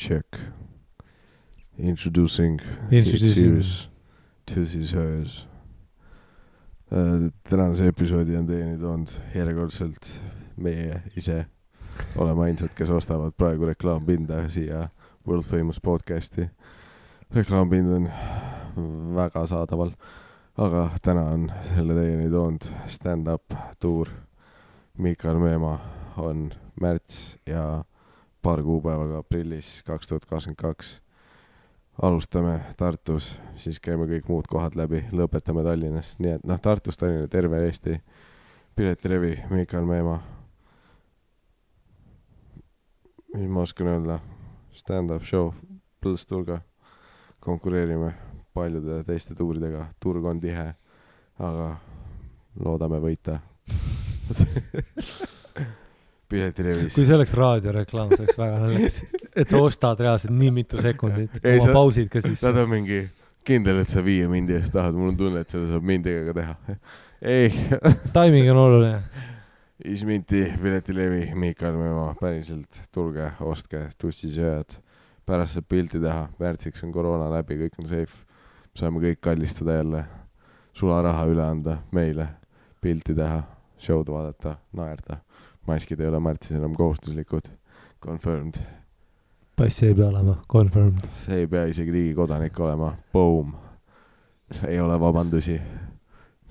Check. Introducing series to his hers. Tänase episoodi on teieni toonud järjekordselt meie ise. Oleme ainsad, kes ostavad praegu reklaampinda siia World Famous podcasti. Reklaampind on väga saadaval, aga täna on selle teieni toonud stand-up tuur. Mikael Meemaa on märts ja paar kuupäevaga aprillis 2022. Alustame Tartus, siis käime kõik muud kohad läbi, lõpetame Tallinnas. Nii et Tartus, Tallinna, terve Eesti. Piletilevi, Mikael Meemaa. Mis ma oskan öelda? Stand-up show, Põlsturga. Konkureerime paljude teiste tuuridega. Turg on tihe, aga loodame võita. Piletilevis. Kui see oleks raadioreklaam, see oleks väga naljakas. Et sa ostad reaalselt nii mitu sekundit. Oma pausid ka sisse. Nad on mingi kindel, et sa 5 mindi eest tahad. Mul on tunne, et seda saab mindiga ka teha. Ei. Timing on oluline. Isminti, Piletilevi, Mikael Meemaa. Päriselt tulge, ostke, tussisööjad. Pärast saab pilti teha. Märtsiks on koroona läbi, kõik on safe. Saame kõik kallistada jälle. Sularaha üle anda meile. Pilti teha, show'd vaadata, naerda. Maskid ei ole märtsis enam kohustuslikud. Confirmed. Passi ei pea olema. Confirmed. See ei pea isegi riigi kodanik olema. Boom. Ei ole vabandusi.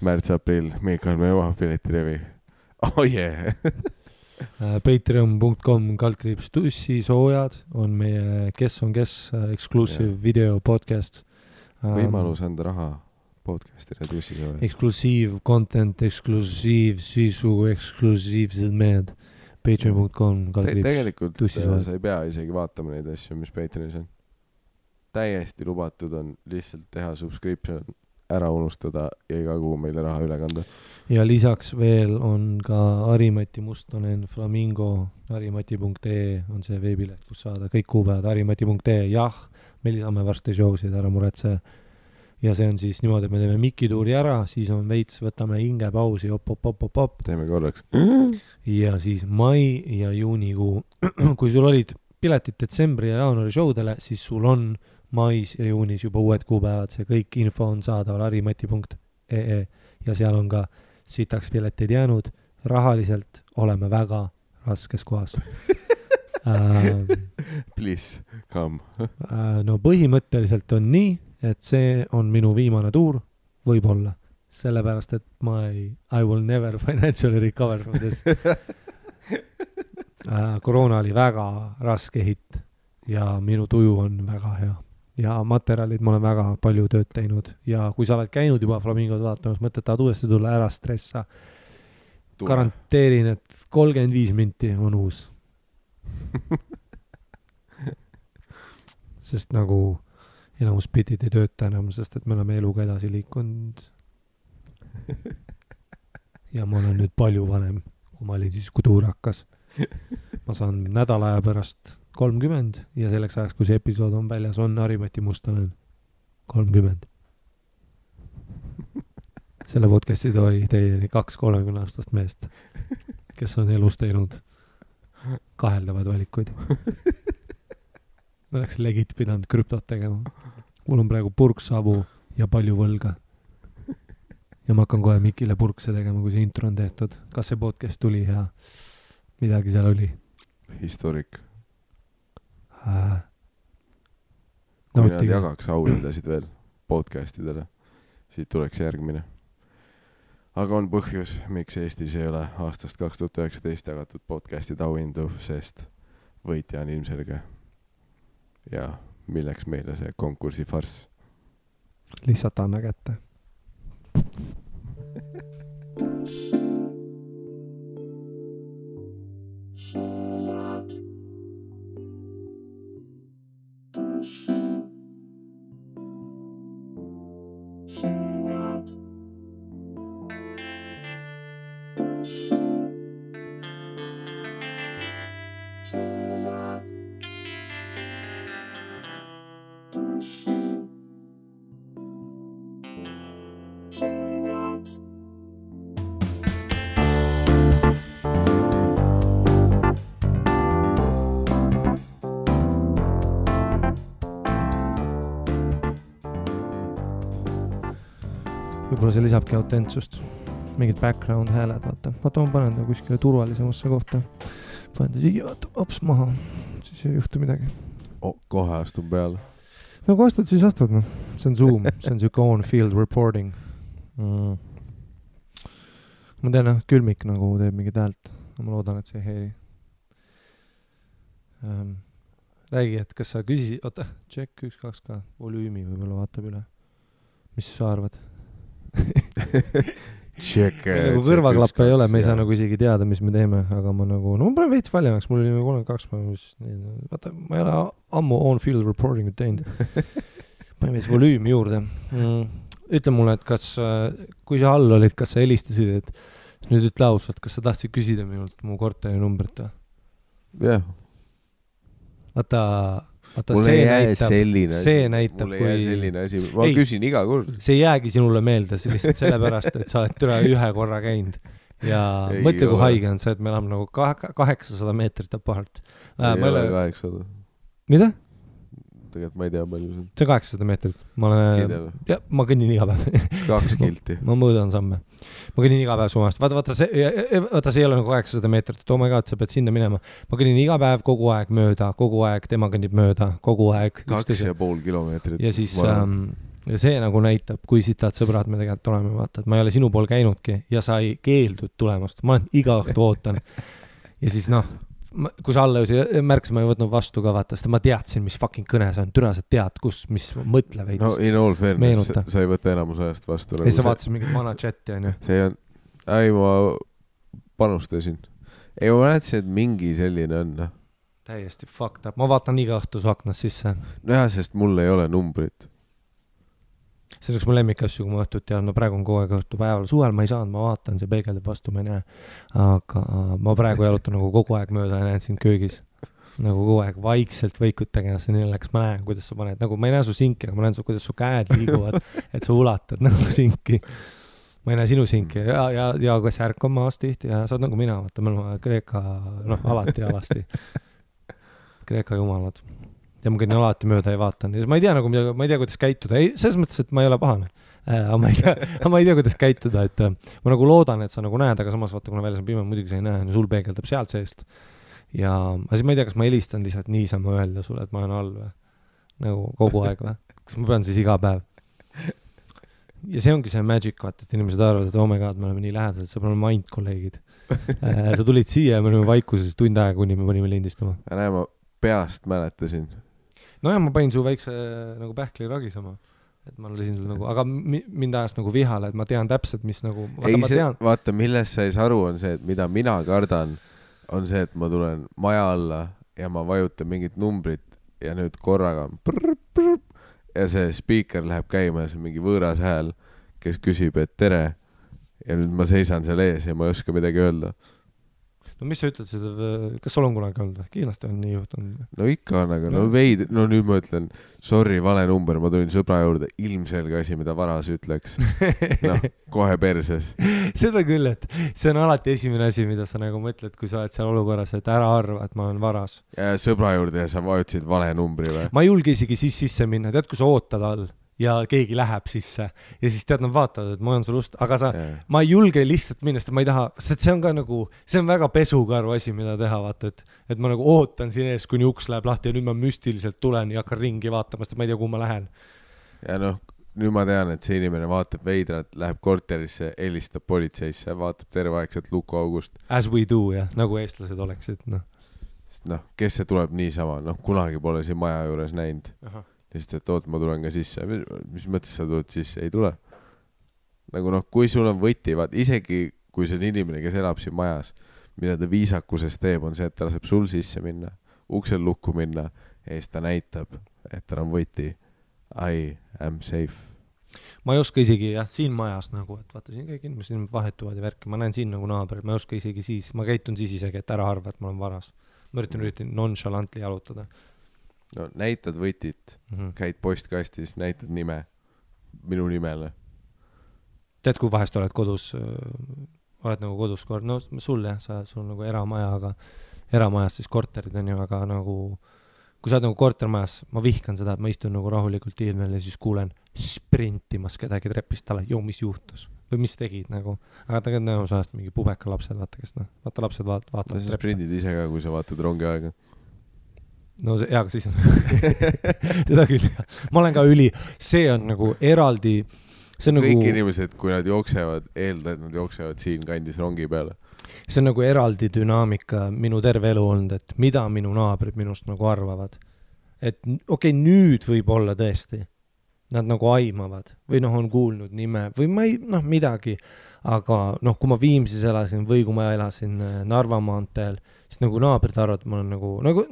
Märts-aprill. Mikael Meemaa, Piletilevi. Oh yeah. Patreon.com/tussisoojad on meie Kes on kes exclusive video podcast. Võimalus anda raha podcastile tussisoojad. Exclusive content, exclusive sisu, exclusiivsed mehed. Patreon.com/tussisoojad. Tegelikult sa ei pea isegi vaatama neid asju, mis Patreonis on. Täiesti lubatud on lihtsalt teha subscription, ära unustada ja iga kuu meile raha üle kanda. Ja lisaks veel on ka Harimati Mustonen Flamingo, harimati.ee on see veebileht, kus saada kõik kuupäevad, harimati.ee. Jah, me lisame varsti showsid, ära muretse. Ja see on siis niimoodi, et me teeme mikituuri ära, siis on veits, võtame hingepausi, op. Teeme korraks. Ja siis mai ja juunikuu. Kui sul olid piletid detsembri ja jaanuari showdele, siis sul on mais ja juunis juba uued kuupäevad. See kõik info on saadaval harimati.ee ja seal on ka sitaks piletid jäänud. Rahaliselt oleme väga raskes kohas. Please, come. No põhimõtteliselt on nii, et see on minu viimane tuur, võib-olla. Sellepärast, et I will never financially recover from this. Koroona oli väga raske hitt ja minu tuju on väga hea. Ja materjalid ma olen väga palju tööd teinud. Ja kui sa oled käinud juba Flamingod vaatamas, mõtled, tahad uuesti tulla, ära stressa. Garanteerin, et 35 minti on uus. Sest nagu enamus bitid ei tööta enam, sest et me oleme eluga edasi liikunud. Ja ma olen nüüd palju vanem, kui ma olin siis, kui tuur hakkas. Ma saan nädala aja pärast 30 ja selleks ajaks, kui see episood on väljas, on Harimati Mustonen 30. Selle podcasti toi teieni 2 30-aastast meest, kes on elus teinud kaheldavad valikuid. Ma oleks legit pidanud krüptot tegema. Mul on praegu purksavu ja palju võlga. Ja ma hakkan kohe Mikile purkse tegema, kui see intro on tehtud. Kas see podcast tuli ja midagi seal oli? Historik. Kui nad jagaks auhindasid veel podcastidele, siit tuleks järgmine. Aga on põhjus, miks Eestis ei ole aastast 2019 jagatud podcastid auhindu, sest võitja on ilmselge. Ja milleks meile see konkursi farss? Lihtsalt anna kätte. võib-olla see lisabki autentsust. Mingid background hääled, vaata ma panen ta kuskile turvalisemasse kohta. Panen ta siia, vaata, hops maha, siis ei juhtu midagi. Kohe astun peale. No kui astud, siis astud, noh. See on Zoom, see on siuke on-field reporting. Ma tean, külmik nagu teeb mingit häält. Ma loodan, et see ei heeri. Räägi, et kas sa küsisid, oota, check 1-2 ka, volüümi võib-olla vaatab üle. Mis sa arvad? Check. Nagu kõrvaklappe ei ole, me ei saa nagu isegi teada, mis me teeme, aga ma nagu, no ma panen veits valjemaks, mul oli 32 päeva, vaata, ma ei ole ammu on-field reporting teinud. Panen veits volüümi juurde. Ütle mulle, et kas, kui sa all olid, kas sa helistasid, et nüüd ütle ausalt, kas sa tahtsid küsida minult mu korteri numbrit? Jah. Vaata, mulle jää selline asi. Ma küsin iga kord. See jäägi sinule meelde, lihtsalt sellepärast, et sa oled türa ühe korra käinud. Ja mõtle, kui haige on see, et me elame nagu 800 meetrit apart. Ei ole 800. Mida? Tegelikult ma ei tea palju see on. See on 800 meetrit. Ma kõnnin iga päev. 2 kilti. Ma mõõdan samme. Ma kõnnin iga päev sumast. Vaata, see ei ole nagu 800 meetrit. Oh my god, sa pead sinna minema. Ma kõnnin iga päev kogu aeg mööda, kogu aeg tema kõnnib mööda, kogu aeg. 2,5 kilomeetrit. Ja siis see nagu näitab, kui sitad sõbrad me tegelikult oleme, vaata, et ma ei ole sinu pool käinudki ja sa ei keeldud tulemast. Ma iga õhtu ootan. Ja siis kui sa alla märkis, ma ei võtnud vastu ka, vaata, sest ma teadsin, mis fucking kõne see on. Türa, sa tead, mis mõtle veits. No in all fairness, sa ei võta enamus ajast vastu. Ja sa vaatasid mingit vana chati, on ju? See on, ma panustasin. Ei, ma näetasin, et mingi selline on. Täiesti fucked up. Ma vaatan iga õhtu su aknast sisse. No jah, sest mul ei ole numbrit. See oleks mu lemmikasju, kui ma õhtut tean, no praegu on kogu aeg õhtu päeval. Suvel ma ei saanud, ma vaatan, see peegeldab vastu, ma ei näe. Aga ma praegu jalutan nagu kogu aeg mööda ja näen sind köögis. Nagu kogu aeg vaikselt võikut tegema, nii läks, ma näen, kuidas sa paned. Nagu ma ei näe su sinki, aga ma näen, kuidas su käed liiguvad, et sa ulatad nagu sinki. Ma ei näe sinu sinki ja kas ärk on maas tihti ja sa oled nagu mina, vaata, me oleme Kreeka, alati ja alasti. Kreeka jumalad. Ja ma kõnnin alati mööda ja vaatan. Ja ma ei tea, nagu, ma ei tea, kuidas käituda. Ei, selles mõttes, et ma ei ole pahane. Aga ma ei tea, kuidas käituda. Et ma nagu loodan, et sa nagu näed, aga samas vaata, kuna väljas on pime, muidugi sa ei näe. Sul peegeldab sealt seest. Ja siis ma ei tea, kas ma helistan lihtsalt niisama öelda sulle, et ma olen all või? Nagu kogu aeg või? Kas ma pean siis iga päev? Ja see ongi see magic, vaata, et inimesed arvavad, et oh my god, me oleme nii lähedased, sa oleme mind kolleegid. Sa tulid siia ja me olime vaikuses tund aega, kuni me panime lindistama. Ja näe, ma peast mäletasin. No ja ma panin su väikse nagu pähkli ragisama, et ma olisin sul nagu, aga mind ajast nagu vihale, et ma tean täpselt, mis nagu, vaata, milles sa ei saa aru, on see, et mida mina kardan, on see, et ma tulen maja alla ja ma vajutan mingit numbrit ja nüüd korraga ja see speaker läheb käima ja see on mingi võõras hääl, kes küsib, et tere ja nüüd ma seisan seal ees ja ma ei oska midagi öelda. No mis sa ütled seda, kas sul on kunagi olnud? Kindlasti on nii juhtunud. No ikka on, aga no nüüd ma ütlen, sorry, vale number, ma tulin sõbra juurde, ilmselge asi, mida varas ütleks. Kohe perses. Seda küll, et see on alati esimene asi, mida sa nagu mõtled, kui sa oled seal olukorras, et ära arva, et ma olen varas. Ja sõbra juurde ja sa vajutasid vale numbri või? Ma ei julge isegi sisse minna, tead, kui sa ootad all ja keegi läheb sisse ja siis tead, nad vaatavad, et ma olen sul ust, aga ma ei julge lihtsalt minna, sest ma ei taha, sest see on ka nagu, see on väga pesukaru asi, mida teha, vaata, et ma nagu ootan siin ees, kuni uks läheb lahti ja nüüd ma müstiliselt tulen ja hakkan ringi vaatama, sest ma ei tea, kuhu ma lähen. Ja nüüd ma tean, et see inimene vaatab veidrat, läheb korterisse, helistab politseisse, vaatab terveaegselt lukuaugust. As we do, jah, nagu eestlased oleksid, Sest kes see tuleb niisama, kunagi pole siin maja juures näinud. Aha. Lihtsalt, et ma tulen ka sisse. Mis mõttes sa tuled sisse? Ei tule. Nagu kui sul on võti, isegi kui see on inimene, kes elab siin majas, mida ta viisakuses teeb, on see, et ta laseb sul sisse minna, uksel lukku minna ja siis ta näitab, et tal on võti. I am safe. Ma ei oska isegi, siin majas nagu, et vaata siin kõik inimesed vahetuvad ja värki. Ma näen siin nagu naabrid, ma ei oska isegi siis, ma käitun siis isegi, et ära arva, et ma olen varas. Ma üritan nonchalantly jalutada. No näitad võtit, käid postkastis, näitad nime, minu nimele. Tead, kui vahest oled kodus, oled nagu kodus kord, no sul sul nagu eramaja, aga eramajas siis korterid on ju, aga nagu, kui sa oled nagu kortermajas, ma vihkan seda, et ma istun nagu rahulikult ilmel ja siis kuulen sprintimas kedagi trepist alla, mis juhtus või mis tegid nagu, aga tegelikult näemas ajast mingi pubeka lapsed, vaata kes vaata lapsed vaatavad sa sprindid ise ka, kui sa vaatad rongi aega. No see, aga siis on seda küll, ma olen ka see on nagu eraldi, see on kõik nagu inimesed, kui nad jooksevad, eelda, et nad jooksevad siin kandis rongi peale. See on nagu eraldi dünaamika minu terve elu olnud, et mida minu naabrid minust nagu arvavad. Et okei, nüüd võib olla tõesti. Nad nagu aimavad või on kuulnud nime või ma ei, midagi. Aga kui ma Viimsis elasin või kui ma elasin Narva maanteel, siis nagu naabrid arvavad, ma olen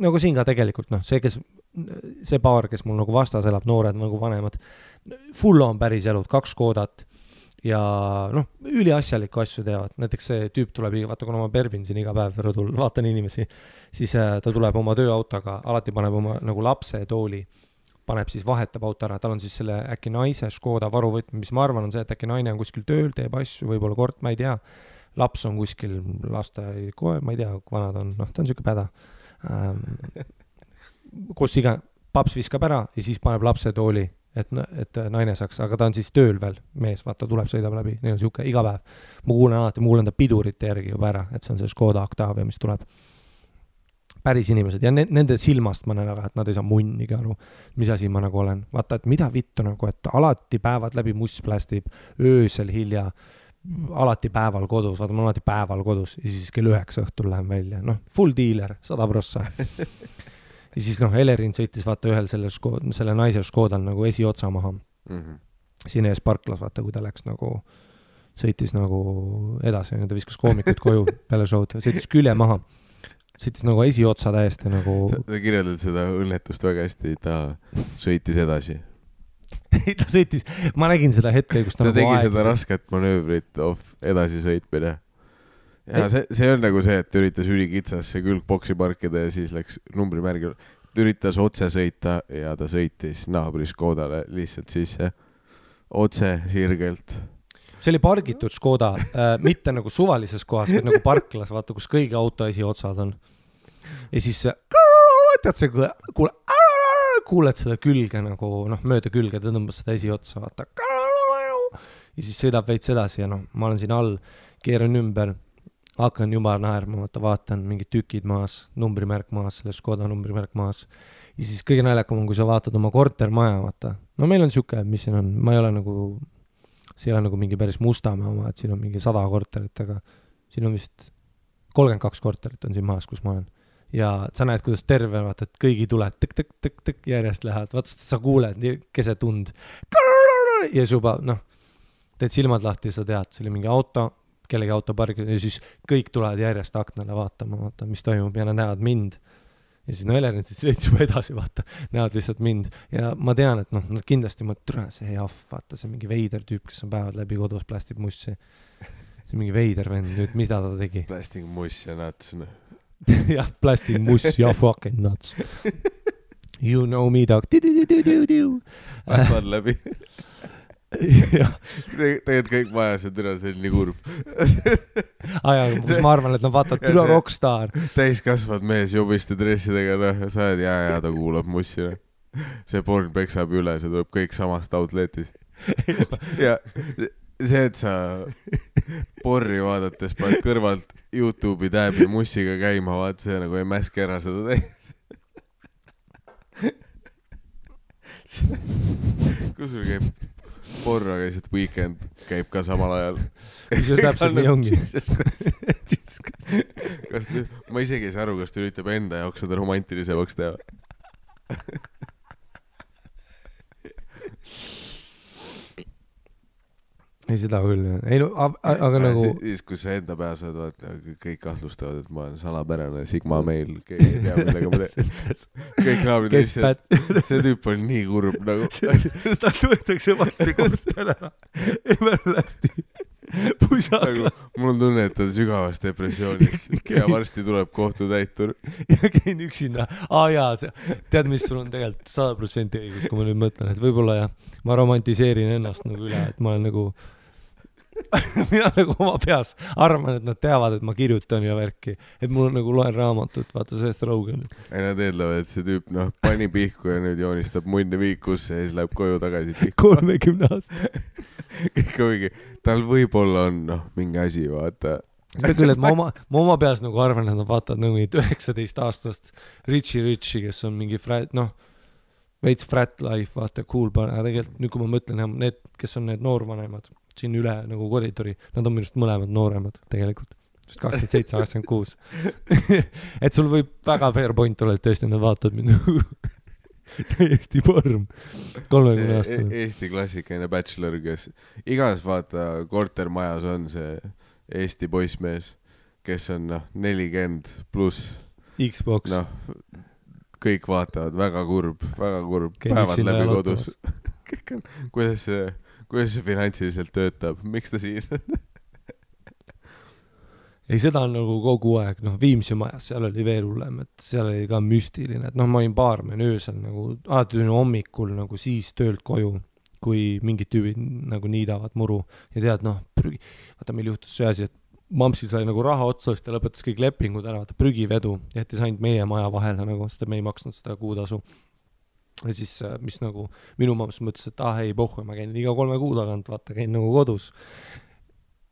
nagu siin ka tegelikult, see paar, kes mul nagu vastas elab, noored nagu vanemad, full on päris elud, 2 Škodat ja üliasjalikku asju teevad. Näiteks see tüüp tuleb, vaata, kuna ma pervin siin iga päev rõdul, vaatan inimesi, siis ta tuleb oma tööautoga, alati paneb oma nagu lapse tooli, paneb siis vahetab auto ära, tal on siis selle äkki naise Škoda varuvõtme, mis ma arvan on see, et äkki naine on kuskil tööl, teeb asju, võib-olla kord, ma ei tea, laps on kuskil lasteaia kohe, ma ei tea, kui vanad on, ta on siuke päda. Kus iga, paps viskab ära ja siis paneb lapse tooli, et naine saaks, aga ta on siis tööl veel, mees, vaata, tuleb, sõidab läbi, neil on siuke iga päev. Ma kuulen ta pidurite järgi juba ära, et see on see Škoda Octavia, mis tuleb. Päris inimesed ja nende silmast ma näen ära, et nad ei saa munnigi aru, mis asi ma nagu olen. Vaata, et mida vittu nagu, et alati päevad läbi muss plästib, öösel hilja, alati päeval kodus, vaata, ma olen alati päeval kodus ja siis kell 9 õhtul lähen välja. Full dealer, 100%. Ja siis Elerin sõitis vaata ühel selle naise Škodal nagu esiotsa maha. Siin ees parklas, vaata, kui ta läks nagu, sõitis nagu edasi, ta viskas koomikut koju peale showd, sõitis külje maha. Sõitis nagu esiotsa täiesti nagu... Sa kirjeldad seda õnnetust väga hästi, ta sõitis edasi. Ta sõitis, ma nägin seda hetke, kus ta nagu tegi seda rasket manöövrit edasi sõitmine. Ja see on nagu see, et üritas ülikitsasse külgboksi parkida ja siis läks numbrimärgil. Ta üritas otse sõita ja ta sõitis naabri Škodale lihtsalt sisse. Otse sirgelt. See oli pargitud Škoda, mitte nagu suvalises kohas, vaid nagu parklas, vaata, kus kõigi auto esiotsad on. Ja siis tead see, kuuled seda külge nagu, mööda külge, ta tõmbas seda esiotsa, vaata. Ja siis sõidab veits edasi ja ma olen siin all, keeran ümber, hakkan juba naerma, vaatan mingid tükid maas, numbrimärk maas, selle Škoda numbrimärk maas. Ja siis kõige naljakam on, kui sa vaatad oma kortermaja, vaata. Meil on siuke, mis siin on, ma ei ole nagu... See ei ole nagu mingi päris Mustamäe oma, et siin on mingi 100 korterit, aga siin on vist 32 korterit on siin maas, kus ma olen. Ja sa näed, kuidas terve, vaata, et kõigi tuled tõk järjest lähevad. Vaata, sa kuuled keset tund. Ja juba, teed silmad lahti ja sa tead, see oli mingi auto, kellegi auto pargi, ja siis kõik tulevad järjest aknale vaatama, vaata, mis toimub ja nad näevad mind. Ja siis Elerin siis veits juba edasi, vaata, näevad lihtsalt mind. Ja ma tean, et nad kindlasti mõtled, see jaff, vaata, see mingi veider tüüp, kes on päevad läbi kodus, plästib mussi. See mingi veider vend, nüüd mida ta tegi? Plasting muss ja nuts. Jah, plasting muss ja fucking nuts. You know me, dog. Päevad läbi. Tegelikult kõik majased üle, see on nii kurb. Kus ma arvan, et nad vaatavad üle rockstar. Täiskasvad mees jubiste dressidega, sa oled ja ta kuulab mussi. See porn peksab üle, see tuleb kõik samast outletis. Ja see, et sa porri vaadates paned kõrvalt YouTube'i tääbi mussiga käima, vaat see nagu ei mäske ära seda täis. Kus sul käib porra, käisid Weekend käib ka samal ajal. Mis see täpselt nii ongi? Ma isegi ei saa aru, kas ta üritab enda jaoks seda romantilisemaks teha. Ei seda küll. Ei, no, aga nagu... Siis, kus sa enda peas oled, kõik kahtlustavad, et ma olen salapärane Sigma meil, keegi ei tea, millega ma teen. Kõik naabrid lihtsalt, see tüüp on nii kurb nagu. Ta võetakse vasti kortele. Emerlasti. Pusaka. Mul on tunne, et ta on sügavas depressioonis ja varsti tuleb kohtutäitur. Ja käin üksinda. Tead, mis sul on tegelikult 100% õigus, kui ma nüüd mõtlen, et võib-olla ma romantiseerin ennast nagu üle, et ma olen nagu mina nagu oma peas arvan, et nad teavad, et ma kirjutan ja värki, et mul on nagu loen raamatut, vaata Seth Rogen. ei, nad eeldavad, et see tüüp, pani pihku ja nüüd joonistab munni viikusse ja siis läheb koju tagasi pihku. 30 aasta. kõik on mingi, tal võib-olla on, mingi asi, vaata. seda küll, et ma oma peas nagu arvan, et nad vaatavad nagu 19 aastast Richie, kes on mingi veits frat life, vaata, cool, aga tegelikult nüüd, kui ma mõtlen, need, kes on need noorvanemad siin üle nagu koridori, nad on minust mõlemad nooremad tegelikult, sest 27, 86. et sul võib väga fair point olla, et tõesti nad vaatavad mind nagu täiesti porm 30 aastane. Eesti klassikaline bachelor, kes igas vaata kortermajas on see Eesti poissmees, kes on 40 pluss Xbox. Kõik vaatavad, väga kurb, päevad läbi kodus. kuidas see finantsiliselt töötab, miks ta siin on? ei, seda on nagu kogu aeg, Viimsi majas, seal oli veel hullem, et seal oli ka müstiline, et ma olin baarmen öösel nagu, alati tulin hommikul nagu siis töölt koju, kui mingid tüübid nagu niidavad muru ja tead, vaata, meil juhtus see asi, et Mampsil sai nagu raha otsa, sest ta lõpetas kõik lepingud ära, vaata prügivedu, jättis ainult meie maja vahele nagu, sest me ei maksnud seda kuutasu. Ja siis, mis nagu minu mamps mõtles, et ei pohhu, ma käin iga 3 kuu tagant, vaata, käin nagu kodus.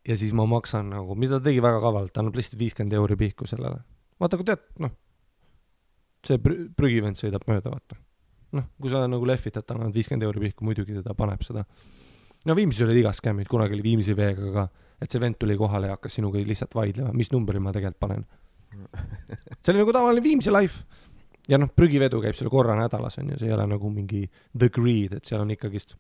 Ja siis ma maksan nagu, mida ta tegi väga kavalalt, ta annab lihtsalt 50 euri pihku sellele. Vaata, kui tead, see prügivend sõidab mööda, vaata. Kui sa nagu lehvitad, ta annab 50 euri pihku, muidugi teda paneb seda. Viimsis oli igas skämmid, kunagi oli Viimsi veega ka, et see vend tuli kohale ja hakkas sinuga lihtsalt vaidlema, mis numbri ma tegelikult panen. See oli nagu tavaline Viimsi life. Ja prügivedu käib seal korra nädalas, on ju, see ei ole nagu mingi the greed, et seal on ikkagist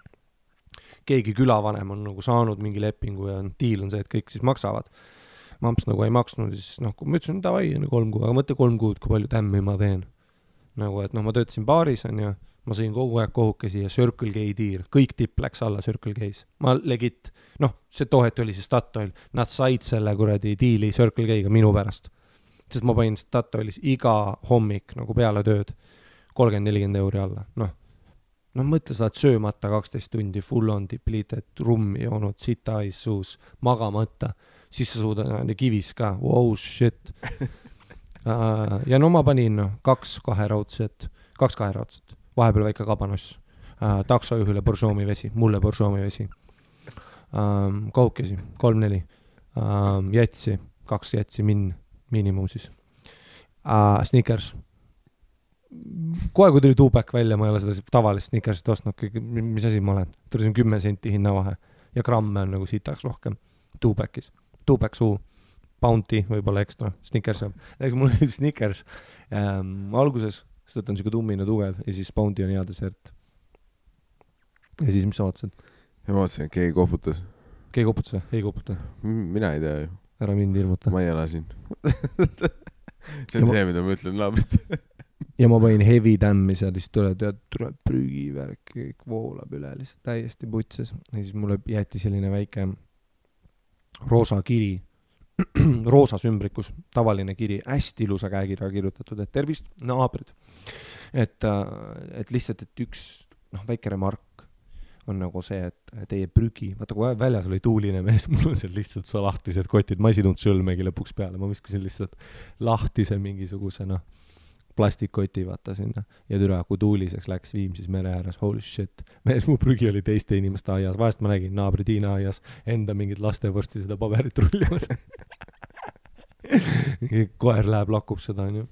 keegi külavanem on nagu saanud mingi lepingu ja deal on see, et kõik siis maksavad. Mamps nagu ei maksnud, siis kui ma ütlesin, davai, 3 kuu, aga mõtle 3 kuud, kui palju tämmi ma teen. Nagu, et ma töötasin baaris, on ju, ma sõin kogu aeg kohukesi ja Circle K tiir, kõik tipp läks alla Circle K's. Ma legit, see tohet oli see Statoil, nad said selle kuradi diili Circle K'ga minu pärast. Sest ma panin Statoilis iga hommik nagu peale tööd 30-40 euri alla. Mõtle, sa oled söömata 12 tundi, full on depleted, rummi joonud, sita ais suus, magamata, siis sa suudad kivis ka, wow, shit. Ja ma panin 2 kaheraudset, vahepeal väike kabanoss, taksojuhile Borjomi vesi, mulle Borjomi vesi, kohukesi, 3-4, jätsi, 2 jätsi miinimum siis, Snickers. Kohe, kui tuli Tupac välja, ma ei ole seda tavalist Snickersit ostnud, mis asi ma olen, tuli 10 senti hinnavahe ja gramme on nagu sitaks rohkem Tupac'is, Tupac suu, Bounty, võib-olla ekstra, Snickers on. Mul oli Snickers alguses, sest on siuke tummine tugev ja siis Bounty on hea desert. Ja siis, mis sa vaatasid? Ma vaatasin, et keegi koputas. Keegi koputas või? Ei koputa. Mina ei tea ju. Ära mind ilmuta. Ma ei ela siin. See on see, mida ma ütlen naabrit. Ja ma panin heavy tämmi seal, siis tuleb prügivärk, kõik voolab üle, lihtsalt täiesti putses. Ja siis mulle jäeti selline väike roosa kiri, roosas ümbrikus, tavaline kiri, hästi ilusa käekirja kirjutatud, et tervist, naabrid. Et lihtsalt, et üks väike remark on nagu see, et teie prügi, vaata kui väljas oli tuuline mees, mul on seal lihtsalt so lahtised kotid, ma ei sidunud sõlmegi lõpuks peale, ma viskasin lihtsalt lahtise mingisuguse plastikkoti vaata sinna ja türa, kui tuuliseks läks Viimsis mere ääres, holy shit, mees mu prügi oli teiste inimeste aias, vahest ma nägin naabri Tiina aias enda mingid lastevorsti seda paberit rullimas. Koer läheb, lakub seda, on ju.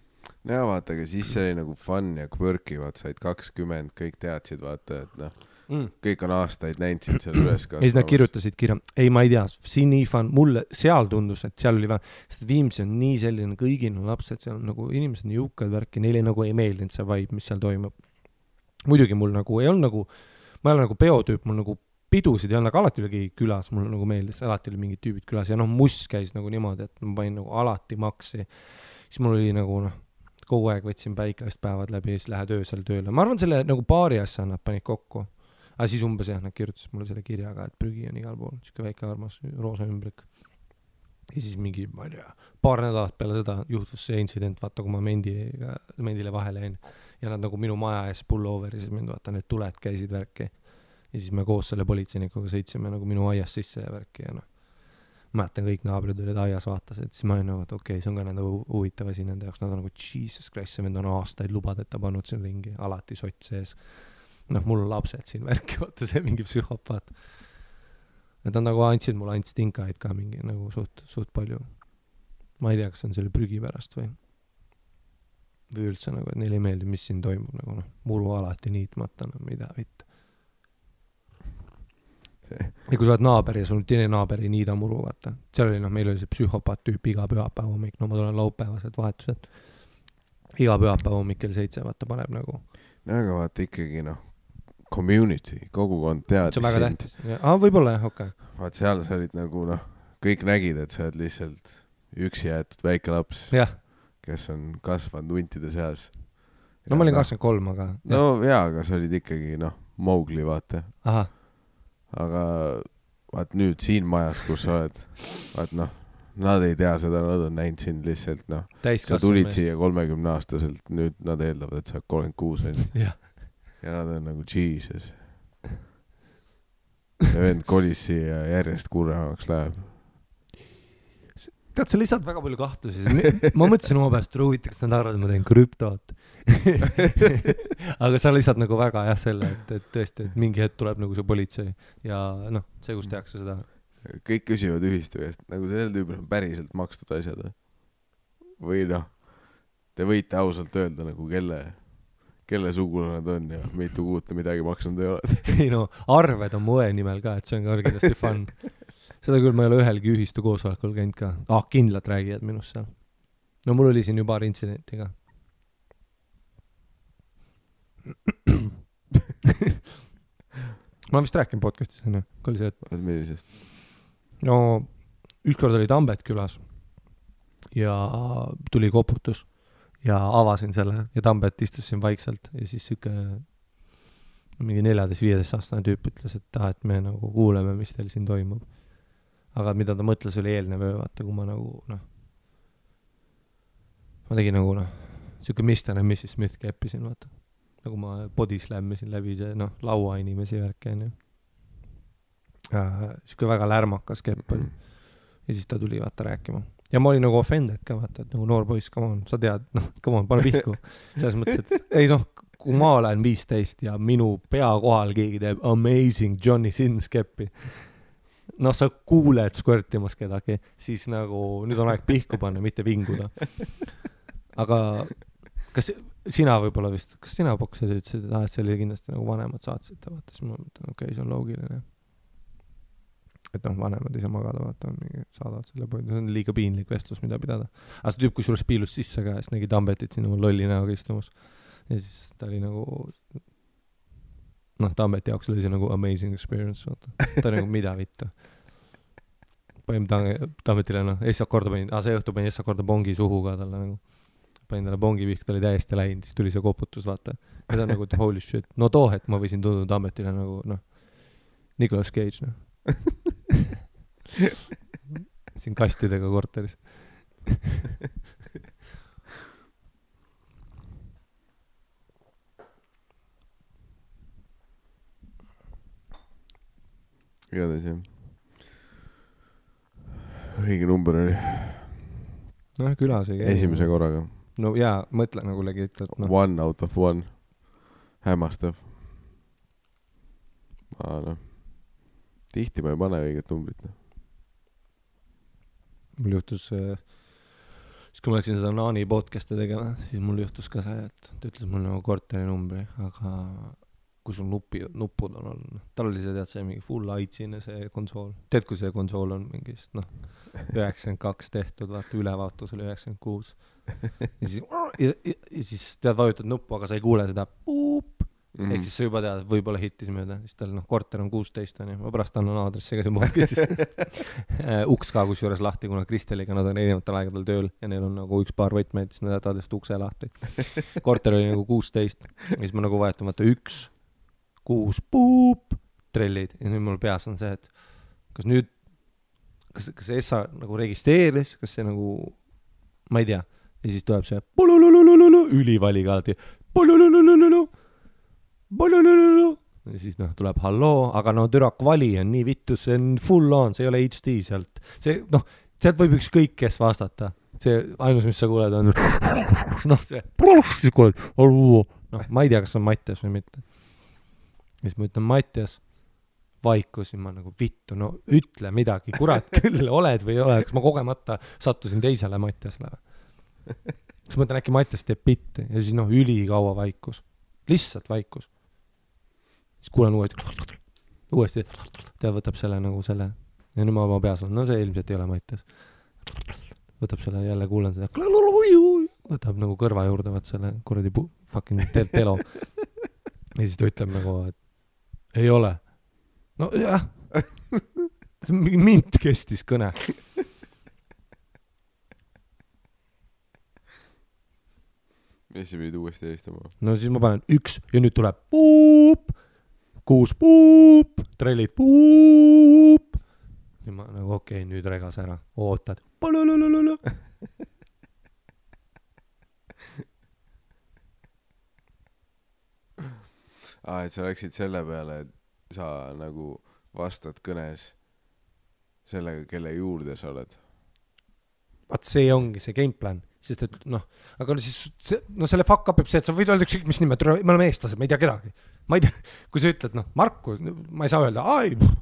No vaata, aga siis see oli nagu fun ja quirky, vaata, said 20, kõik teadsid, vaata, et kõik on aastaid näinud sind seal üles kasvamas. Ja siis nad kirjutasid kirja, ei, ma ei tea, siin nii fun, mulle seal tundus, et seal oli sest Viimsi on nii selline kõigil lapsed, seal on nagu inimesed nii jõukad värki, neile nagu ei meeldinud see vibe, mis seal toimub. Muidugi mul nagu ei olnud nagu, ma ei ole nagu peotüüp, mul nagu pidusid ei olnud, aga alati oli keegi külas, mulle nagu meeldis, alati oli mingid tüübid külas ja must käis nagu niimoodi, et ma panin nagu alati maksi. Siis mul oli nagu kogu aeg võtsin päikast päevad läbi ja siis lähed öösel tööle. Ma arvan, selle nagu paari asja nad panid kokku. Aga siis umbes nad kirjutasid mulle selle kirjaga, et prügi on igal pool, siuke väike armas roosa ümbrik. Ja siis mingi, ma ei tea, paar nädalat peale seda juhtus see incident, vaata, kui ma mendile vahele jäin ja nad nagu minu maja ees pullover ja siis mind vaata, need tuled käisid värki. Ja siis me koos selle politseinikuga sõitsime nagu minu aias sisse ja värki ja mäletan kõik naabrid olid aias vaatasid, siis ma olin nagu, et okei, see on ka nende huvitav asi nende jaoks, nad on nagu Jesus Christ, see vend on aastaid lubadeta pannud siin ringi, alati sott sees. Mul on lapsed siin värki, vaata see mingi psühhopaat. Nad on nagu andsid mulle ainult stinkaid ka mingi nagu suht palju. Ma ei tea, kas on selle prügi pärast või üldse nagu, et neile ei meeldi, mis siin toimub nagu muru alati niitmata, mida vitt. Ja kui sa oled naaber ja sul teine naaber ei niida muru, vaata. Seal oli, meil oli see psühhopaat tüüp iga pühapäev hommik, ma tulen laupäevased vahetused. Iga pühapäev hommik kell 7, vaata, paneb nagu. Aga vaata ikkagi, community, kogukond teadis. See on väga tähtis. Võib-olla jah, okei. Vaat seal sa olid nagu, kõik nägid, et sa oled lihtsalt üksi jäetud väike laps, kes on kasvanud huntide seas. No ma olin 23, aga... aga sa olid ikkagi, Mowgli, vaata. Aha. Aga vaat nüüd siin majas, kus sa oled, vaat nad ei tea seda, nad on näinud sind lihtsalt, sa tulid siia 30-aastaselt, nüüd nad eeldavad, et sa oled 36 ja nad on nagu Jesus. Ja vend kolis siia järjest kurvemaks läheb. Tead, sa lisad väga palju kahtlusi. Ma mõtlesin oma pääst, et huvitaks, nad arvad, et ma teen krüptot. Aga sa lisad nagu väga selle, et tõesti, et mingi hetk tuleb nagu see politsei ja see, kus tehakse seda. Kõik küsivad ühistu eest, nagu sellel tüübil on päriselt makstud asjad. Või te võite ausalt öelda nagu kelle sugule nad on ja mitu kuud midagi maksnud ei ole. Ei arved on mu õe nimel ka, et see on ka kindlasti fun. Seda küll ma ei ole ühelgi ühistu koosolekul käinud ka. Kindlalt räägivad minust seal. Mul oli siin ju paar intsidenti ka. Ma olen vist rääkinud podcastis, on ju? Kui oli see, et... Millisest? Ükskord oli Tambet külas ja tuli koputus ja avasin selle ja Tambet istus siin vaikselt ja siis siuke mingi 14-15 aastane tüüp ütles, et me nagu kuuleme, mis teil siin toimub. Aga mida ta mõtles oli eelnev öö, vaata, kui ma nagu, ma tegin nagu, siuke Mr. ja Mrs. Smith keppisin, vaata. Nagu ma body slammisin läbi see, laua inimesi värke, on ju. Siuke väga lärmakas kepp oli. Ja siis ta tuli, vaata, rääkima. Ja ma olin nagu offended ka, vaata, et nagu noor poiss, come on, sa tead, come on, pane pihku. Selles mõttes, et ei kui ma olen 15 ja minu pea kohal keegi teeb amazing Johnny Sins keppi. Sa kuuled squirtimas kedagi, siis nagu nüüd on aeg pihku panna, mitte vinguda. Aga kas sina võib-olla vist, kas sina poksid ütlesid, et see oli kindlasti nagu vanemad saatsid, vaata, siis ma mõtlen, okei, see on loogiline. Et vanemad ei saa magada, vaata, saadavad selle poodi, see on liiga piinlik vestlus, mida pidada. Aga see tüüp, kui suures piilus sisse ka, siis nägi Tambetit siin lolli näoga istumus. Ja siis ta oli nagu... Tambeti jaoks oli see nagu amazing experience, vaata. Ta oli nagu mida vittu. Panin Tambetile, eestsad korda panin, see õhtu panin eestsad korda bongi suhu ka talle nagu. Panin talle bongi vihk, ta oli täiesti läinud, siis tuli see koputus, vaata. Ja ta nagu, holy shit. Too hetk ma võisin tunduda Tambetile nagu, Nicolas Cage, siin kastidega korteris. Igatahes jah. Õige number oli. Külas ei käi. Esimese korraga. Jaa, mõtle nagu legit. 1 out of 1. Hämmastav. Tihti ma ei pane õiget numbrit. Mul juhtus, siis kui ma läksin seda Naani podcast'i tegema, siis mul juhtus ka see, et ta ütles mul nagu korteri numbri, aga kui sul nuppud on olnud. Tal oli see, tead, see mingi full aitsine see konsool. Tead, kui see konsool on mingist, 92 tehtud, vaata, ülevaatus oli 96. Ja siis tead, vajutad nuppu, aga sa ei kuule seda puup. Ehk siis sa juba tead, võib-olla hittis mööda. Siis tal, korter on 16, on ju. Ma pärast annan aadressi ka siin podcastis. Uks ka kusjuures lahti, kuna Kristeliga nad on erinevatel aegadel tööl ja neil on nagu üks paar võtmeid, siis nad jätavad just ukse lahti. Korter oli nagu 16. Ja siis ma nagu vajutan, vaata, 1, 6, puup, trellid. Ja nüüd mul peas on see, et kas nüüd, kas Essa nagu registreeris, kas see nagu, ma ei tea. Ja siis tuleb see ülivaliga alati. ja siis noh, tuleb halloo, aga no türa kvali on nii vittu, see on full on, see ei ole HD sealt. See, noh, sealt võib ükskõik kes vastata. See ainus, mis sa kuuled, on noh, see siis kuuled, noh, ma ei tea, kas on Mattias või mitte. Ja siis ma ütlen Mattias, vaikus ja ma nagu vittu, no ütle midagi, kurat küll, oled või ei ole, kas ma kogemata sattusin teisele Mattiasele. Siis mõtlen, äkki Mattias teeb bitti ja siis noh, ülikaua vaikus. Lihtsalt vaikus. Siis kuulen uuesti, ta võtab selle nagu selle ja nüüd ma oma peas olen, no see ilmselt ei ole Mattias. Võtab selle, jälle kuulen seda, võtab nagu kõrva juurde, võt selle kuradi fucking telo. Ja siis ta ütleb nagu, et ei ole. No jah, mind kestis kõne. Ja siis pidid uuesti helistama. No siis ma panen 1 ja nüüd tuleb puup, 6 puup, trellid puup. Ja ma nagu okei, nüüd regas ära, ootad. Et sa läksid selle peale, et sa nagu vastad kõnes sellega, kelle juurde sa oled. Vaat see ongi see gameplan, sest et noh, aga siis see, no selle fuck up see, et sa võid öelda ükskõik mis nime, me oleme eestlased, ma ei tea kedagi. Ma ei tea, kui sa ütled, noh, Marku, ma ei saa öelda,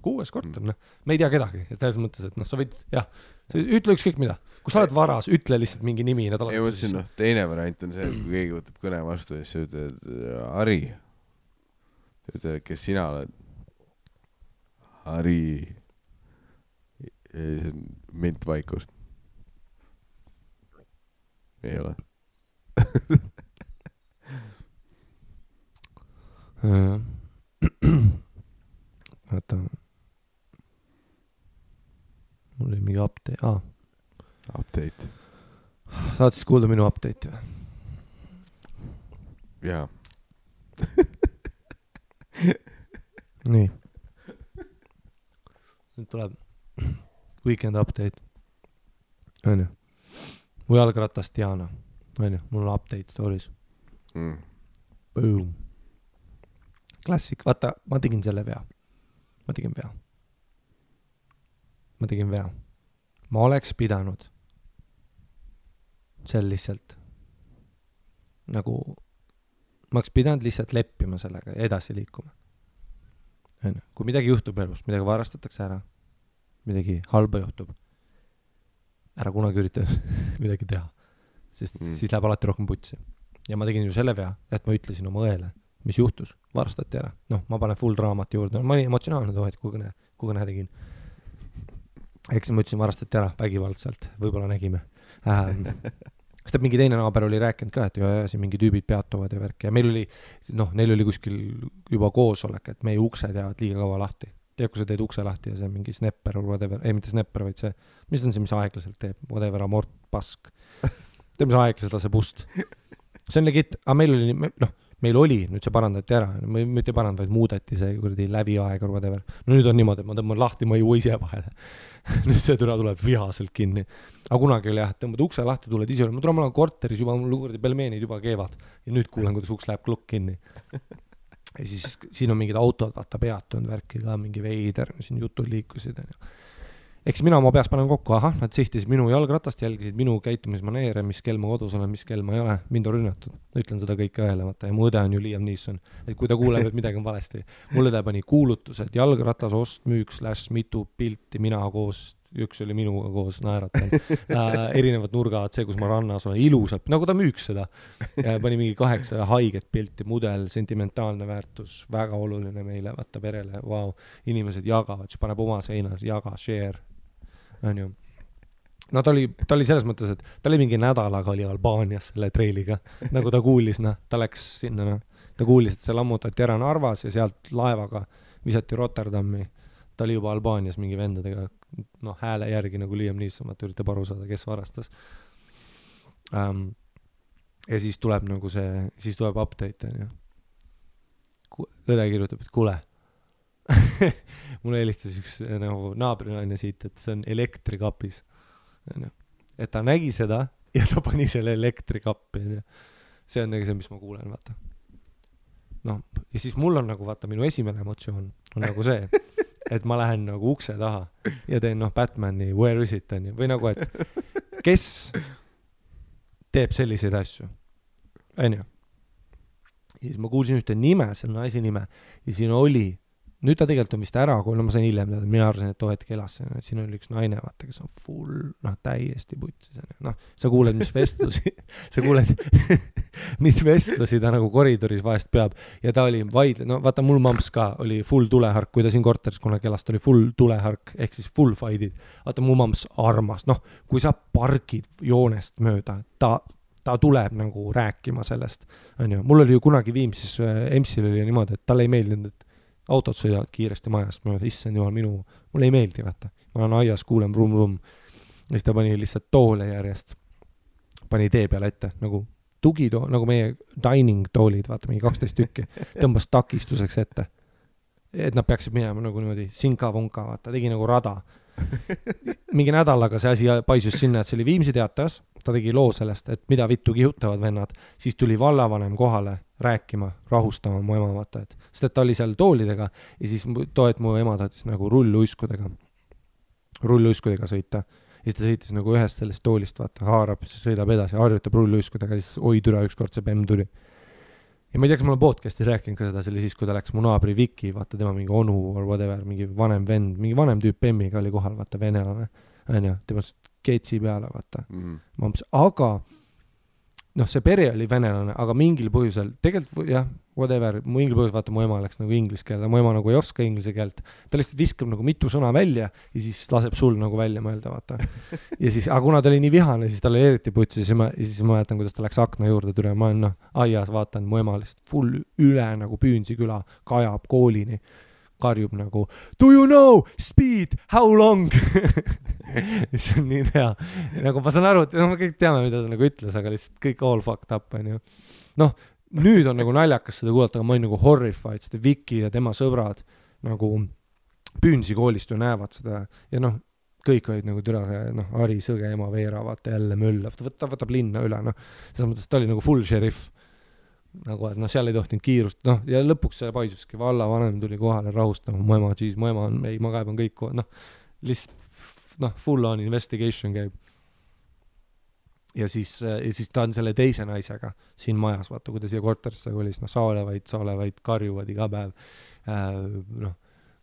6 korter, noh, me ei tea kedagi. Et selles mõttes, et noh, sa võid, jah, sa ütle ükskõik mida. Kui sa oled varas, ütle lihtsalt mingi nimi. Ei mõtlesin, noh, teine variant on see, et kui keegi võtab kõne vastu ja siis sa ütled, Ari. Ütled, kes sina oled? Ari. Ja siis on mint vaikust. Ei ole. Vaata. Mul oli mingi update. Update. Saad siis kuulda minu update või? Jaa. Nii. Nüüd tuleb weekend update. On ju? Mu jalgratas Diana. On ju? Mul on update stories. Boom. Klassik. Vaata, ma tegin selle vea. Ma tegin vea. Ma oleks pidanud seal lihtsalt nagu ma oleks pidanud lihtsalt leppima sellega ja edasi liikuma. Kui midagi juhtub elus, midagi varastatakse ära, midagi halba juhtub, ära kunagi ürita midagi teha, sest siis läheb alati rohkem putsi. Ja ma tegin ju selle vea, et ma ütlesin oma õele, mis juhtus, varastati ära. Noh, ma panen full raamat juurde, ma olin emotsionaalne tohet, kui kõne tegin. Eks ma ütlesin, varastati ära vägivaldselt, võib-olla nägime. Sest mingi teine naaber oli rääkinud ka, et siin mingi tüübid peatuvad ja värk. Ja meil oli, noh, neil oli kuskil juba koosolek, et meie uksed jäävad liiga kaua lahti. Tead, kui sa teed ukse lahti ja see mingi snapper or whatever, ei mitte snapper, vaid see, mis on see, mis aeglaselt teeb, whatever, amort, pask. Teeb, mis aeglaselt laseb ust. See on legit, aga meil oli, nüüd see parandati ära, mitte parand, vaid muudeti see kuradi läviaeg or whatever. No nüüd on niimoodi, et ma tõmban lahti, ma ei jõua ise vahele. Nüüd see türa tuleb vihaselt kinni. Aga kunagi oli jah, et tõmbad ukse lahti, tuled ise üle. Ma olen korteris juba, mul kuradi pelmeenid juba keevad. Ja nüüd kuulen, kuidas uks läheb klukk kinni. Ja siis siin on mingid autod, vaata peatunud värki ka, mingi veider, siin jutud liikusid. Eks mina oma peas panen kokku, nad sihtisid minu jalgratast, jälgisid minu käitumismaneere, mis kell ma kodus olen, mis kell ma ei ole, mind on rünnatud. Ütlen seda kõike õele, vaata, ja mu õde on ju Liam Neeson. Et kui ta kuuleb, et midagi on valesti. Mul õde pani kuulutused, jalgratas, ost, müük, / mitu pilti, mina koos, üks oli minuga koos, naeratan. Erinevad nurgad, see, kus ma rannas olen, ilusalt, nagu ta müüks seda. Pani mingi 8 haiget pilti, mudel, sentimentaalne väärtus, väga oluline meile, vaata perele, wow. Inimesed jagavad, siis paneb oma seinas, jaga, share. On ju. No ta oli selles mõttes, et ta oli mingi nädalaga oli Albaanias selle treiliga, nagu ta kuulis, ta läks sinna, ta kuulis, et see lammutati ära Narvas ja sealt laevaga visati Rotterdami, ta oli juba Albaanias mingi vendadega, hääle järgi nagu Liam Neeson, et üritab aru saada, kes varastas. Ja siis tuleb nagu see, siis tuleb update, on ju. Õde kirjutab, et kuule, mulle helistas üks nagu naabrinaine siit, et see on elektrikapis. Et ta nägi seda ja ta pani selle elektrikappi. See on nagu see, mis ma kuulen, vaata. ja siis mul on nagu vaata minu esimene emotsioon on nagu see, et ma lähen nagu ukse taha ja teen Batmani Where is it on ju, või nagu, et kes teeb selliseid asju, on ju. Ja siis ma kuulsin ühte nime, selle naisi nime ja siin oli, nüüd ta tegelikult on vist ära, kui ma sain hiljem teada, mina arvasin, et hetk elas, et siin oli üks naine, vaata, kes on full, täiesti putsis. Sa kuuled, mis vestlusi, mis vestlusi ta nagu koridoris vahest peab ja ta oli vaata mul mamps ka oli full tulehark, kui ta siin korteris kunagi elas, ta oli full tulehark, ehk siis full fight'id. Vaata mu mamps armas, kui sa pargid joonest mööda, ta tuleb nagu rääkima sellest, on ju. Mul oli ju kunagi Viimsis, EMS-il oli niimoodi, et talle ei meeldinud, et autod sõidavad kiiresti majast mööda, issand jumal, mulle ei meeldi, vaata. Ma olen aias, kuulen vrum. Ja siis ta pani lihtsalt toole järjest, pani tee peale ette, nagu tugitool, nagu meie dining toolid, vaata, mingi 12 tükki, tõmbas takistuseks ette. Et nad peaksid minema nagu niimoodi sinka-vonka, vaata, tegi nagu rada. Mingi nädalaga see asi paisus sinna, et see oli Viimsi teatas, ta tegi loo sellest, et mida vittu kihutavad vennad, siis tuli vallavanem kohale rääkima, rahustama mu ema, vaata, sest et ta oli seal toolidega ja siis mu ema tahtis nagu rulluiskudega sõita ja siis ta sõitis nagu ühest sellest toolist, vaata, haarab, siis sõidab edasi, harjutab rulluiskudega ja siis oi türa, ükskord see bemm tuli. Ja ma ei tea, kas ma olen podcasti rääkinud ka seda, see oli siis, kui ta läks mu naabri Viki, vaata tema mingi onu or whatever, mingi vanem vend, mingi vanem tüüp bemmiga oli kohal, vaata, venelane, on ju, tema keetsi peale, vaata. Aga see pere oli venelane, aga mingil põhjusel, tegelikult jah, whatever, mingil põhjusel, vaata, mu ema läks nagu inglise keele, mu ema nagu ei oska inglise keelt, ta lihtsalt viskab nagu mitu sõna välja ja siis laseb sul nagu välja mõelda, vaata. Ja siis, aga kuna ta oli nii vihane, siis ta oli eriti putsi, ja siis ma mäletan, kuidas ta läks akna juurde tule, ma olen aias, vaatan, mu ema lihtsalt full üle nagu Püünsi küla, kajab koolini, karjub nagu, do you know speed, how long? See on nii hea. Nagu ma saan aru, et me kõik teame, mida ta nagu ütles, aga lihtsalt kõik all fucked up, on ju. Nüüd on nagu naljakas seda kuulata, aga ma olin nagu horrified, seda Viki ja tema sõbrad nagu Püünsi koolist ju näevad seda ja kõik olid nagu türa see, Ari Sõge, ema Veera, vaata jälle möllab, ta võtab linna üle, selles mõttes ta oli nagu full sheriff. Nagu, et seal ei tohtinud kiirust, ja lõpuks see paisuski, vallavanem tuli kohale rahustama, mu ema on, ei, ma kaeban kõik, lihtsalt, full on investigation käib. Ja siis ta on selle teise naisega siin majas, vaata, kui ta siia korterisse kolis, saolevaid karjuvad iga päev,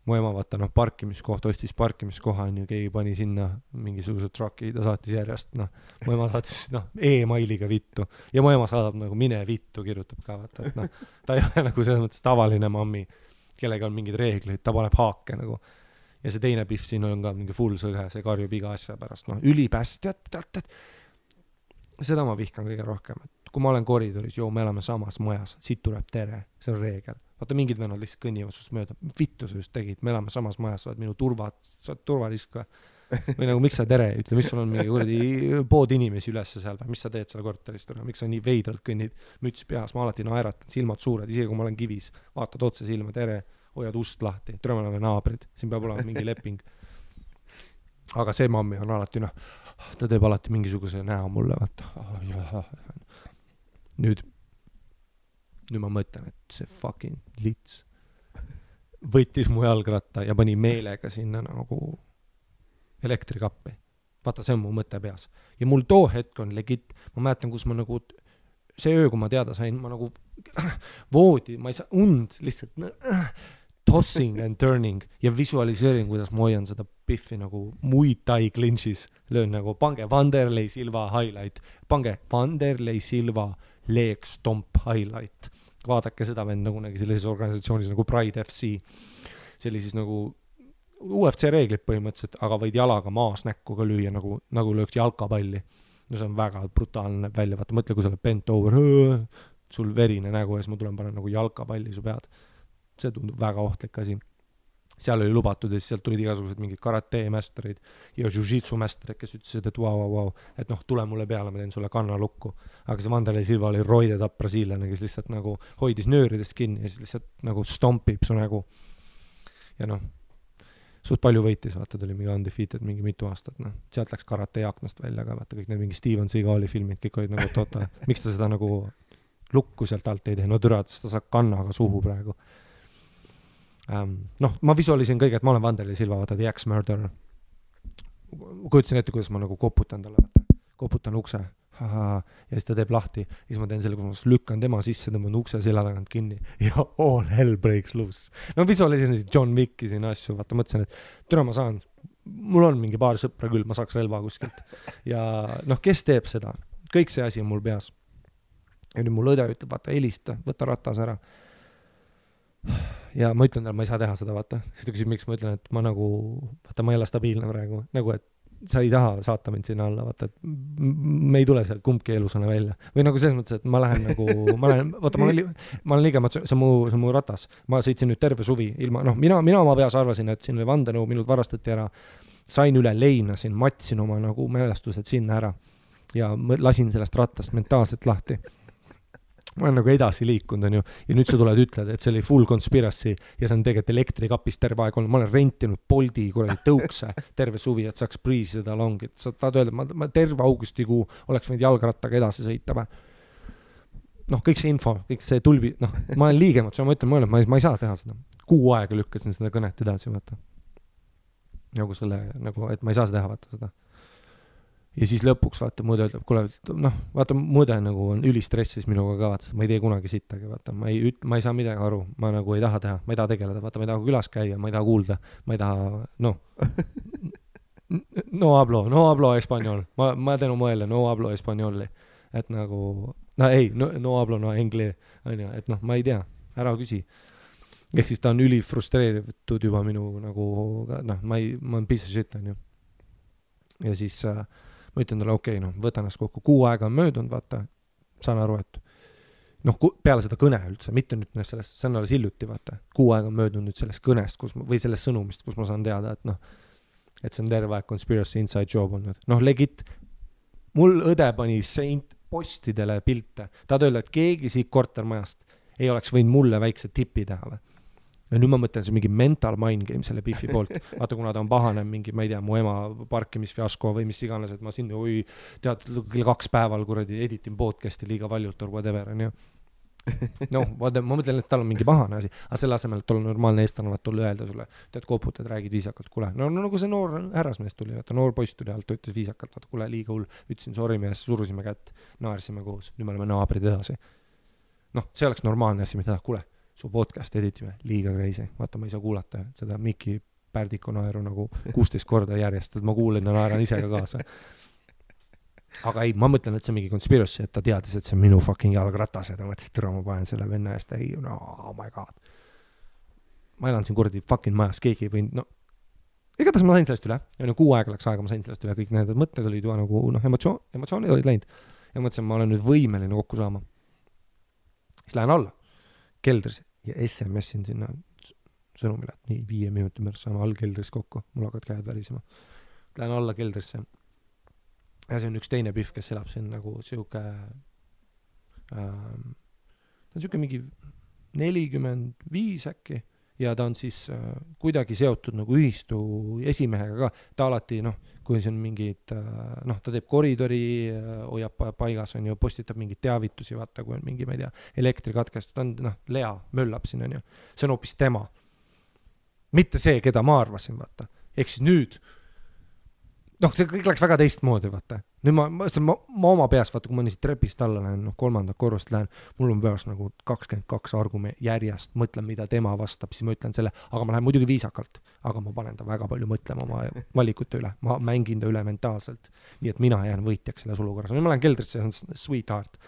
mu ema vaata, parkimiskoht, ostis parkimiskoha, on ju, keegi pani sinna mingisuguse trucki, ta saatis järjest, mu ema saatis, e-mailiga vittu, ja mu ema saadab nagu mine vittu, kirjutab ka, vaata, et ta ei ole nagu selles mõttes tavaline mammi, kellega on mingid reeglid, ta paneb haake nagu, ja see teine pihv siin on ka mingi full sõge, see karjub iga asja pärast, ülipäst, tead, seda ma vihkan kõige rohkem, et kui ma olen koridoris, me elame samas majas, siit tuleb tere, see on reegel. Vaata, mingid vennad lihtsalt kõnnivad sust mööda. Vittu sa just tegid, me elame samas majas, sa oled minu turvarisk või nagu, miks sa tere, ütle, mis sul on mingi pood inimesi ülesse seal või mis sa teed seal korteris, miks sa nii veidralt kõnnid, müts peas, ma alati naeratan, silmad suured, isegi kui ma olen kivis, vaatad otse silma, tere, hoiad ust lahti, tere, me oleme naabrid, siin peab olema mingi leping. Aga see mammi on alati, ta teeb alati mingisuguse näo mulle, vaata, nüüd ma mõtlen, et see fucking lits võttis mu jalgratta ja pani meelega sinna nagu elektrikappi. Vaata, see on mu mõte peas. Ja mul too hetk on legit, ma mäletan, kus ma nagu, see öö, kui ma teada sain, ma nagu voodi, ma ei saa lihtsalt tossing and turning ja visualiseerin, kuidas ma hoian seda piffi nagu Muay Thai clinchis, löön nagu, pange Vanderlei Silva highlight, pange Vanderlei Silva leg stomp highlight. Vaadake seda vend nagu sellises organisatsioonis nagu Pride FC. See oli siis nagu UFC reeglid põhimõtteliselt, aga võid jalaga maas näkku ka lüüa nagu lööks jalkapalli. See on väga brutaalne välja. Vaata, mõtle, kui sa oled bent over, sul verine nägu ja siis ma tulen panen nagu jalkapalli su pead. See tundub väga ohtlik asi. Seal oli lubatud ja siis sealt tulid igasugused mingid karate mästerid ja jiu-jitsu mästerid, kes ütlesid, et wow, et tule mulle peale, ma teen sulle kannalukku. Aga see Vanderlei Silva oli roidetapp brasiillane, kes lihtsalt nagu hoidis nööridest kinni ja siis lihtsalt nagu stompib su nägu. Ja suht palju võitis, vaata, tuli mingi undefeated mingi mitu aastat, sealt läks karate aknast välja ka, vaata, kõik need mingi Steven Seagali filmid, kõik olid nagu miks ta seda nagu lukku sealt alt ei tee, no türa, et ta saab kannaga suhu praegu. Noh, ma visualisin kõige, et ma olen Vanderli Silva, vaata, The Axe Murderer. Kujutasin ette, kuidas ma nagu koputan talle, vaata, koputan ukse, ja siis ta teeb lahti, siis ma teen selle, kus ma lükkan tema sisse, tõmban ukse selja tagant kinni ja all hell breaks loose. No visualisin John Wicki siin asju, vaata, mõtlesin, et türa ma saan, mul on mingi paar sõpra küll, ma saaks relva kuskilt. Ja noh, kes teeb seda? Kõik see asi on mul peas. Ja nüüd mul õde ütleb, vaata, helista, võta ratas ära. Ja ma ütlen talle, ma ei saa teha seda, vaata. Siis ta küsib, miks ma ütlen, et ma nagu, vaata, ma ei ole stabiilne praegu. Nagu, et sa ei taha saata mind sinna alla, vaata, et me ei tule sealt kumbki elusana välja. Või nagu selles mõttes, et ma lähen nagu, vaata, ma olen liiga, see on mu ratas. Ma sõitsin nüüd terve suvi ilma, noh, mina oma peas arvasin, et siin oli vandenõu, minult varastati ära. Sain üle leinasin, matsin oma nagu mälestused sinna ära ja lasin sellest rattast mentaalselt lahti. Ma olen nagu edasi liikunud, on ju, ja nüüd sa tuled ütled, et see oli full conspiracy ja see on tegelikult elektrikapis terve aeg olnud. Ma olen rentinud Boldi kuradi tõukse terve suvi, et saaks priisi seda longit. Sa tahad öelda, ma terve augustikuu oleks võinud jalgrattaga edasi sõita. Noh, kõik see info, kõik see tulbi, noh, ma olen liigemat, ma ütlen, ma ei saa teha seda. Kuu aega lükkasin seda kõnet edasi, vaata. Nagu selle, nagu, et ma ei saa teha, vaata seda. Ja siis lõpuks, vaata, mõõde ütleb, kuule, noh, vaata, mõõde nagu on ülistressis minuga ka, vaata, ma ei tee kunagi sittagi, vaata, ma ei saa midagi aru, ma nagu ei taha teha, ma ei taha tegeleda, vaata, ma ei taha külas käia, ma ei taha kuulda, ma ei taha, noh, no hablo español, ma teen oma mõelle, no hablo españoli, et nagu, no ei, no hablo no engli, on ju, et noh, ma ei tea, ära küsi. Ehk siis ta on ülifrustreeritud juba minu nagu, noh, ma olen piece of shit, on ju. Ja siis ma ütlen talle, okei, noh, võtan ennast kokku, 6 aega on möödunud, vaata, saan aru, et noh, peale seda kõne üldse, mitte nüüd sellest, see on alles hiljuti, vaata, 6 aega on möödunud nüüd sellest kõnest, või sellest sõnumist, kus ma saan teada, et noh, et see on terve aeg conspiracy inside job olnud. Noh, legit, mul õde pani postidele pilte, tahad öelda, et keegi siit kortermajast ei oleks võinud mulle väikse tipi teha või? Ja nüüd ma mõtlen, see mingi mental mind game selle Biffi poolt. Vaata, kuna ta on pahane mingi, ma ei tea, mu ema parkimisfiasko või mis iganes, et ma siin, tead, kell 2 päeval kuradi editin podcasti liiga valjult or whatever, on ju. Noh, vaata, ma mõtlen, et tal on mingi pahane asi, aga selle asemel, et olla normaalne eestlane, vaat tulla öelda sulle, tead, koputad, räägid viisakalt, kuule, no nagu see noor härrasmees tuli, vaata, noor poiss tuli alt, ütles viisakalt, vaata, kuule, liiga hull, ütlesin sorry mees, surusime kätt, naarsime koos, nüüd me oleme naabrid edasi. Noh, see oleks normaalne asi, mida kuule, su podcast editime, liiga crazy. Vaata, ma ei saa kuulata seda Mikki Pärdiku naeru nagu 16 korda järjest, et ma kuulen ja naeran ise ka kaasa. Aga ei, ma mõtlen, et see on mingi conspiracy, et ta teadis, et see on minu fucking jalgratas ja ta mõtles, et türa ma panen selle venna eest, ei, no, oh my god. Ma elan siin kuradi fucking majas, keegi ei võinud, no, igatahes ma sain sellest üle, ja 6 aega läks aega, ma sain sellest üle, kõik need mõtted olid juba nagu, noh, emotsioonid olid läinud. Ja mõtlesin, ma olen nüüd võimeline kokku saama. Siis lähen alla, keldris. Ja SMS-in sinna sõnumile, et nii 5 minuti pärast saame all keldris kokku, mul hakkad käed värisema. Lähen alla keldrisse. Ja see on üks teine Biff, kes elab siin nagu siuke, ta on siuke mingi 45 äkki, ja ta on siis kuidagi seotud nagu ühistu esimehega ka. Ta alati, noh, kui see on mingid, noh, ta teeb koridori, hoiab paigas, on ju, postitab mingid teavitusi, vaata, kui on mingi, ma ei tea, elektrikatkest, ta on, noh, Lea möllab siin, on ju. See on hoopis tema. Mitte see, keda ma arvasin, vaata. Ehk siis nüüd, noh, see kõik läks väga teistmoodi, vaata. Nüüd ma oma peas, vaata, kui ma niisid trepist alla lähen, noh, 3. korrust lähen, mul on peas nagu 22 argument järjest, mõtlen, mida tema vastab, siis ma ütlen selle, aga ma lähen muidugi viisakalt, aga ma panen ta väga palju mõtlema oma valikute üle, ma mängin ta üle mentaalselt, nii et mina jään võitjaks selles olukorras. Nüüd ma lähen keldrisse, see on sweetheart.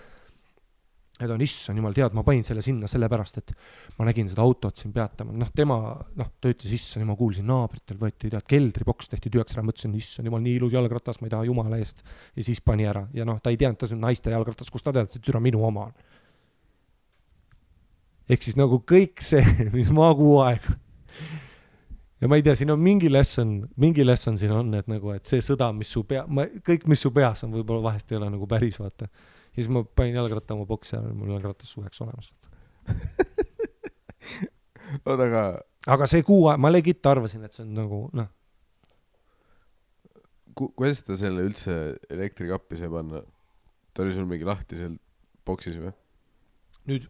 Ja ta on, issand jumal, tead, ma panin selle sinna sellepärast, et ma nägin seda autot siin peatama. Noh, tema, noh, ta ütles, issand, ma kuulsin naabritel, võeti, tead, keldriboks tehti tühjaks ära, mõtlesin, issand jumal, nii ilus jalgratas, ma ei taha jumala eest. Ja siis pani ära. Ja noh, ta ei teadnud, ta on naiste jalgratas, kus ta tead, see türa minu oma on. Ehk siis nagu kõik see, mis ma 6 aega. Ja ma ei tea, siin on mingi lesson siin on, et nagu, et see sõda, mis su kõik, mis su peas on, võib-olla vahest ei ole nagu päris, vaata. Ja siis ma panin jalgratta oma boksi ja mul jalgratas suveks olemas. Aga see 6 aega, ma legit arvasin, et see on nagu, noh. Kuidas ta selle üldse elektrikappi sai panna? Ta oli sul mingi lahti seal boksis või? nüüd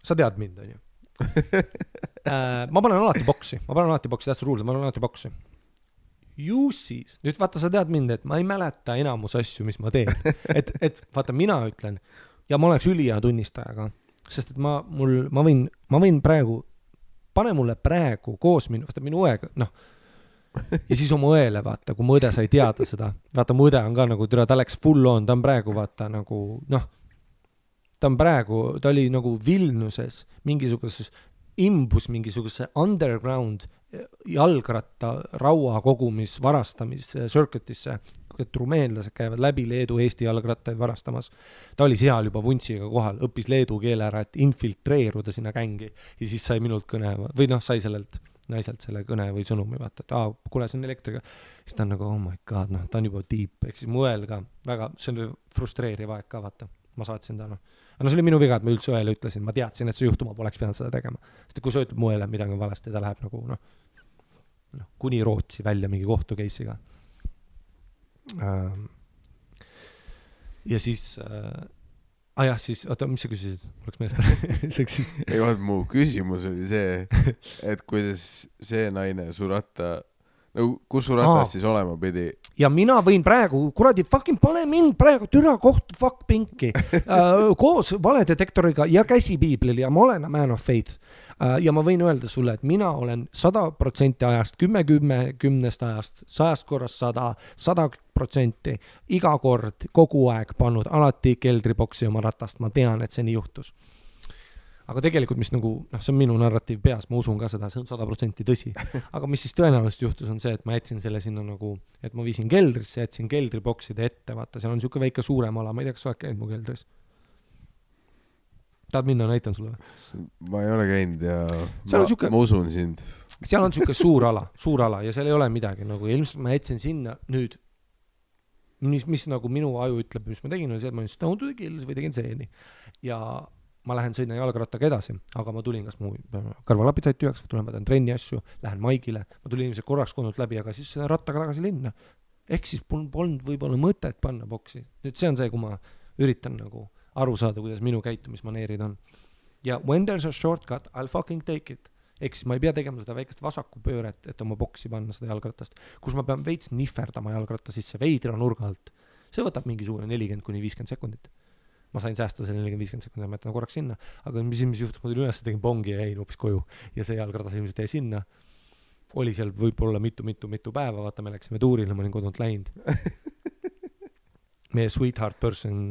sa tead mind, on ju. Ma panen alati boksi, that's the rule, ma panen alati boksi. Ju siis, nüüd vaata, sa tead mind, et ma ei mäleta enamus asju, mis ma teen. Et vaata, mina ütlen, ja ma oleks ülihea tunnistajaga, sest et ma võin praegu, pane mulle praegu koos minu õega, noh, ja siis oma õele, vaata, kui mu õde sai teada seda, vaata, mu õde on ka nagu, ta läks full on, ta on praegu, vaata, nagu, noh, ta oli nagu Vilniuses mingisuguses imbus mingisuguse underground jalgratta raua kogumis varastamis circuitisse, et rumeenlased käivad läbi Leedu Eesti jalgrattaid varastamas. Ta oli seal juba vuntsiga kohal, õppis leedu keele ära, et infiltreeruda sinna gängi ja siis sai minult kõne või noh, sai sellelt naiselt selle kõne või sõnumi, vaata, et kuule, see on elektriga. Siis ta on nagu, oh my god, noh, ta on juba deep, ehk siis mu õel ka väga, see on frustreeriv aeg ka, vaata. Ma saatsin ta, noh. Aga see oli minu viga, et ma üldse õele ütlesin, ma teadsin, et see juhtuma poleks pidanud seda tegema. Sest kui sa ütled mu õele midagi valesti, ta läheb nagu, noh, kuni Rootsi välja mingi kohtu case'iga. Ja siis, jah, siis, oota, mis sa küsisid? Oleks meelest. Ei, vaat mu küsimus oli see, et kuidas see naine su ratta, no kus su ratas siis olema pidi? Ja mina võin praegu, kuradi, fucking pane mind praegu türa kohtu fuck pinki koos valedetektoriga ja käsipiiblil ja ma olen a man of faith. Ja ma võin öelda sulle, et mina olen 100% ajast, 10 ajast, 100 korras 100%, iga kord, kogu aeg pannud alati keldriboksi oma ratast. Ma tean, et see nii juhtus. Aga tegelikult, mis nagu, noh, see on minu narratiiv peas, ma usun ka seda, see on 100% tõsi. Aga mis siis tõenäoliselt juhtus on see, et ma jätsin selle sinna nagu, et ma viisin keldrisse, jätsin keldribokside ette, vaata, seal on siuke väike suurem ala, ma ei tea, kas sa oled käinud mu keldris? Tahad minna, näitan sulle? Ma ei ole käinud ja ma usun sind. Seal on siuke suur ala ja seal ei ole midagi, nagu ilmselt ma jätsin sinna nüüd, mis nagu minu aju ütleb, mis ma tegin, on see, et ma olin Stone to the Kills või tegin seeni ja ma lähen sõina jalgrattaga edasi, aga ma tulin, kas mu karvalapid said tühjaks, tulen võtan trenni asju, lähen maigile, ma tulin ilmselt korraks kodult läbi, aga siis rattaga tagasi linna. Ehk siis polnud võib-olla mõtet panna boksi. Nüüd see on see, kui ma üritan nagu aru saada, kuidas minu käitumismaneerid on. Ja when there's a shortcut, I'll fucking take it. Ehk siis ma ei pea tegema seda väikest vasakupööret, et oma boksi panna seda jalgratast, kus ma pean veits nihverdama jalgratta sisse veidra nurga alt. See võtab mingisugune 40-50 sekundit. Ma sain säästa selle 40-50 sekundit, ma jätan korraks sinna, aga mis juhtus, ma tulin üles, tegin bongi ja jäin hoopis koju ja see jalgratas ilmselt jäi sinna. Oli seal võib-olla mitu päeva, vaata, me läksime tuurile, ma olin kodunt läinud. Meie sweetheart person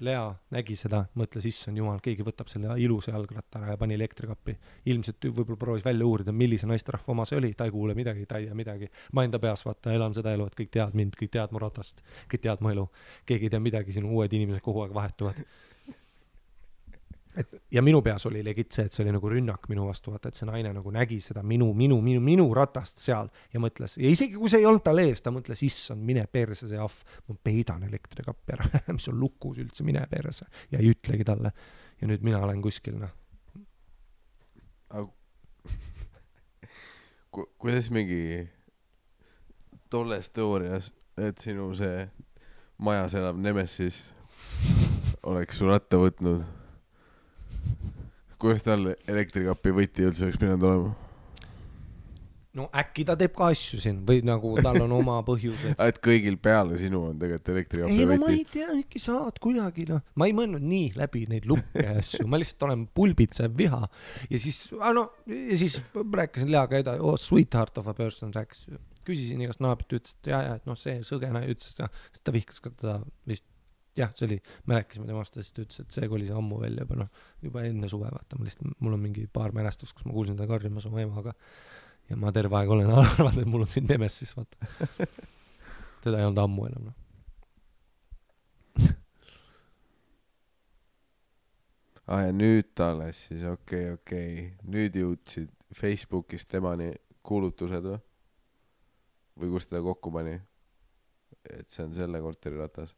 Lea nägi seda, mõtles, issand jumal, keegi võtab selle ilusa jalgratta ära ja pani elektrikappi. Ilmselt võib-olla proovis välja uurida, millise naisterahva oma see oli, ta ei kuule midagi, ta ei tea midagi. Ma enda peas, vaata, elan seda elu, et kõik teavad mind, kõik teavad mu ratast, kõik teavad mu elu. Keegi ei tea midagi, sinu uued inimesed kogu aeg vahetuvad. Ja minu peas oli legit see, et see oli nagu rünnak minu vastu, vaata, et see naine nagu nägi seda minu ratast seal ja mõtles, ja isegi kui see ei olnud tal ees, ta mõtles, issand, mine perse see ahv, ma peidan elektrikappi ära, mis on lukus üldse, mine perse ja ei ütlegi talle ja nüüd mina olen kuskil, noh. Kuidas mingi tolles teoorias, et sinu see majas elav Nemesis oleks su ratta võtnud, kuidas tal elektrikappi võti üldse oleks pidanud olema? No äkki ta teeb ka asju siin või nagu tal on oma põhjused. Et kõigil peale sinu on tegelikult elektrikappi võti? Ei, no ma ei tea, äkki saad kuidagi, noh. Ma ei mõelnud nii läbi neid lukke asju, ma lihtsalt olen pulbitsev viha ja siis rääkisin Leaga edasi, sweetheart of a person rääkis, küsisin igast naabit, ütles, et et noh, see sõgena ütles, et ta vihkas ka teda vist. Jah, see oli, me rääkisime temast, siis ta ütles, et see oli see ammu välja juba enne suve, vaata, mul on mingi paar mälestust, kus ma kuulsin ta karjumas oma emaga ja ma terve aeg olen arvanud, et mul on siin Nemesis, vaata. Teda ei olnud ammu enam, noh. Ja nüüd alles siis, okei. Nüüd jõudsid Facebookis temani kuulutused või kus teda kokku pani, et see on selle korteri ratas?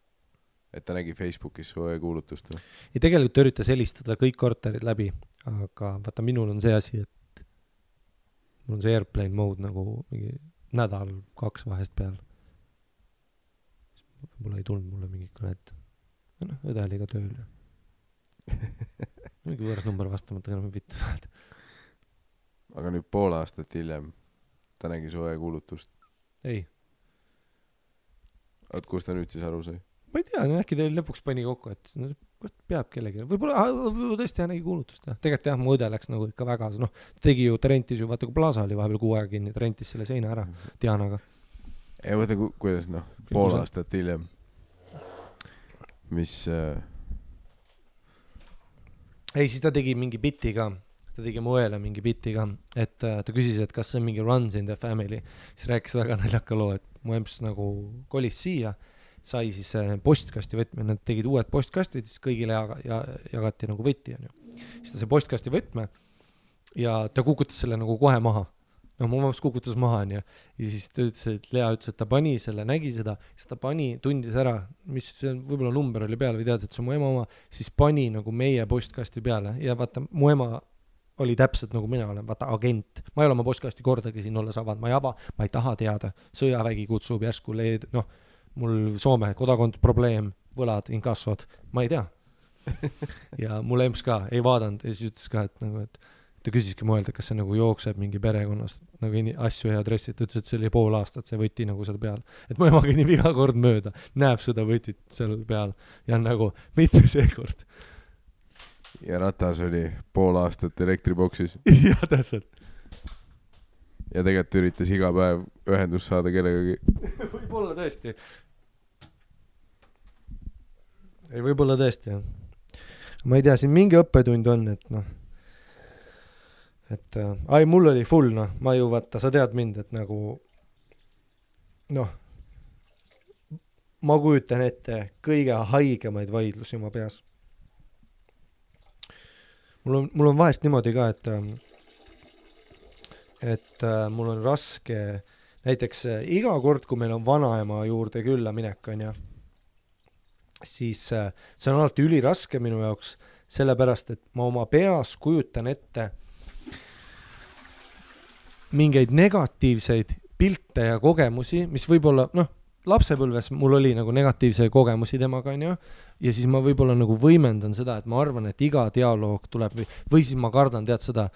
Et ta nägi Facebookis su kuulutust? Ja tegelikult ta üritas helistada kõik korterid läbi, aga vaata, minul on see asi, et mul on see airplane mode nagu mingi nädal 2 vahest peal. Võib-olla ei tulnud mulle mingi kõnet. Õde oli ka tööl. mingi võõras number vastamata, enam vittu saad. Aga nüüd pool aastat hiljem ta nägi su kuulutust. Ei. Oot, kus ta nüüd siis aru sai? Ma ei tea, äkki teil lõpuks pani kokku, et no, peab kellegi. Võib-olla tõesti tõesti nägi kuulutust. Tegelikult jah, mu õde läks nagu ikka väga, noh, tegi ju, ta rentis ju, vaata kui Plaza oli vahepeal 6 aega kinni, ta rentis selle seina ära Dianaga. Ei, võta, kuidas, noh, pool aastat hiljem. Mis... Ei, siis ta tegi mingi biti ka. Ta tegi mu õele mingi biti ka, et ta küsis, et kas see on mingi runs in the family. Siis rääkis väga naljaka loo, et mu emps nagu kolis siia, sai siis postkasti võtme, nad tegid uued postkastid, siis kõigile jagati nagu võtti. Siis ta see postkasti võtme ja ta kukutas selle nagu kohe maha. No mu emps kukutas maha ja siis ta ütles, et Lea ütles, et ta pani selle, nägi seda, siis ta pani, tundis ära, mis võib-olla number oli peale või teadis, et see on mu ema oma, siis pani nagu meie postkasti peale ja vaata, mu ema oli täpselt nagu mina olen, vaata agent. Ma ei ole oma postkasti kordagi siin olles avanud, ma ei ava, ma ei taha teada. Sõjavägi kutsub järsku noh, mul Soome kodakond probleem, võlad, inkassod, ma ei tea. Ja mul emps ka ei vaadanud ja siis ütles ka, et nagu, et ta küsiski mõelda, kas see nagu jookseb mingi perekonnast nagu asju ja adressid, ta ütles, et see oli pool aastat, see võti nagu seal peal. Et mu ema kõnnib iga kord mööda, näeb seda võtit seal peal ja nagu mitte seekord. Ja ratas oli pool aastat elektriboksis. Ja täpselt. Ja tegelikult üritas iga päev ühendust saada kellegagi. Võib-olla tõesti. Ei, võib-olla tõesti, jah. Ma ei tea, siin mingi õppetund on, et noh, et mul oli full, noh, ma ju vaata, sa tead mind, et nagu noh, ma kujutan ette kõige haigemaid vaidlusi oma peas. Mul on vahest niimoodi ka, et mul on raske, näiteks iga kord, kui meil on vanaema juurde külla minek, on ja, siis see on alati üliraske minu jaoks, sellepärast, et ma oma peas kujutan ette mingeid negatiivseid pilte ja kogemusi, mis võib-olla, noh, lapsepõlves mul oli nagu negatiivse kogemusi temaga, on ju, ja siis ma võib-olla nagu võimendan seda, et ma arvan, et iga dialoog tuleb või siis ma kardan, tead seda,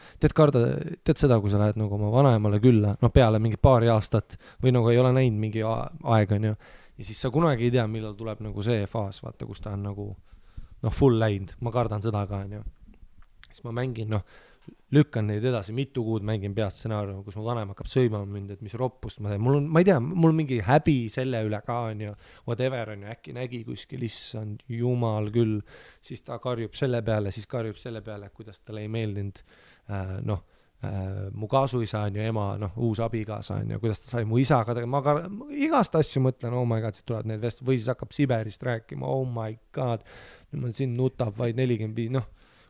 kui sa lähed nagu oma vanaemale külla, noh, peale mingi paari aastat või nagu ei ole näinud mingi aeg, on ju, ja siis sa kunagi ei tea, millal tuleb nagu see faas, vaata, kus ta on nagu, noh, full läinud, ma kardan seda ka, on ju, siis ma mängin, noh, lükkan neid edasi, mitu kuud mängin peast stsenaariumi, kus mu vanem hakkab sööma mind, et mis roppust ma teen. Ma ei tea, mul mingi häbi selle üle ka on ju, whatever on ju, äkki nägi kuskil, issand jumal küll, siis ta karjub selle peale, kuidas talle ei meeldinud, mu kaasuisa on ju, ema, noh, uus abigaasa on ju, kuidas ta sai mu isaga, ma igast asju mõtlen, oh my god, siis tulevad need või siis hakkab Siberist rääkima, oh my god, nüüd siin nutab vaid 45, noh,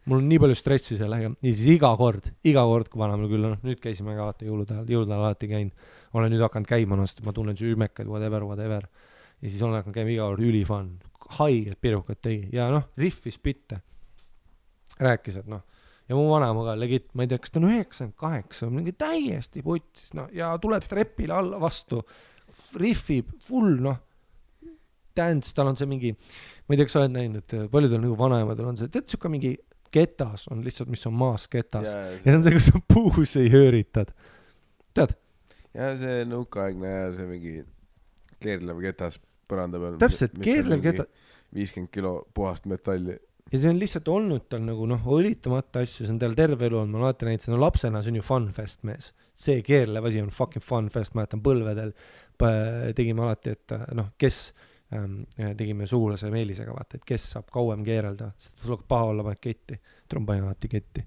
mul on nii palju stressi sellega ja siis iga kord, kui vanamal küll, noh, nüüd käisime ka vaata jõulude alati käin, olen nüüd hakanud käima, ma tunnen süümekad, whatever, ja siis olen hakanud käima iga kord ülifan, haiged pirukad tegi ja noh, riffis bitte, rääkis, et noh, ja mu vanema ka legit, ma ei tea, kas ta on 98, mingi täiesti putsis, noh, ja tuleb trepile alla vastu, riffib, full, noh, dance, tal on see mingi, ma ei tea, kas sa oled näinud, et paljudel nagu vanaemadel on see, tead, siuke mingi ketas on lihtsalt, mis on maas ketas. Ja see on see, kus sa puus ei hööritad. Tead? Ja see nõukaaegne ja see mingi keerlev ketas põranda peal. Täpselt, keerlev ketas. 50 kilo puhast metalli. Ja see on lihtsalt olnud tal nagu, noh, õlitamata asju, see on tal terve elu on, ma alati näitasin, no lapsena see on ju funfest mees. See keerlev asi on fucking funfest, ma jätan põlvedel, tegime alati, et noh, kes tegime sugulase Meelisega, vaata, et kes saab kauem keerelda, sest sul hakkab paha olla, paned ketti, trompain alati ketti.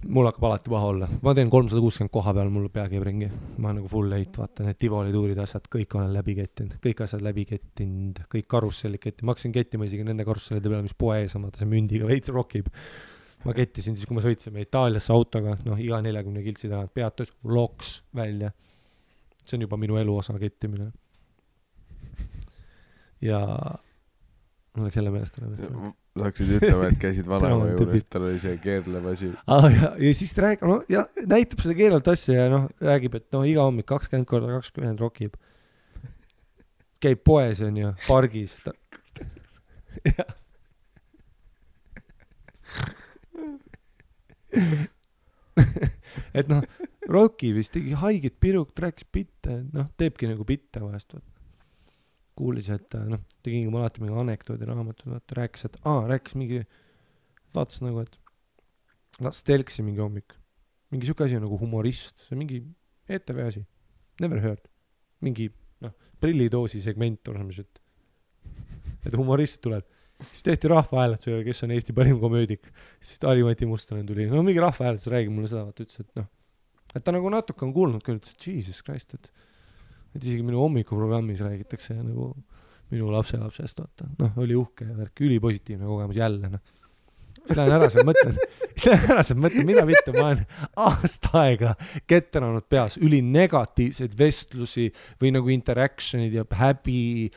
Mul hakkab alati paha olla. Ma teen 360 koha peal, mul pea käib ringi. Ma olen nagu full late, vaata, need Tivoli tuurid asjad, kõik olen läbi kettinud, kõik karussellid kettinud. Ma hakkasin kettima isegi nende karussellide peale, mis poe ees on, vaata, see mündiga veits rokib. Ma kettisin siis, kui ma sõitsime Itaaliasse autoga, noh, iga 40 kiltsi tagant peatus, loks välja. See on juba minu elu osa kettimine. Ja mul oleks jälle meelest saaksid ütlema, et käisid vanaema juures, tal oli see keerlev asi. Ja siis räägib, no, ja näitab seda keerlevat asja ja noh, räägib, et noh, iga hommik 20x20 rokib. Käib poes on ju, pargis. et noh, Rocky vist tegi haiget pirukt, rääkis bitte, noh, teebki nagu bitte vahest, kuulis, et noh, tegi alati mingi anekdoodi raamatud, vaata, rääkis, et rääkis mingi, vaatas nagu, et vaatas telksi mingi hommik, mingi siuke asi on nagu humorist, see on mingi ETV asi, never heard, mingi, noh, prillidoosi segment on see, et humorist tuleb. Siis tehti rahvahääletusega, kes on Eesti parim komöödik. Siis Harri-Mati Mustonen tuli. No mingi rahvahääletus räägib mulle seda, vaata ütles, et noh, et ta nagu natuke on kuulnud küll, ütles, et Jesus Christ, et isegi minu hommikuprogrammis räägitakse nagu minu lapselapsest, vaata. Noh, oli uhke ja värk, ülipositiivne kogemus jälle, noh. Siis lähen ära seal mõtlen, mida vittu, ma olen aasta aega ketteranud peas üli negatiivseid vestlusi või nagu interactionid ja häbi,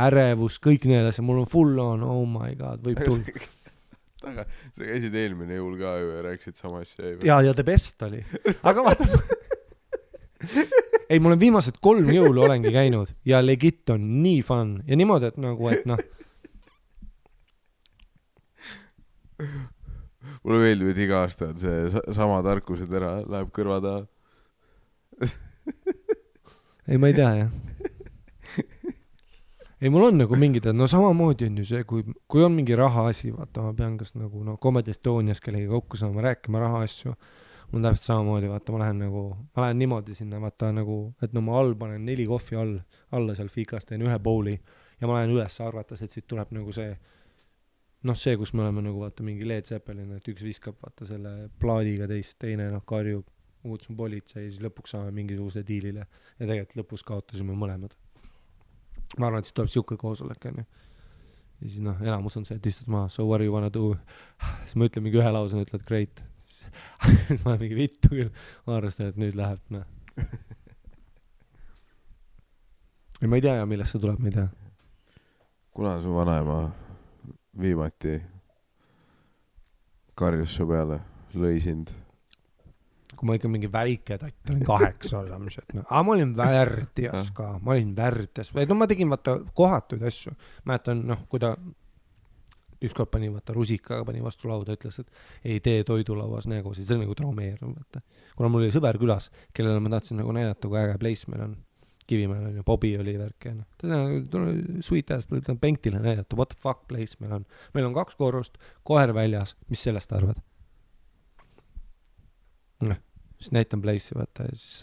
ärevus, kõik need asjad, mul on full on, oh my god, võib tulla. Aga sa käisid eelmine jõul ka ju ja rääkisid sama asja. Ja the best oli. Aga vaata, ei, mul on viimased 3 jõulu olengi käinud ja legit on nii fun ja niimoodi, et nagu, et noh, mulle meeldib, et iga aasta on see sama tarkuse tera, läheb kõrva taha. ei, ma ei tea, jah. ei, mul on nagu mingid, no samamoodi on ju see, kui on mingi raha asi, vaata, ma pean kas nagu, no Comedy Estonias kellegi kokku saama, rääkima raha asju, mul on täpselt samamoodi, vaata, ma lähen niimoodi sinna, vaata, nagu, et no ma all panen 4 kohvi alla seal fikas, teen 1 bowli ja ma lähen üles arvates, et siit tuleb nagu see, noh, see, kus me oleme nagu, vaata, mingi Led Zeppelin, et üks viskab, vaata, selle plaadiga teine, noh, karjub, muutsun politsei ja siis lõpuks saame mingisuguse diilile ja tegelikult lõpus kaotasime mõlemad. Ma arvan, et siis tuleb siuke koosolek, on ju. Ja siis, noh, enamus on see, et istud maha, so what do you wanna do? Siis ma ütlen mingi 1 lause, ütled great. Siis ma olen mingi vittu küll, ma arvestan, et nüüd läheb, noh. Ja ma ei tea, millest see tuleb, ma ei tea. Kuna su vanaema viimati karjus su peale, lõi sind? Kui ma ikka mingi väike tatt olin 8 olemised, no. Aga ma olin värdjas ka, ma olin värdjas. No ma tegin, vaata, kohatuid asju. Mäletan, noh, kui ta ükskord pani, vaata, rusikaga pani vastu lauda, ütles, et ei tee toidulauas nägu, siis see oli nagu traumeerunud, vaata. Kuna mul oli sõber külas, kellele ma tahtsin nagu näidata, kui äge place meil on. Kivimäel on ju, Bobby oli värk ja noh. Ta sweet ass, ta on penktile näidata, what the fuck place meil on. Meil on 2 korrust, koer väljas, mis sellest arvad? Noh, siis näitan place'i, vaata, ja siis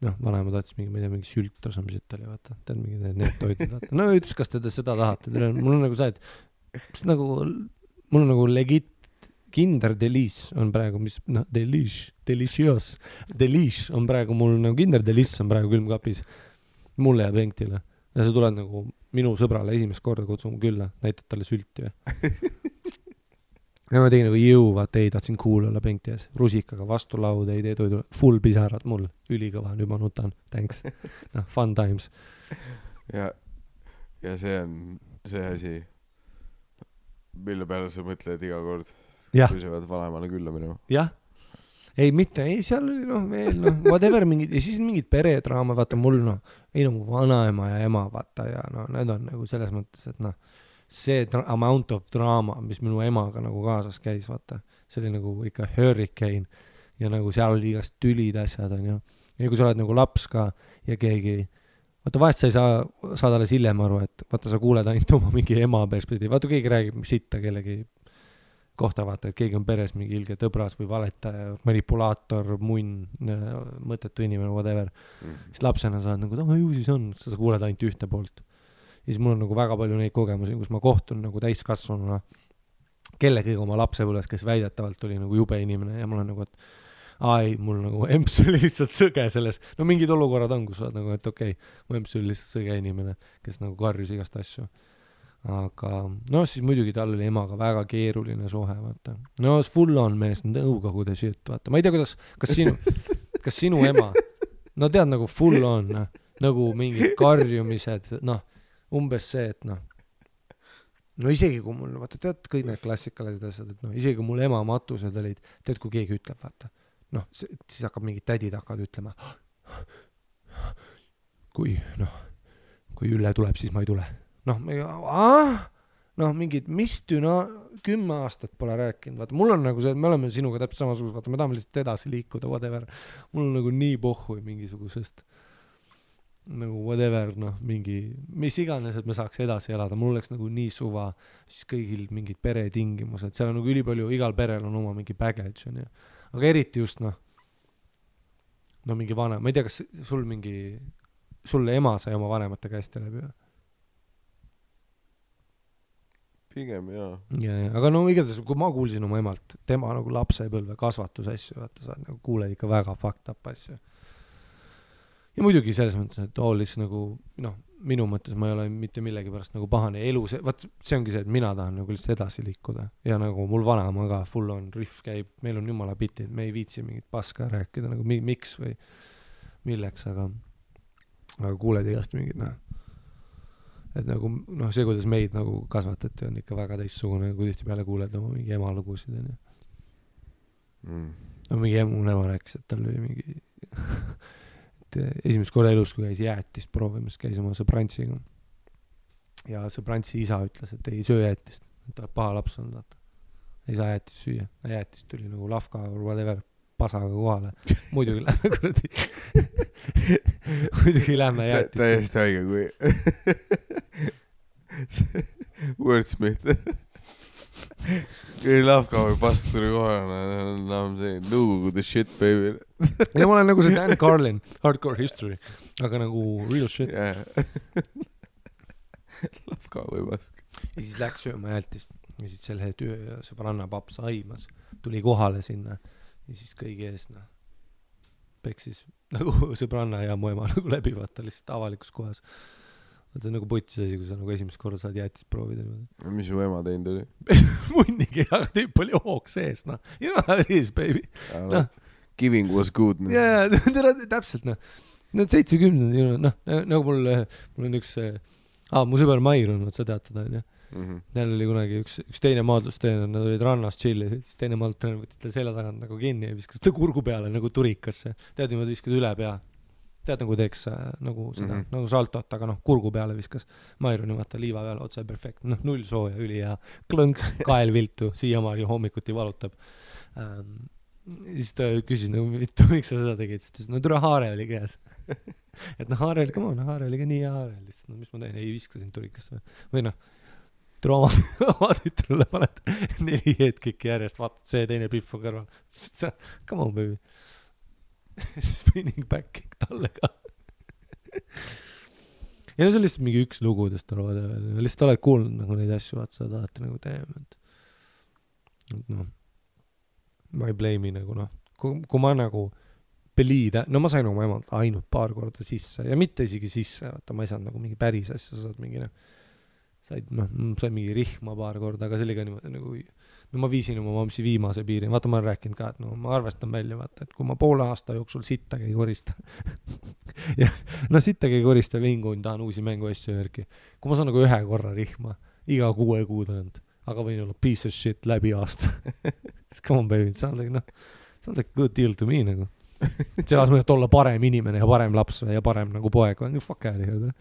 noh, vanaema tahtis mingi sült osa, mis oli, vaata, tead mingi need toidud, vaata. No ütles, kas te seda tahate, mul on nagu see, et mul on nagu legit Kinder Delice on praegu, mis, noh, Delicious on praegu mul, nagu Kinder Delice on praegu külmkapis mulle ja penktile. Ja see tuleb nagu minu sõbrale esimest korda kutsun külla, näitad talle sülti või. Ja ma tegin nagu vaata, ei, tahtsin cool olla penkti ees. Rusikaga vastu lauda, ei tee toidu, full pisarad mul, ülikõva, nüüd ma nutan, thanks. Noh, fun times. Ja see on see asi, mille peale sa mõtled iga kord. Ja. Kui sa pead vanaemale külla minema. Jah. Ei, mitte, ei, seal oli, noh, veel, noh, whatever, mingid, ja siis mingid peredraama, vaata, mul, noh, ei nagu vanaema ja ema, vaata, ja noh, need on nagu selles mõttes, et noh, see amount of drama, mis minu emaga nagu kaasas käis, vaata, see oli nagu ikka hurricane ja nagu seal oli igast tülid asjad, on ju. Ja kui sa oled nagu laps ka ja keegi, vaata, vahest sa ei saa alles hiljem aru, et vaata, sa kuuled ainult oma mingi ema perspektiivi, vaata, keegi räägib sitta kellegi kohta, vaata, et keegi on peres mingi ilge tõbras või valetaja, manipulaator, munn, mõttetu inimene, whatever. Siis lapsena sa oled nagu, ju siis on, sa kuuled ainult ühte poolt. Ja siis mul on nagu väga palju neid kogemusi, kus ma kohtun nagu täiskasvanuna kellegagi oma lapsepõlves, kes väidetavalt oli nagu jube inimene ja mul on nagu, et ai, mul nagu emps oli lihtsalt sõge selles. No mingid olukorrad on, kus sa oled nagu, et okei, mu emps oli lihtsalt sõge inimene, kes nagu karjus igast asju. Aga no siis muidugi tal oli emaga väga keeruline suhe, vaata. No full on mees, nõukogude shit, vaata. Ma ei tea, kas sinu ema, no tead nagu full on, nagu mingid karjumised, noh, umbes see, et noh, no isegi kui mul, vaata, tead kõik need klassikalised asjad, et noh, isegi kui mul ema matused olid, tead, kui keegi ütleb, vaata, noh, siis hakkab mingid tädid hakkavad ütlema, kui Ülle tuleb, siis ma ei tule. Noh, noh, mingid, mis 10 aastat pole rääkinud, vaata, mul on nagu see, me oleme sinuga täpselt samasugused, vaata, me tahame lihtsalt edasi liikuda, whatever, mul on nagu nii pohhui mingisugusest nagu whatever, noh, mingi, mis iganes, et me saaks edasi elada, mul oleks nagu nii suva, siis kõigil mingid peretingimused, seal on nagu ülipalju, igal perel on oma mingi baggage, on ju, aga eriti just, noh, mingi vanem, ma ei tea, kas sulle ema sai oma vanemate käest läbi või? Pigem jaa. Aga no igatahes, kui ma kuulsin oma emalt, tema nagu lapsepõlve kasvatusasju, vaata, sa nagu kuuled ikka väga fucked up asju. Ja muidugi selles mõttes, et olles nagu, noh, minu mõttes ma ei ole mitte millegi pärast nagu pahane elu, vaat see ongi see, et mina tahan nagu lihtsalt edasi liikuda ja nagu mul vanaema ka full on riff käib, meil on jumala bitid, me ei viitsi mingit paska rääkida nagu miks või milleks, aga kuuled igast mingid, noh, et nagu, noh, see, kuidas meid nagu kasvatati, on ikka väga teistsugune, kui tihti peale kuuled oma mingi ema lugusid, on ju. No mingi emu ema rääkis, et tal oli mingi et esimest korda elus, kui käis jäätist proovimas, käis oma sõbrantsiga ja sõbrantsi isa ütles, et ei söö jäätist, et ta paha laps on, vaata, ei saa jäätist süüa, jäätist tuli nagu lafka või whatever pasaga kohale, muidugi lähme kuradi muidugi lähme jäätist täiesti haige kui Wordsmith kui lafka või past tuli kohale, I'm saying no the shit baby ja ma olen nagu see Dan Carlin Hardcore History, aga nagu real shit lafka või pask ja siis läks sööma jäätist ja siis selle sõbranna paps aimas tuli kohale sinna ja siis kõigi ees, noh, peksis nagu sõbranna ja mu ema nagu läbi, vaata, lihtsalt avalikus kohas. See on nagu putis asi, kui sa nagu esimest korda saad jäätist proovida. Mis su ema teinud oli? Munnigi, aga tüüp oli hoog sees, noh. You know how it is, baby. No. Giving was good. Jaa, täpselt, noh. Need 70, noh, nagu mul on üks, mu sõber Mair on, sa tead teda, on ju. Neil oli kunagi üks teine maadlusteener, nad olid rannas chilli, siis teine maadlusteener võttis ta selja tagant nagu kinni ja viskas ta kurgu peale nagu turikasse. Tead, niimoodi viskad üle pea. Tead, nagu teeks nagu seda, nagu saltot, aga noh, kurgu peale viskas. Mairuni vaata liiva peale, otse perfekt. Noh, null sooja, üli ja klõnks, kael viltu, siiamaani hommikuti valutab. Siis ta küsis nagu, miks sa seda tegid? Siis ta ütles, no tule haare oli käes. Et noh, haare oli, come on, haare oli ka nii ja haare oli. No mis ma teen? Ei viskasin turikasse. Või noh, tule oma tütrule paned 4 headkicki järjest, vaatad see teine pihv on kõrval. Come on, baby. Spinning back kick talle ka. Ja no see on lihtsalt mingi üks lugudest lihtsalt oled kuulnud nagu neid asju, vaat sa tahate nagu teema, et noh, ma ei blame'i nagu noh, kui ma nagu beliida, no ma sain oma emalt ainult paar korda sisse ja mitte isegi sisse, vaata ma ei saanud nagu mingi päris asja, sa saad mingi said mingi rihma paar korda, aga see oli ka niimoodi nagu, no ma viisin oma mamsi viimase piiri, vaata ma olen rääkinud ka, et no ma arvestan välja, vaata, et kui ma poole aasta jooksul sittagi ei korista ja no sittagi ei korista vingun, tahan uusi mänguasju järgi, kui ma saan nagu 1 korra rihma, iga 6 kuu tagant, aga võin olla piece of shit läbi aasta siis come on baby, sound like good deal to me nagu selles mõttes, et olla parem inimene ja parem laps ja parem nagu poeg, fuck out here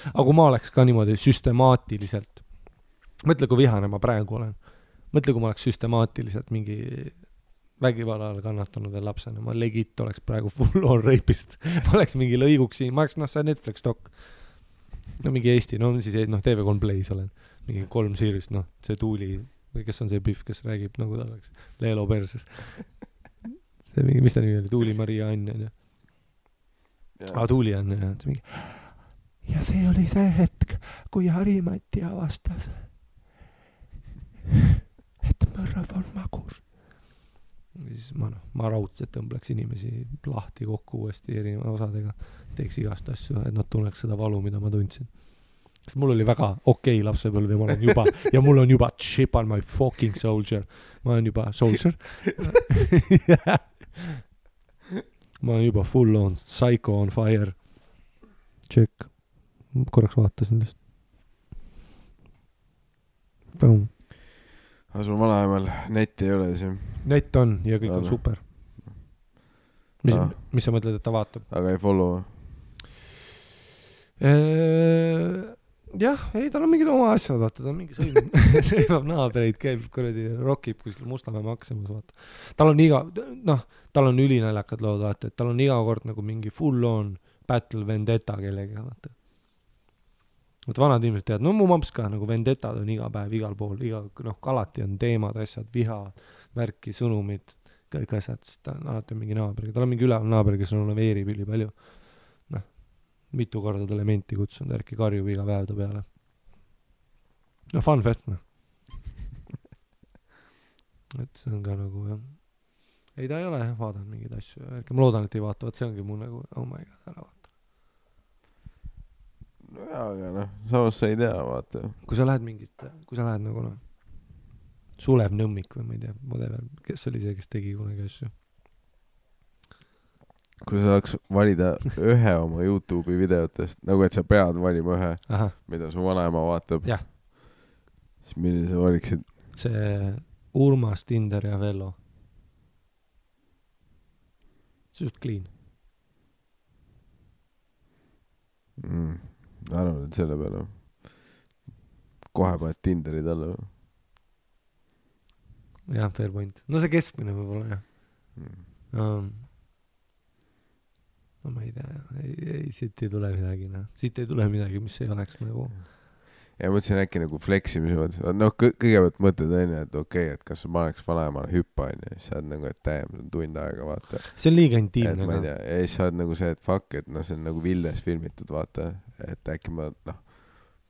aga kui ma oleks ka niimoodi süstemaatiliselt, mõtle, kui vihane ma praegu olen, mõtle, kui ma oleks süstemaatiliselt mingi vägivallal kannatanud veel lapsena, ma legit oleks praegu full on rapist, ma oleks mingi lõiguks siin, ma oleks, noh, see Netflix dok, no mingi Eesti, no siis noh, TV3 Plays olen, mingi 3 series, noh, see Tuuli, või kes on see pihv, kes räägib nagu ta oleks Leelo perses, see mingi, mis ta nimi oli, Tuuli Maria Ann, on ju, Tuuli on, ja mingi ja see oli see hetk, kui Harimati avastas, et mõrv on magus. Ja siis ma raudselt tõmbleks inimesi lahti kokku uuesti erineva osadega, teeks igast asju, et nad tunneks seda valu, mida ma tundsin. Sest mul oli väga okei lapsepõlv ja mul on juba chip on my fucking soldier. Ma olen juba soldier. Ma olen juba full on psycho on fire. Check. Korraks vaatasin lihtsalt. Aga sul vanaemal netti ei ole siis? Net on ja kõik on super. Mis sa mõtled, et ta vaatab? Aga ei follow? Jah, ei, tal on mingid oma asjad, vaata, ta on mingi sõimab naabreid, käib kuradi, rokib kuskil Mustamäe Maximus, vaata. Tal on ülinaljakad lood, vaata, et tal on iga kord nagu mingi full on battle vendetta kellega, vaata. Vaata, vanad inimesed teavad, no mu mamps ka, nagu vendetad on iga päev, igal pool, alati on teemad, asjad, viha, värki, sõnumid, kõik asjad, siis ta on alati mingi naabriga. Tal on mingi üleval naaber, kes on veerib üli palju. Mitu korda talle menti kutsunud, ärki karjub iga päev ta peale. No fun fest, noh. Et see on ka nagu, jah. Ei, ta ei ole vaadanud mingeid asju. Ärki ma loodan, et ei vaata, see ongi mu nagu, oh my god, ära vaata. No jaa, aga noh, samas sa ei tea, vaata. Kui sa lähed nagu, noh, Sulev Nõmmik või ma ei tea, whatever, kes oli see, kes tegi kunagi asju. Kui sa saaks valida ühe oma YouTube'i videotest, nagu et sa pead valima ühe, mida su vanaema vaatab, siis milline sa valiksid? See Urmas, Tinder ja Vello. See just clean. Arvan, et selle peale kohe paned Tinderi talle. Jah, fair point. No see keskmine võib-olla, jah. No ma ei tea, ei, siit ei tule midagi, noh. Siit ei tule midagi, mis ei oleks nagu... Ja mõtlesin äkki nagu fleksimise mõttes. No kõigepealt mõtled enne, et okei, et kas ma oleks vanaemale hüppa, ja siis sa oled nagu, et täiem, see on tund aega, vaata. See on liiga intiimne. Ja siis sa oled nagu see, et fuck, et no see on nagu Vildes filmitud, vaata. Et äkki ma, noh,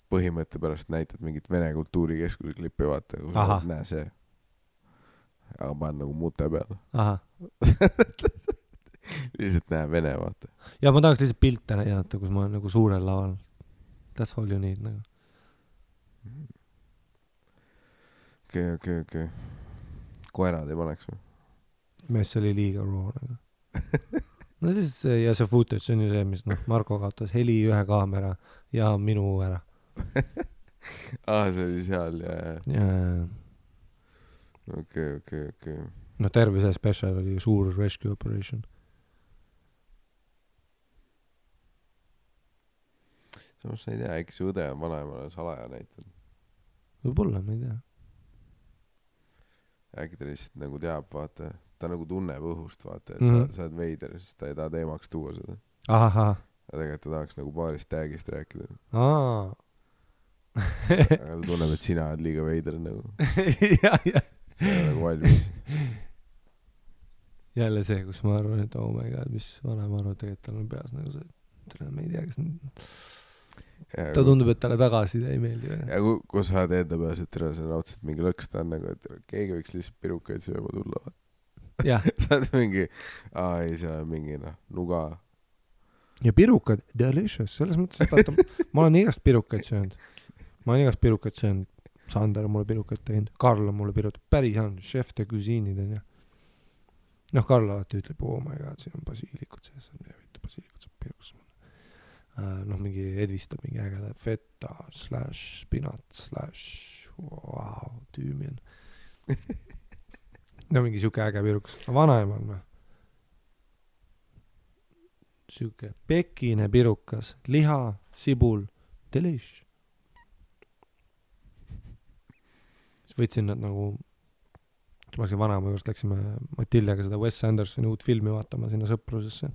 põhimõtte pärast näitad mingit Vene kultuurikeskuse klippi, vaata. Kui sa näe see. Aga ma olen nagu muute peal. Lihtsalt näe Vene, vaata. Ja ma tahaks lihtsalt pilte näidata, kus ma olen nagu suurel laval. That's all you need, nagu. Okei. Koerad ei paneks või? Mees oli liiga raw, nagu. No siis, ja see footage on ju see, mis, noh, Marko kaotas heli ühe kaamera ja minu ära. See oli seal, ja. Okei. No terve see special oli suur rescue operation. Samas sa ei tea, äkki see õde on vanaemale salaja näitanud. Võib-olla, ma ei tea. Äkki ta lihtsalt nagu teab, vaata. Ta nagu tunneb õhust, vaata, et sa oled veider, siis ta ei taha teemaks tuua seda. Aha. Ja tegelikult ta tahaks nagu paarist tagist rääkida. Aga ta tunneb, et sina oled liiga veider nagu. Ja. See on nagu valmis. Jälle see, kus ma arvan, et oh my god, mis vanem arvad, tegelikult tal on peas nagu see, ma ei tea, kas ta tundub, et talle tagasi ei meeldi. Ja kui sa oled enda peas, et see on otseselt mingi lõks, ta on nagu, et keegi võiks lihtsalt pirukaid sööma tulla. Jah. Sa oled mingi, ei, see on mingi, nuga. Ja pirukad, delicious, selles mõttes, et vaata, ma olen igast pirukaid söönud. Sander on mulle pirukaid teinud, Karl on mulle pirukaid, päris on, chef de cuisine'id on, jah. Noh, Karl alati ütleb, oh my god, siin on basiilikud sees, basiilikud saab pirukas. Noh, mingi edvistab mingi ägeda feta / spinat / wow, tüümien. No mingi siuke äge pirukas. Vanaemal, noh. Siuke pekine pirukas, liha, sibul, delish. Siis võtsin nad nagu, ma läksin vanaema juurest, läksime Matildega seda Wes Andersoni uut filmi vaatama sinna sõprusesse.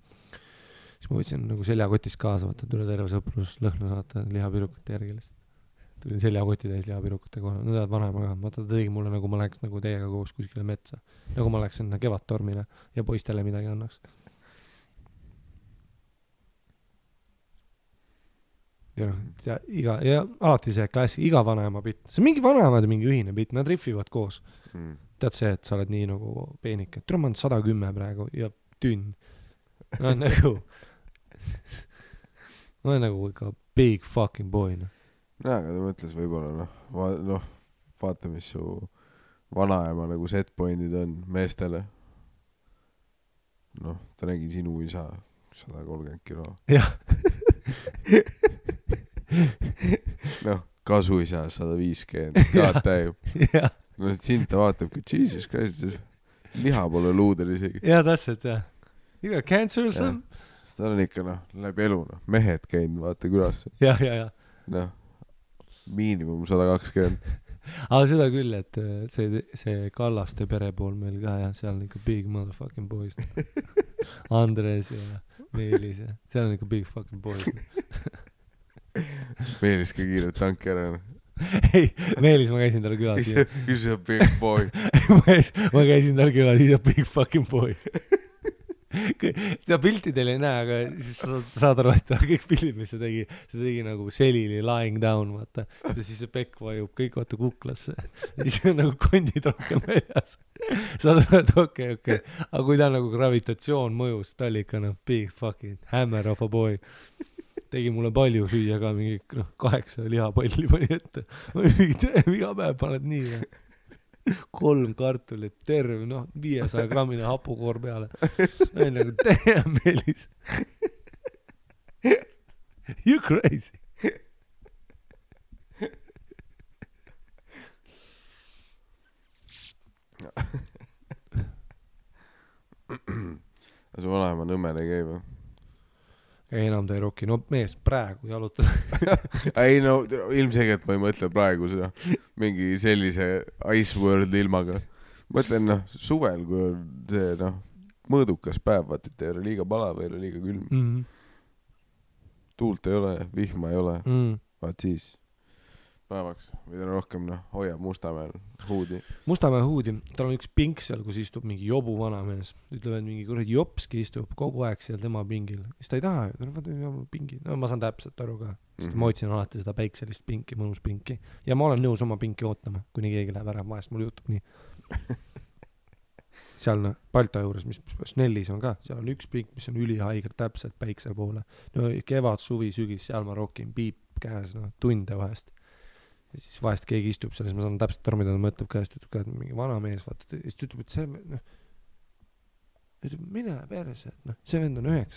Siis ma võtsin nagu seljakotist kaasa, vaata, üle terve sõprus lõhna saata lihapirukate järgi lihtsalt. Tulin seljakoti täis lihapirukate kohal. No tead vanaema ka. Vaata, ta tegi mulle nagu ma läheks nagu teiega koos kuskile metsa. Nagu ma läheks sinna kevadtormile ja poistele midagi annaks. Ja alati see klassi, iga vanaema bitt. See on mingi vanaemad ja mingi ühine bitt. Nad riffivad koos. Tead see, et sa oled nii nagu peenike. Tule ma olen 110 praegu ja tünn. Ma olen nagu ikka big fucking boy, noh. Jaa, aga ta mõtles võib-olla, vaata, mis su vanaema nagu setpointid on meestele. Noh, ta nägi sinu isa 130 kilo. Jah. Noh, kasuisa 150, kaad täib. No sind ta vaatabki, Jesus Christ, liha pole luudel isegi. Jaa, täpselt, jah. You got cancer or something? ta on ikka läbi elu mehed käinud vaata külas ja miinimum 120. aga seda küll, et see Kallaste pere pool meil ka jah, seal on ikka big motherfucking boys. Andres ja Meelis ja seal on ikka big fucking boys. Meelis ka kiirelt tanki ära. ei, Meelis ma käisin tal külas. He's a big boy. ma käisin tal külas, he's a big fucking boy. seda pilti teil ei näe, aga siis sa saad aru, et kõik pildid, mis see tegi nagu selili lying down, vaata. Ja siis see pekk vajub kõik vaata kuklasse. Siis on nagu kondid rohkem väljas. Saad aru, et okei. Aga kui ta nagu gravitatsioon mõjus, ta oli ikka big fucking hammer of a boy. Tegi mulle palju süüa ka, mingi 8 lihapalli pani ette. Iga päev paned nii. 3 kartulit, terve, 500 grammine hapukoor peale. Nagu, damn, Meelis. You crazy. Su vanaema Nõmmel ei käi või? Ei, enam ta ei roki. No mees praegu jalutada. ei ilmselgelt ma ei mõtle praegu seda mingi sellise Ice World ilmaga. Mõtlen suvel, kui on see mõõdukas päev, vaat et ei ole liiga palav, ei ole liiga külm. Tuult ei ole, vihma ei ole. Vaat siis päevaks või rohkem hoiab Mustamäel huudi. Mustamäe huudi, tal on üks pink seal, kus istub mingi jobu vanamees. Ütleme, et mingi kuradi jopski istub kogu aeg seal tema pingil. Siis ta ei taha, pingi. Ma saan täpselt aru ka. Sest ma otsin alati seda päikselist pinki, mõnus pinki. Ja ma olen nõus oma pinki ootama, kuni keegi läheb ära. Vahest mul juhtub nii. Seal Balta juures, mis Snellis on ka, seal on üks pink, mis on ülihaiger täpselt päikse poole. Kevad, suvi, sügis, seal ma rokin piip käes, tunde vahest. Ja siis vahest keegi istub seal, siis ma saan täpselt aru, mida ta mõtleb käest, ütleb ka, et mingi vana mees, vaata, siis ta ütleb, et see, ütleb, mine perse, et see vend on 19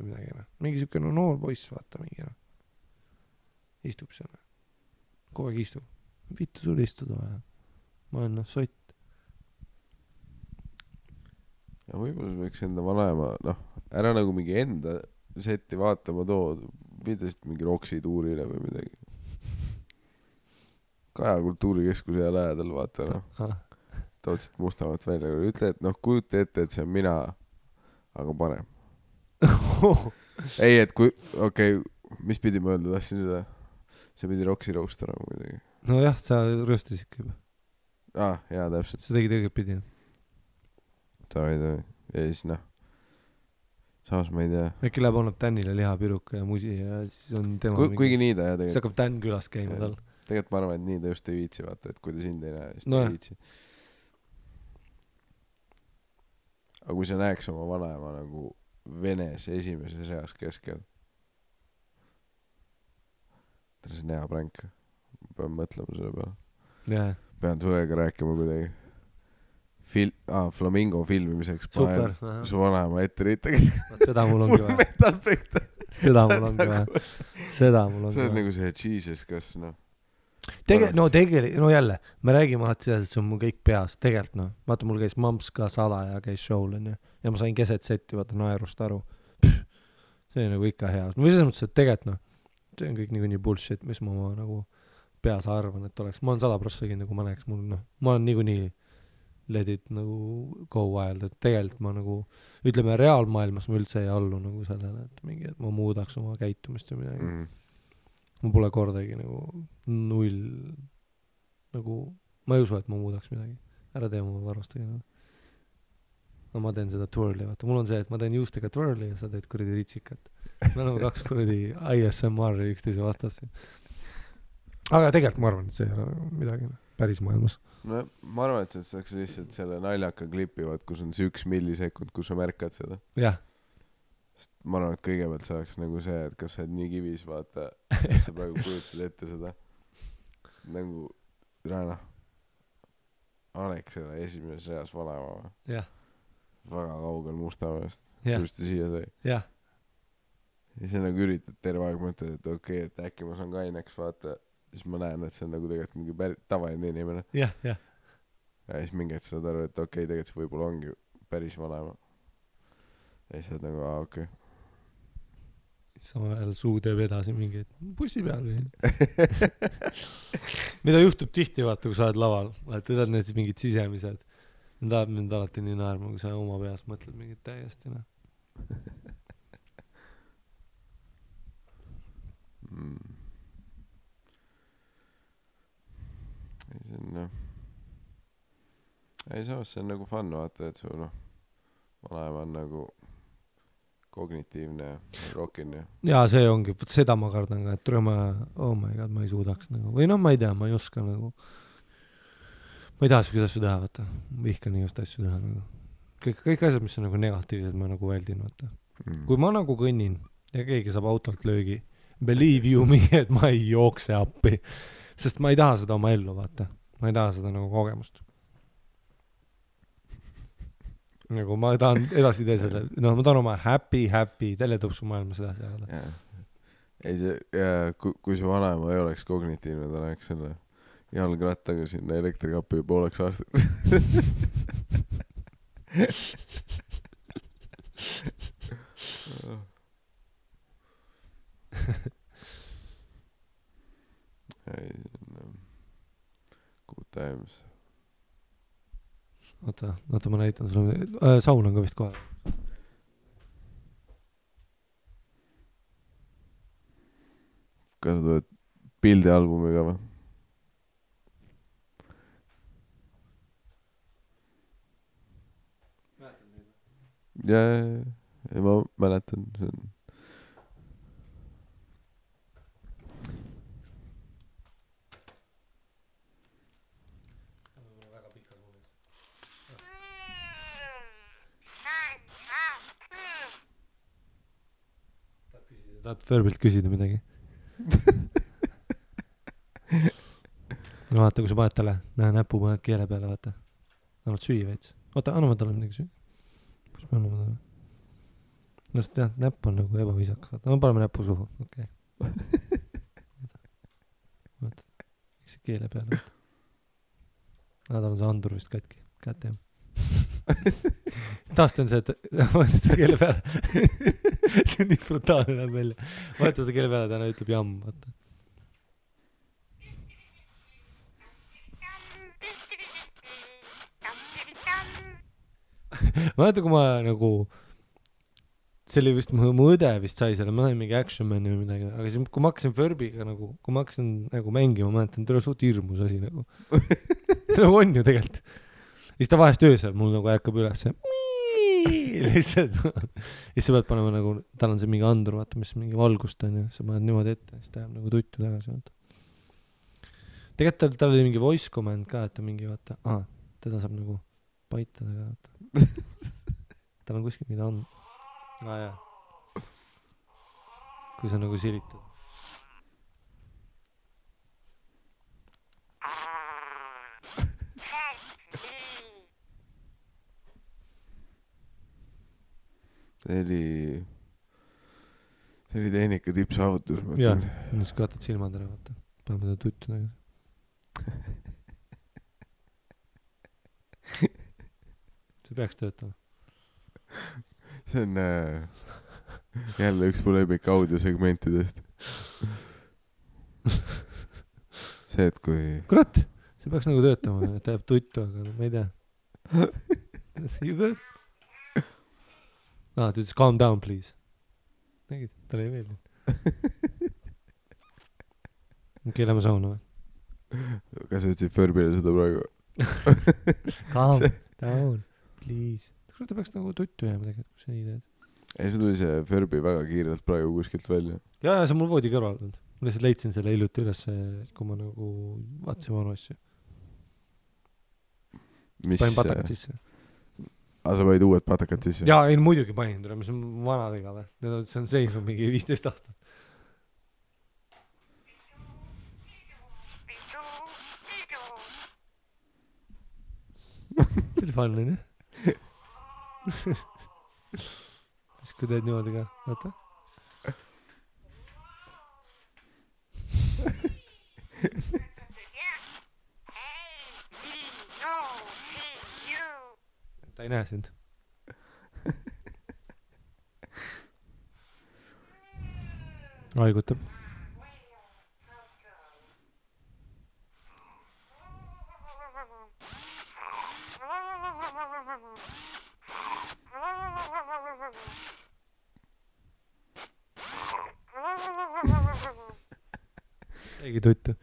või midagi, mingi siuke noor poiss, vaata, mingi, istub seal, kogu aeg istub, vittu sul istuda vaja, ma olen sott. Ja võib-olla võiks enda vanaema, ära nagu mingi enda setti vaatama videost mingi Roksi tuurile või midagi. Kaja kultuurikeskuse ja lähedal vaata, Tootsid Mustamäelt välja. Ütle, et kujuta ette, et see on mina, aga parem. ei, et kui, mis pidi ma öelda, tahtsin seda? See pidi Roksi roostama midagi. No jah, sa rööstasid ikka juba. Jaa, täpselt. See tegi tegelikult pidi. Tavi. Ja siis samas ma ei tea. Äkki läheb annab Tänile lihapiruka ja musi ja siis on tema kuigi nii ta tegelikult. Siis hakkab Tän külas käima tal. Tegelikult ma arvan, et nii ta just ei viitsi vaata, et kui ta sind ei näe, siis ta ei viitsi. Aga kui sa näeks oma vanaema nagu Venes esimeses eas keskel. Ta on see hea pränk. Pean mõtlema selle peale. Pean suega rääkima kuidagi. Flamingo filmimiseks super, su vanaema ette riitagi. Seda mul ongi vaja. Seda mul ongi vaja. See on nagu see Jesus, kas jälle, me räägime alati seda, et see on mul kõik peas. Tegelikult vaata, mul käis mamps ka salaja käis show'l ja ma sain keset setti vaata naerust aru. See on nagu ikka hea. Või selles mõttes, et tegelikult see on kõik nii bullshit, mis ma nagu peas arvan, et oleks. Ma olen 100% nagu ma näeks mul, ma olen nii let it nagu go wild, et tegelikult ma nagu, ütleme reaalmaailmas ma üldse ei allu nagu sellele, et mingi, et ma muudaks oma käitumist või midagi. Ma pole kordagi nagu null, nagu, ma ei usu, et ma muudaks midagi. Ära tee oma varustagi. No ma teen seda twirli, vaata. Mul on see, et ma teen juustega twirli ja sa teed kuradi ritsikat. Me oleme 2 kuradi ISMR üksteise vastas. Aga tegelikult ma arvan, et see ei ole midagi päris maailmas. No ma arvan, et see oleks lihtsalt selle naljaka klipi, kus on see 1 millisekund, kus sa märkad seda. Jah. Sest ma arvan, et kõigepealt see oleks nagu see, et kas sa oled nii kivis, vaata, et sa praegu kujutad ette seda. Nagu, Alexela esimeses reas vanaema. Jah. Väga kaugel Mustamäest. Just siia sai. Jah. Ja see nagu üritad terve aeg mõtled, et okei, et äkki ma saan kaineks, vaata. Siis ma näen, et see on nagu tegelikult mingi tavaline inimene. Ja siis mingi, et saad aru, et okei, tegelikult see võib-olla ongi päris vanaema. ja siis oled nagu okei. Samal ajal suu teeb edasi mingi bussi peal või mida juhtub tihti vaata kui sa oled laval vaata tead need mingid sisemised need ajab mind alati nii naerma kui sa oma peas mõtled mingit täiesti ei see on ei samas see on nagu fun vaata et su vanaema on nagu kognitiivne ja rockin ja jaa see ongi seda ma kardan ka et tule ma oh my god ma ei suudaks nagu või ma ei tea ma ei oska nagu ma ei taha siukest asju teha vaata vihkan igast asju teha nagu kõik asjad mis on nagu negatiivsed ma nagu väldin vaata kui ma nagu kõnnin ja keegi saab autolt löögi believe you me et ma ei jookse appi sest ma ei taha seda oma ellu vaata ma ei taha seda nagu kogemust nagu ma tahan edasi tee selle ma tahan oma happy teletõpsu maailmas edasi ajada ei see kui su vanaema ei oleks kognitiivne ta läheks selle jalgrattaga sinna elektrikapi pooleks aastaks ei good times oota ma näitan sulle saun on ka vist kohe kas sa tuled pildialbumiga või? ja ma mäletan see on tahad Förbilt küsida midagi? no vaata kui sa paned talle näe näpu paned keele peale vaata annad süüa veits oota anname talle midagi süüa kus me anname talle no sest jah näpp on nagu ebaviisakas vaata no paneme näpu suhu okei vaata see keele peale vaata tal on see andur vist katki kätte taast on see et vaata keele peale see on nii brutaalne näeb välja vaata ta keele peale täna ütleb jamm vaata ma mäletan kui ma nagu see oli vist mu õde vist sai selle ma sain mingi Action Mani või midagi aga siis kui ma hakkasin Furbiga nagu kui ma hakkasin nagu mängima ma mäletan tule suht hirmus asi nagu nagu on ju tegelikult siis ta vahest öösel mul nagu ärkab üles lihtsalt siis sa pead panema nagu tal on see mingi andur vaata mis mingi valgust on ju sa paned niimoodi ette siis ta jääb nagu tuttu tagasi vaata tegelikult tal oli mingi voice command ka et ta mingi vaata teda saab nagu paitada ka vaata tal on kuskil mida on jah kui sa nagu silitad see oli tehnika tippsaavutus jah siis kaotad silmad ära vaata paneme teda tuttu tagasi see peaks töötama see on jälle üks mu lemmik audiosegmentidest see et kui kurat see peaks nagu töötama et ta jääb tuttu aga ma ei tea you good ta ütles calm down please nägid talle ei meeldinud keelame sauna või kas sa ütlesid Förbile seda praegu calm down please ta peaks nagu tuttu jääma tegelikult kui sa nii teed ei see tuli see Furby väga kiirelt praegu kuskilt välja ja see on mul voodi kõrval olnud ma lihtsalt leidsin selle hiljuti üles kui ma nagu vaatasin vanu asju panin patakad sisse sa panid uued patakad sisse jaa ei muidugi panin tule mis on vanadega või see on seisnud mingi 15 aastat see oli fun on ju siis kui teed niimoodi ka vaata ta ei näe sind haigutab. Keegi tuttu.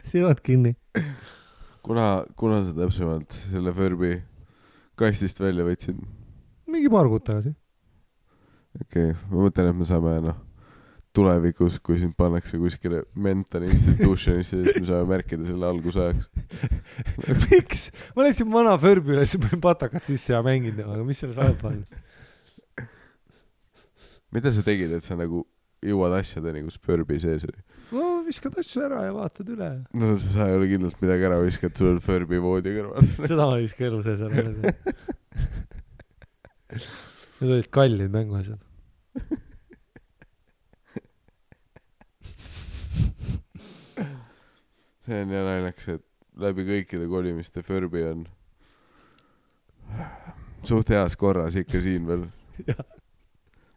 silmad kinni. Kuna sa täpsemalt selle Furby kastist välja võtsid? Mingi paar kuud tagasi. Okei, ma mõtlen, et me saame tulevikus, kui sind pannakse kuskile mental institutionisse, siis me saame märkida selle algusajaks. Miks? Ma leidsin vana Furby üles, panin patakat sisse ja mängin temaga. Mis selle saab panna? Mida sa tegid, et sa nagu jõuad asjadeni, kus Furby sees oli? No viskad asju ära ja vaatad üle. No sa ei ole kindlalt midagi ära viskad, sul on Furby voodi kõrval. Seda ma ei viska elu sees ära. Need olid kallid mänguasjad. See on ja naljaks, et läbi kõikide kolimiste Furby on suht heas korras ikka siin veel.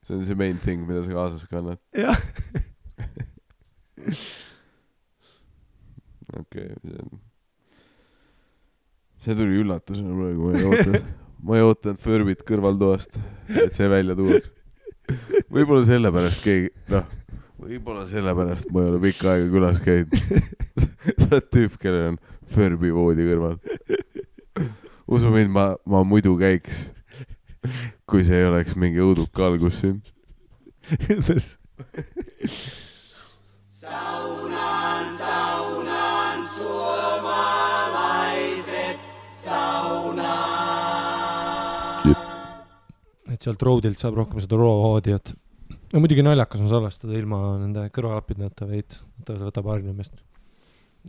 See on see main thing, mida sa kaasas kannad. Jah. Okei, see tuli üllatusena praegu, ma ei ootanud Furbit kõrvaltoast, et see välja tuuaks. Võib-olla sellepärast ma ei ole pikka aega külas käinud. Sa oled tüüp, kellel on Furby voodi kõrval. Usu mind, ma muidu käiks, kui see ei oleks mingi õuduka algus siin. Saunan suomalaiset saunaan. Et sealt roadilt saab rohkem seda raw-audiot. No muidugi naljakas on salvestada ilma nende kõrvalapidneta veid. Võtab harjumist.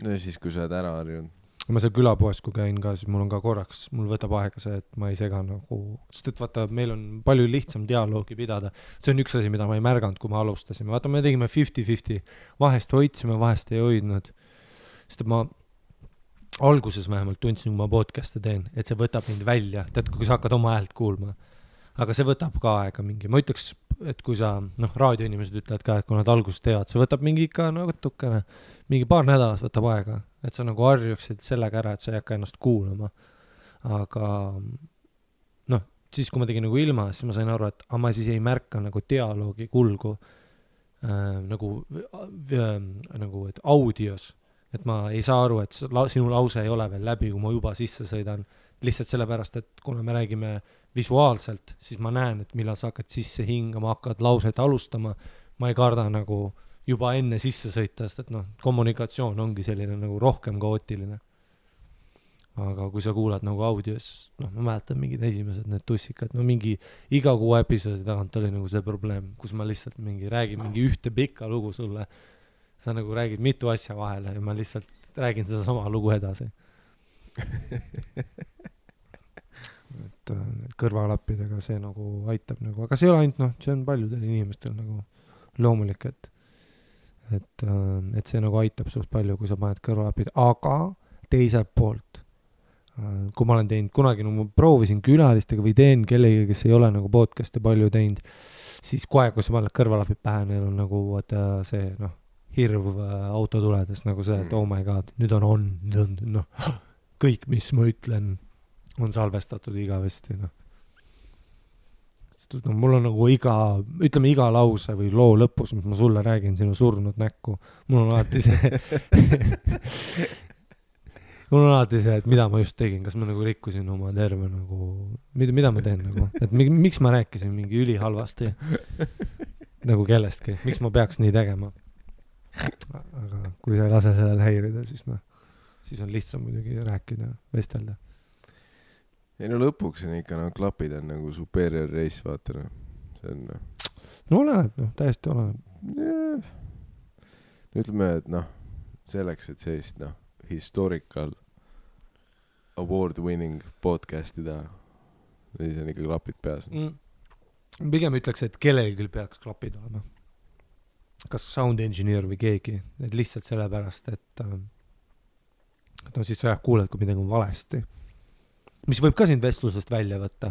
No ja siis, kui sa oled ära harjunud. Ma seal külapoes, kui käin ka, siis mul on ka korraks, mul võtab aega see, et ma ei sega nagu, sest et vaata, meil on palju lihtsam dialoogi pidada. See on üks asi, mida ma ei märganud, kui me alustasime. Vaata, me tegime 50-50. Vahest hoidsime, vahest ei hoidnud. Sest et ma alguses vähemalt tundsin, kui ma podcast'e teen, et see võtab mind välja. Tead, kui sa hakkad oma häält kuulma. Aga see võtab ka aega mingi. Ma ütleks, et kui sa, raadioinimesed ütlevad ka, et kui nad alguses teevad, see võtab mingi ikka natukene, mingi paar nädalat võtab aega. Et sa nagu harjuksid sellega ära, et sa ei hakka ennast kuulama. Aga siis kui ma tegin nagu ilma, siis ma sain aru, et ma siis ei märka nagu dialoogi kulgu nagu et audios. Et ma ei saa aru, et sinu lause ei ole veel läbi, kui ma juba sisse sõidan. Lihtsalt sellepärast, et kuna me räägime visuaalselt, siis ma näen, et millal sa hakkad sisse hingama, hakkad lauset alustama. Ma ei karda nagu juba enne sisse sõita, sest et kommunikatsioon ongi selline nagu rohkem kaootiline. Aga kui sa kuulad nagu audios, ma mäletan mingid esimesed need tussikad, mingi iga 6 episoodi tagant oli nagu see probleem, kus ma lihtsalt räägin mingi ühte pikka lugu sulle. Sa nagu räägid mitu asja vahele ja ma lihtsalt räägin seda sama lugu edasi. Et kõrvalappidega see nagu aitab nagu, aga see ei ole ainult, see on paljudel inimestel nagu loomulik, et see nagu aitab suht palju, kui sa paned kõrvalapid, aga teiselt poolt, kui ma olen teinud kunagi, ma proovisin külalistega või teen kellegi, kes ei ole nagu podcast'e palju teinud, siis kohe, kui sa paned kõrvalapid pähe, neil on nagu see hirv auto tuledes nagu see, et oh my god, nüüd on kõik, mis ma ütlen, on salvestatud igavesti, mul on nagu iga lause või loo lõpus, mis ma sulle räägin, sinu surnud näkku. Mul on alati see, et mida ma just tegin, kas ma nagu rikkusin oma terve nagu, mida ma teen nagu, et miks ma rääkisin mingi ülihalvasti nagu kellestki, miks ma peaks nii tegema. Aga kui sa ei lase sellel häirida, siis on lihtsam muidugi rääkida, vestelda. Ei lõpuks on ikka, klapid on nagu superior race, vaata, see on oleneb, täiesti oleneb. Ütleme, et selleks, et sellist historical award winning podcast'i teha, siis on ikka klapid peas. Pigem ütleks, et kellelgi peaks klapid olema. Kas sound engineer või keegi, et lihtsalt sellepärast, et siis sa kuuled, kui midagi on valesti. Mis võib ka sind vestlusest välja võtta.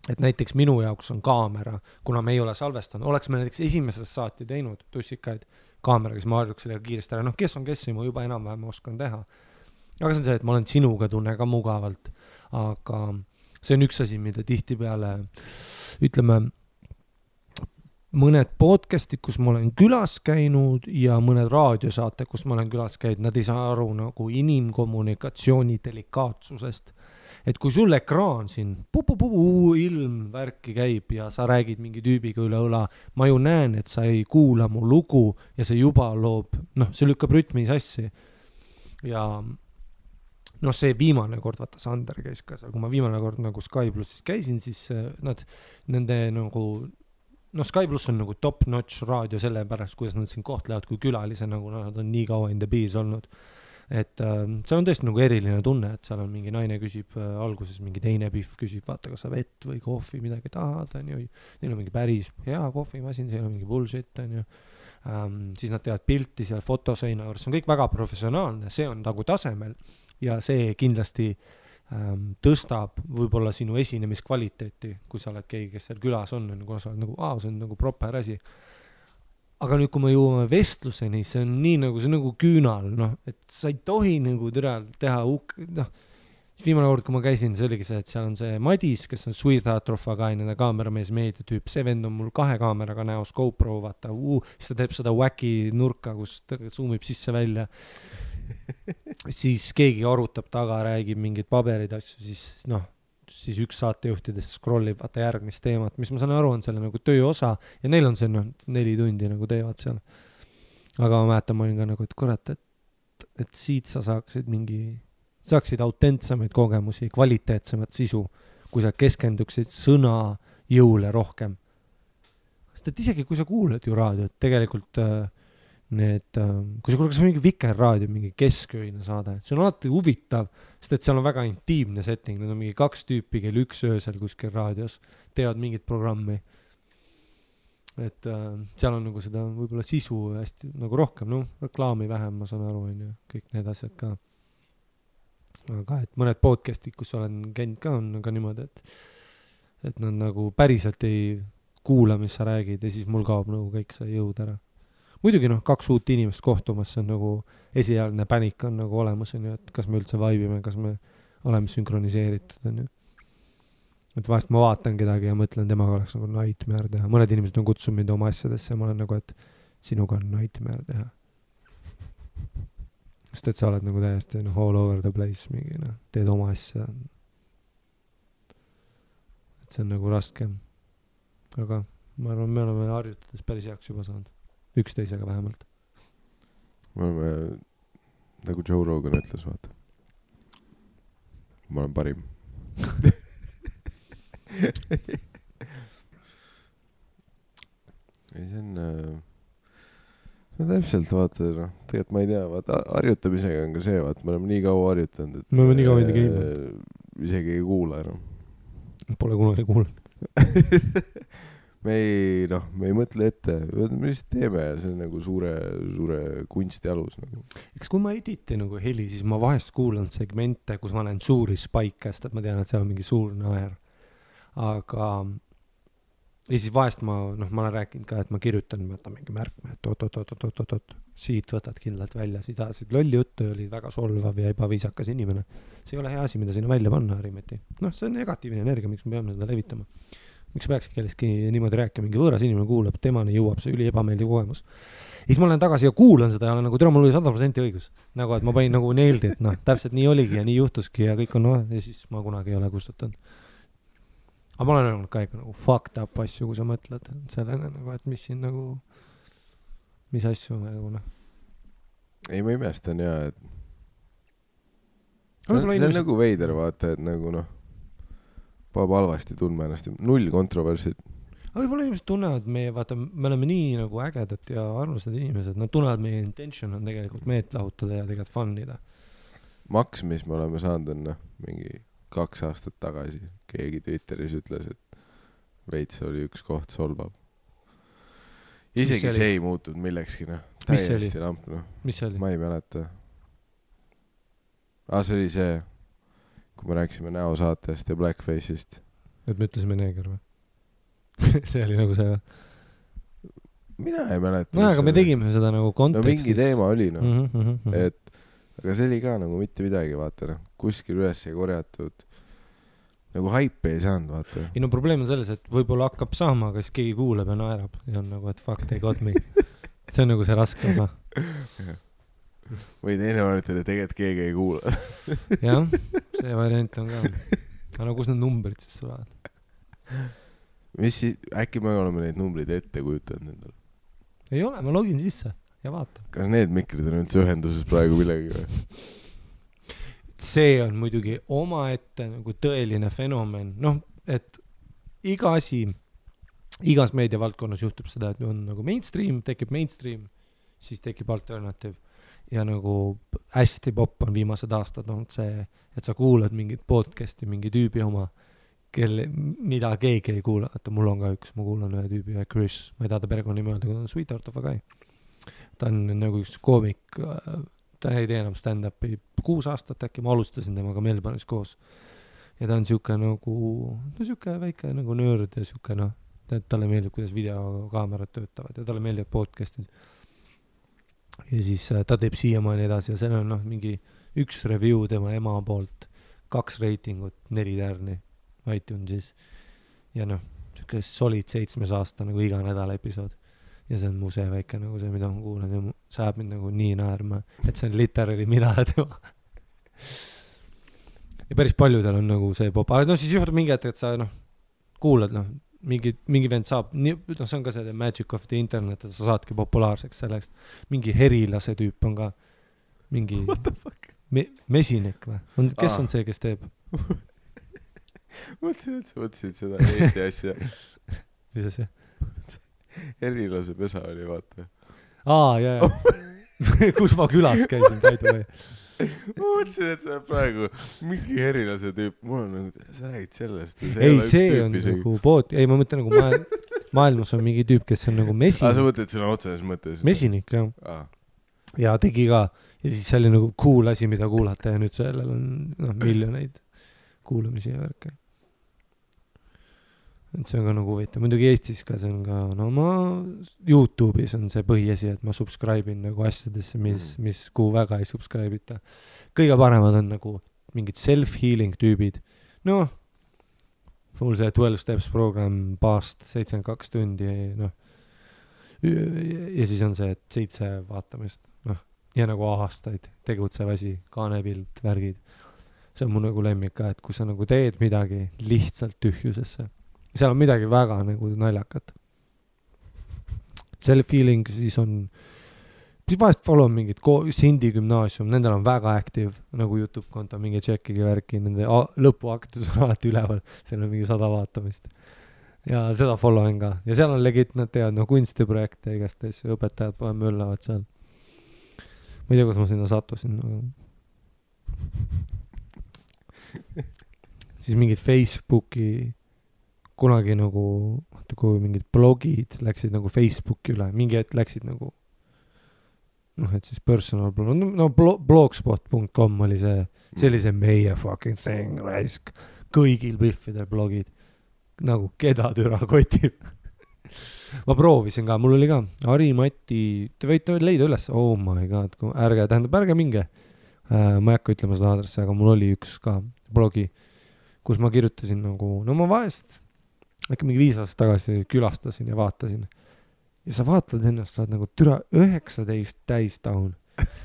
et näiteks minu jaoks on kaamera, kuna me ei ole salvestanud, oleks me näiteks esimesest saati teinud tussikaid kaameraga, siis ma harjuks sellega kiiresti ära, kes on kes, ma juba enam-vähem oskan teha. Aga see on see, et ma olen sinuga tunne ka mugavalt, aga see on üks asi, mida tihtipeale, ütleme, mõned podcastid, kus ma olen külas käinud ja mõned raadiosaate, kus ma olen külas käinud, nad ei saa aru nagu inimkommunikatsiooni delikaatsusest. Et kui sul ekraan siin ilm värki käib ja sa räägid mingi tüübiga üle õla, ma ju näen, et sa ei kuula mu lugu ja see juba loob, see lükkab rütmi sassi. Ja see viimane kord, vaata Sander käis ka seal, kui ma viimane kord nagu Sky Plussis käisin, siis nende nagu Sky Plus on nagu top-notch raadio selle pärast, kuidas nad siin kohtlevad kui külalise, nagu nad on nii kaua in the bees olnud. Et seal on tõesti nagu eriline tunne, et seal on mingi naine küsib alguses, mingi teine pihv küsib, vaata, kas sa vett või kohvi midagi tahad, neil on mingi päris hea kohvimasin, see ei ole mingi bullshit, siis nad teevad pilti seal fotoseina juures, see on kõik väga professionaalne, see on nagu tasemel ja see kindlasti tõstab võib-olla sinu esinemiskvaliteeti, kui sa oled keegi, kes seal külas on, kuna sa oled nagu, see on nagu proper asi. Aga nüüd, kui me jõuame vestluseni, see on nii nagu, see on nagu küünal, et sa ei tohi nagu teha viimane kord, kui ma käisin, see oligi see, et seal on see Madis, kes on Sweetheart of a Guy, nende kaameramees meediatüüp, see vend on mul 2 kaameraga näos GoPro, vaata, siis ta teeb seda wacky nurka, kus ta zoomib sisse välja. Siis keegi arutab taga, räägib mingid paberid asju, siis üks saatejuhtidest scrollib vaata järgmist teemat, mis ma saan aru, on selle nagu töö osa ja neil on see 4 tundi nagu teevad seal. Aga ma mäletan, ma olin ka nagu, et kurat, et siit sa saaksid autentsemaid kogemusi, kvaliteetsemat sisu, kui sa keskenduksid sõna jõule rohkem. Sest et isegi kui sa kuuled ju raadiot, tegelikult kui sa kuuled kas mingi Viker raadio, mingi keskööine saade, see on alati huvitav, sest et seal on väga intiimne setting, need on mingi 2 tüüpi, kell 1 öösel kuskil raadios, teevad mingit programmi. Et seal on nagu seda võib-olla sisu hästi nagu rohkem, reklaami vähem, ma saan aru, kõik need asjad ka. Aga et mõned podcastid, kus olen käinud ka, on ka niimoodi, et nad nagu päriselt ei kuula, mis sa räägid ja siis mul kaob nagu kõik see jõud ära. Muidugi 2 uut inimest kohtumas, see on nagu esialgne pänik on nagu olemas, et kas me üldse vaibime, kas me oleme sünkroniseeritud. Et vahest ma vaatan kedagi ja mõtlen, temaga oleks nagu nightmare teha. Mõned inimesed on kutsunud mind oma asjadesse ja ma olen nagu, et sinuga on nightmare teha. Sest et sa oled nagu täiesti all over the place, mingi, teed oma asja. Et see on nagu raske. Aga ma arvan, me oleme harjutades päris heaks juba saanud. Üksteisega vähemalt. Me oleme, nagu Joe Rogan ütles, vaata. Ma olen parim. Ei, see on täpselt, vaata, tegelikult ma ei tea, vaata, harjutamisega on ka see, vaata, me oleme nii kaua harjutanud, et me oleme nii kaua enda käinud. Isegi ei kuula enam. Pole kunagi kuulnud. Me ei mõtle ette, me lihtsalt teeme ja see on nagu suure kunsti alus. Nagu. Eks kui ma editin nagu heli, siis ma vahest kuulan segmente, kus ma näen suuri spike'st, et ma tean, et seal on mingi suur naer. Aga ja siis vahest ma olen rääkinud ka, et ma kirjutan, võtan mingi märkme, et siit võtad kindlalt välja, siit ajasid lolli juttu ja oli väga solvav ja ebaviisakas inimene. See ei ole hea asi, mida sinna välja panna, Harimeti. See on negatiivne energia, miks me peame seda levitama. Miks peakski kellestki niimoodi rääkima, mingi võõras inimene kuulab, temani jõuab see üli ebameeldiv kogemus. Ja siis ma olen tagasi ja kuulan seda ja olen nagu, mul oli 100% õigus. Nagu, et ma panin nagu neeldi, et täpselt nii oligi ja nii juhtuski ja kõik on ja siis ma kunagi ei ole kustutanud. Aga ma olen öelnud ka ikka nagu fucked up asju, kui sa mõtled sellele, nagu, et mis siin nagu, mis asju nagu Ei, ma imestan ja, et see on nagu veider, vaata, et nagu peab halvasti tundma ennast, 0 kontroversid. Aga võib-olla inimesed tunnevad meie, vaata, me oleme nii nagu ägedad ja armsad inimesed, nad tunnevad meie intention on tegelikult meelt lahutada ja tegelikult fun'ida. Maks, mis me oleme saanud, on mingi 2 aastat tagasi. Keegi Twitteris ütles, et veits oli üks koht solvab. Isegi see ei muutunud millekski, täiesti lamp, Mis see oli? Ma ei mäleta. See oli see, kui me rääksime näosaatest ja Blackface'ist. et me ütlesime neeger või? See oli nagu see või? mina ei mäleta. no aga me tegime seda nagu kontekstis. no mingi teema oli noh. Et aga see oli ka nagu mitte midagi, vaata noh. Kuskil üles ei korjatud. Nagu haipe ei saanud, vaata. ei no probleem on selles, et võib-olla hakkab saama, aga siis keegi kuuleb ja naerab. Ja on nagu, et fuck, they got me. See on nagu see raske osa. või teine variant oli, tegelikult keegi ei kuula. jah, see variant on ka. aga no kus need numbrid siis tulevad? mis siis, äkki me oleme neid numbreid ette kujutanud endale? ei ole, ma login sisse ja vaatan. Kas need mikrid on üldse ühenduses praegu millegi või? See on muidugi omaette nagu tõeline fenomen. noh, et iga asi, igas meediavaldkonnas juhtub seda, et on nagu mainstream, tekib mainstream, siis tekib alternative. Ja nagu hästi popp on viimased aastad olnud see, et sa kuulad mingit podcasti, mingi tüübi oma, mida keegi ei kuula. Vaata, mul on ka üks, ma kuulan ühe tüübi, Chris, ma ei taha ta perekonnanimi öelda, kui ta on Sweetheart of a Guy. Ta on nagu üks koomik, ta ei tee enam stand-upi 6 aastat äkki, ma alustasin temaga Melbourne'is koos. Ja ta on siuke nagu, no siuke väike nagu nörd ja siuke noh, talle meeldib, kuidas videokaamerad töötavad ja talle meeldib podcastid. Ja siis ta teeb siiamaani edasi ja seal on noh, mingi 1 review tema ema poolt, 2 reitingut, 4 tärni iTunesis. Ja noh, siuke solid 7 aasta nagu iga nädal episood. Ja see on mu see väike nagu see, mida ma kuulan ja see ajab mind nagu nii naerma, et see on literally mina ja tema. Ja päris paljudel on nagu see pop, aga no siis juhtub mingi hetk, et sa noh, kuulad noh, mingi vend saab, noh see on ka see magic of the internet, et sa saadki populaarseks selleks. Mingi herilase tüüp on ka mingi mesinik või? Kes on see, kes teeb? Mõtlesin, et sa mõtlesid seda Eesti asja. Mis see? Herilase pesa oli, vaata. Jaa. Kus ma külas käisin, käidu või? Ma mõtlesin, et see on praegu mingi herilase tüüp. Mul on nagu, sa räägid sellest. Ei, see on nagu pood. Ei, ma mõtlen nagu maailmas on mingi tüüp, kes on nagu mesinik. Sa mõtled sõna otseses mõttes? Mesinik, jah. Ja tegi ka. Ja siis see oli nagu cool asi, mida kuulata. Ja nüüd sellel on miljoneid kuulamisi ja värke. Et see on ka nagu huvitav. Muidugi Eestis ka see on ka, no ma YouTube'is on see põhiasi, et ma subscribe'in nagu asjadesse, mis kuhu väga ei subscribe'ita. Kõige paremad on nagu mingid self-healing tüübid. No, mul see 12 steps program paast 72 tundi, noh. Ja siis on see, et 7 vaatamist, noh. Ja nagu aastaid tegutsev asi, kaanepilt, värgid. See on mu nagu lemmik ka, et kui sa nagu teed midagi lihtsalt tühjusesse. Seal on midagi väga nagu naljakat. Self-feeling siis on, siis vahest follow mingid Sindi gümnaasium, nendel on väga active nagu YouTube konto, mingi tšekkigi värki, nende lõpuaktus on alati üleval, seal on mingi 100 vaatamist. Ja seda follow on ka. Ja seal on legit, nad teevad no kunstiprojekte igast asju, õpetajad poe möllavad seal. Ma ei tea, kus ma sinna sattusin. Siis mingid Facebooki kunagi nagu, kui mingid blogid läksid nagu Facebooki üle, mingi hetk läksid nagu, noh, et siis personal blog, no blogspot.com oli see oli meie fucking thing, raisk, kõigil biffidel blogid, nagu keda türa kotib. Ma proovisin ka, mul oli ka Ari-Mati, te võite leida üles, oh my god, ärge minge, ma ei hakka ütlema seda aadressi, aga mul oli üks ka blogi, kus ma kirjutasin nagu, no ma vahest äkki mingi 5 aastat tagasi külastasin ja vaatasin. Ja sa vaatad ennast, saad nagu türa 19 täis down.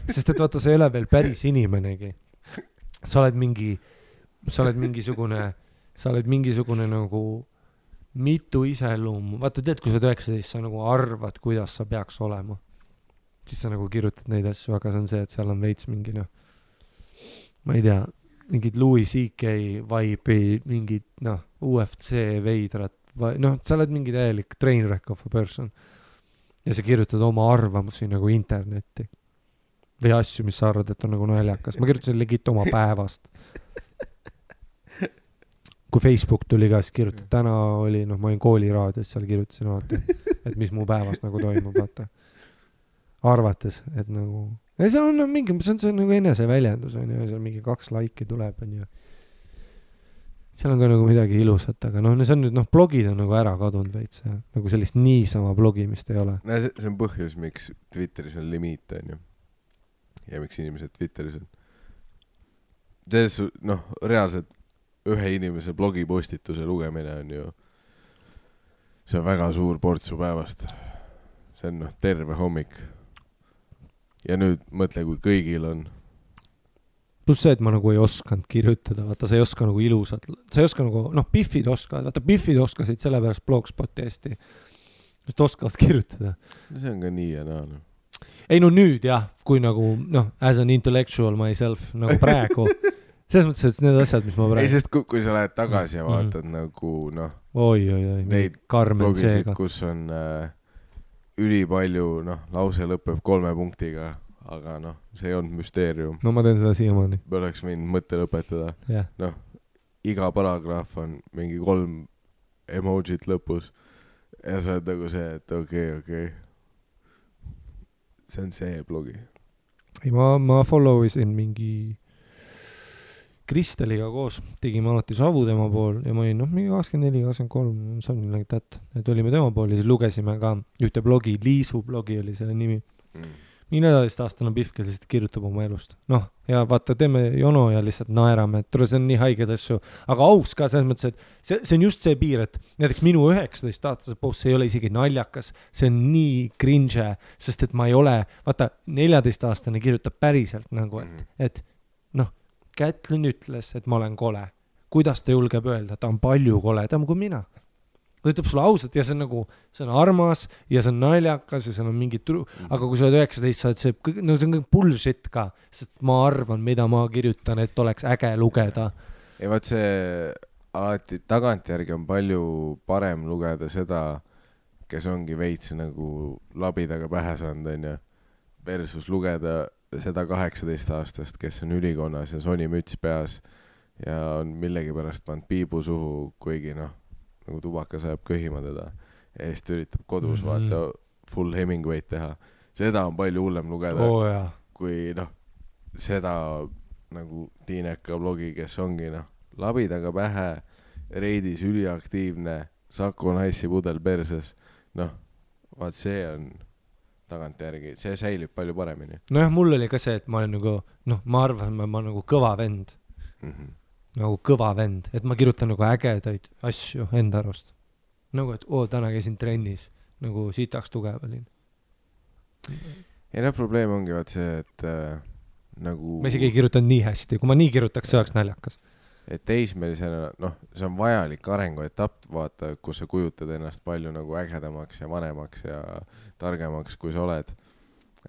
Sest et vaata, sa ei ole veel päris inimenegi. Sa oled mingisugune nagu mitu iseloomu. Vaata, tead, kui sa oled 19, sa nagu arvad, kuidas sa peaks olema. Siis sa nagu kirjutad neid asju, aga see on see, et seal on veits mingi, noh, ma ei tea, mingid Louis C.K. vibe'i, mingid, noh, UFC veidrat, noh, sa oled mingi täielik trainwreck of a person. Ja sa kirjutad oma arvamusi nagu internetti. Või asju, mis sa arvad, et on nagu naljakas. Ma kirjutasin legit oma päevast. Kui Facebook tuli ka, siis kirjutad, täna oli, noh, ma olin kooliraadios, seal kirjutasin alati, et mis mu päevast nagu toimub, vaata. Arvates, et nagu... Ja see on mingi, see on nagu enese väljendus, on ju, seal mingi 2 laiki tuleb, on ju. seal on ka nagu midagi ilusat, aga noh, see on nüüd, noh, blogid on nagu ära kadunud veits, nagu sellist niisama blogimist ei ole. No see on põhjus, miks Twitteris on limiit, on ju. Ja miks inimesed Twitteris on. Noh, reaalselt ühe inimese blogipostituse lugemine on ju, see on väga suur portsu päevast. See on noh, terve hommik. Ja nüüd mõtle, kui kõigil on. Plus see, et ma nagu ei osanud kirjutada, vaata, sa ei oska nagu ilusat, sa ei oska nagu, noh, Biffid oskavad, vaata, Biffid oskasid selle pärast Blogspoti hästi, just oskavad kirjutada. See on ka nii ja naa. No. Ei no nüüd jah, kui nagu, noh, as an intellectual myself, nagu praegu, selles mõttes, et need asjad, mis ma praegu... Ei, sest kui sa lähed tagasi ja vaatad nagu, noh, oi, neid blogisid, kus on ülipalju, noh, lause lõpeb 3 punktiga, aga noh, see ei olnud müsteerium. No ma teen seda siiamaani. Me oleks võinud mõtte lõpetada. Yeah. Noh, iga paragraaf on mingi 3 emojit lõpus ja sa oled nagu see, et okei. See on see blogi. Ei, ma followisin mingi Kristeliga koos, tegime alati savu tema pool ja ma olin, noh, mingi 24, 23, something like that. Et olime tema pool ja siis lugesime ka ühte blogi, Liisu blogi oli selle nimi. Mingi 14-aastane Biff, kes lihtsalt kirjutab oma elust. Noh, ja vaata, teeme jono ja lihtsalt naerame, et see on nii haiged asju. Aga aus ka selles mõttes, et see on just see piir, et näiteks minu 19-aastase post, see ei ole isegi naljakas, see on nii cringe, sest et ma ei ole, vaata, 14-aastane kirjutab päriselt nagu, et noh, Kätlin ütles, et ma olen kole. Kuidas ta julgeb öelda? Ta on palju koledam kui mina. Ta ütleb sulle ausalt ja see on nagu, see on armas ja see on naljakas ja see on mingi aga kui sa oled 19, sa oled see, no see on kõik bullshit ka, sest ma arvan, mida ma kirjutan, et oleks äge lugeda. Ja vaat see alati tagantjärgi on palju parem lugeda seda, kes ongi veits nagu labidaga pähe saanud, on ju, versus lugeda seda 18-aastast, kes on ülikonnas ja Sony müts peas ja on millegi pärast pannud piibu suhu, kuigi noh, nagu tubakas ajab köhima teda ja siis üritab kodus vaata full Hemingway'd teha. Seda on palju hullem lugeda, kui noh, seda nagu Tiineka blogi, kes ongi noh, labidaga pähe, reidis üliaktiivne, Saku naissi pudel perses, noh, vaat see on tagantjärgi, see säilib palju paremini. Nojah, mul oli ka see, et ma olen nagu, noh, ma arvan, ma nagu kõva vend. Nagu kõva vend, et ma kirjutan nagu ägedaid asju enda arust. Nagu, et täna käisin trennis, nagu sitaks tugev olin. Ja noh, probleem ongi vaat see, et nagu... Ma isegi ei kirjutan nii hästi, kui ma nii kirjutaks, see oleks naljakas. Et teismelisena, noh, see on vajalik arenguetapp, vaata, kus sa kujutad ennast palju nagu ägedamaks ja vanemaks ja targemaks, kui sa oled.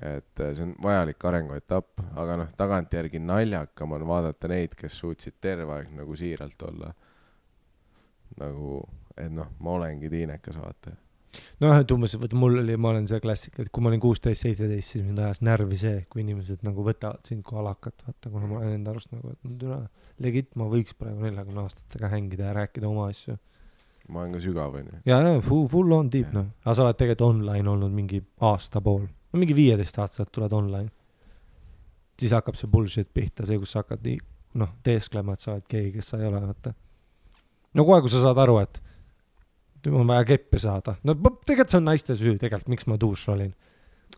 Et see on vajalik arenguetapp, aga noh, tagantjärgi naljakam on vaadata neid, kes suutsid terve aeg nagu siiralt olla. Nagu, et noh, ma olengi Tiinekas, vaata. No et umbes, mul oli, ma olen see klassik, et kui ma olin 16-17, siis mind ajas närvi see, kui inimesed nagu võtavad sind kui alakat, vaata, kuna ma olen enda arust nagu, et legit, ma võiks praegu 40 aastatega hängida ja rääkida oma asju. Ma olen ka sügav, on ju. Ja, full on deep, noh. Aga sa oled tegelikult online olnud mingi aasta pool. No mingi 15 aastat tuled online. Siis hakkab see bullshit pihta, see, kus sa hakkad noh, teesklema, et sa oled keegi, kes sa ei ole, vaata. No kohe, kui sa saad aru, et on vaja keppi saada. No tegelikult see on naiste süü, tegelikult, miks ma duuš olin.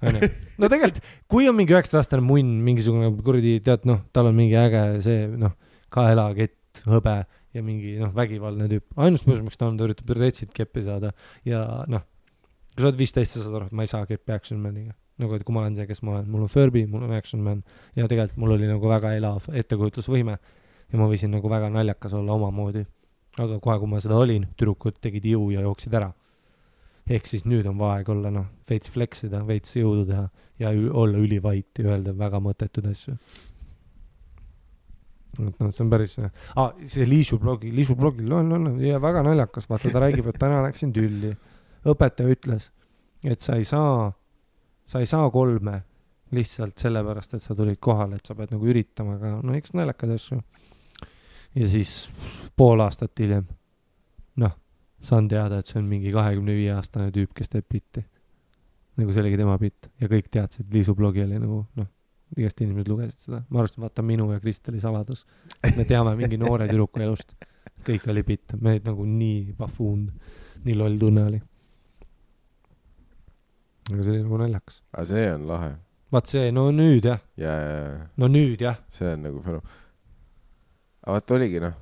No tegelikult, kui on mingi 9-aastane munn, mingisugune kuradi, tead, noh, tal on mingi äge see, noh, kaelakett, hõbe ja mingi, noh, vägivaldne tüüp. Ainus põhjus, miks ta üritab retsid keppi saada ja, noh, kui sa oled 15, sa saad aru, et ma ei saa keppi Action Maniga. Nagu, et kui ma olen see, kes ma olen. Mul on Furby, mul on Action Man ja tegelikult mul oli nagu väga elav ettekujutlusvõime ja ma võisin nagu väga naljakas olla oma moodi. Aga kohe, kui ma seda olin, tüdrukud tegid jõu ja jooksid ära. Ehk siis nüüd on vaeg olla, noh, veits fleksida, veits jõudu teha ja olla ülivait ja öelda väga mõttetud asju. No, see on päris... see Liisu blogil on ja väga naljakas. Vaata, ta räägib, et täna läksin tülli. Õpetaja ütles, et sa ei saa 3 lihtsalt sellepärast, et sa tulid kohale, et sa pead nagu üritama, aga no eks naljakad asju. Ja siis pool aastat hiljem, noh, saan teada, et see on mingi 25-aastane tüüp, kes teeb bitti. Nagu see oligi tema bitt. Ja kõik teadsid, Liisu blogi oli nagu, noh, igast inimesed lugesid seda. Ma arvasin, vaata minu ja Kristeli saladus. Me teame mingi noore tüdruku elust. kõik oli bitt, me olid nagu nii pafuund, nii loll tunne oli. aga see oli nagu naljakas. aga see on lahe. vaat see, no nüüd jah. no nüüd jah. see on nagu aga vaat oligi noh,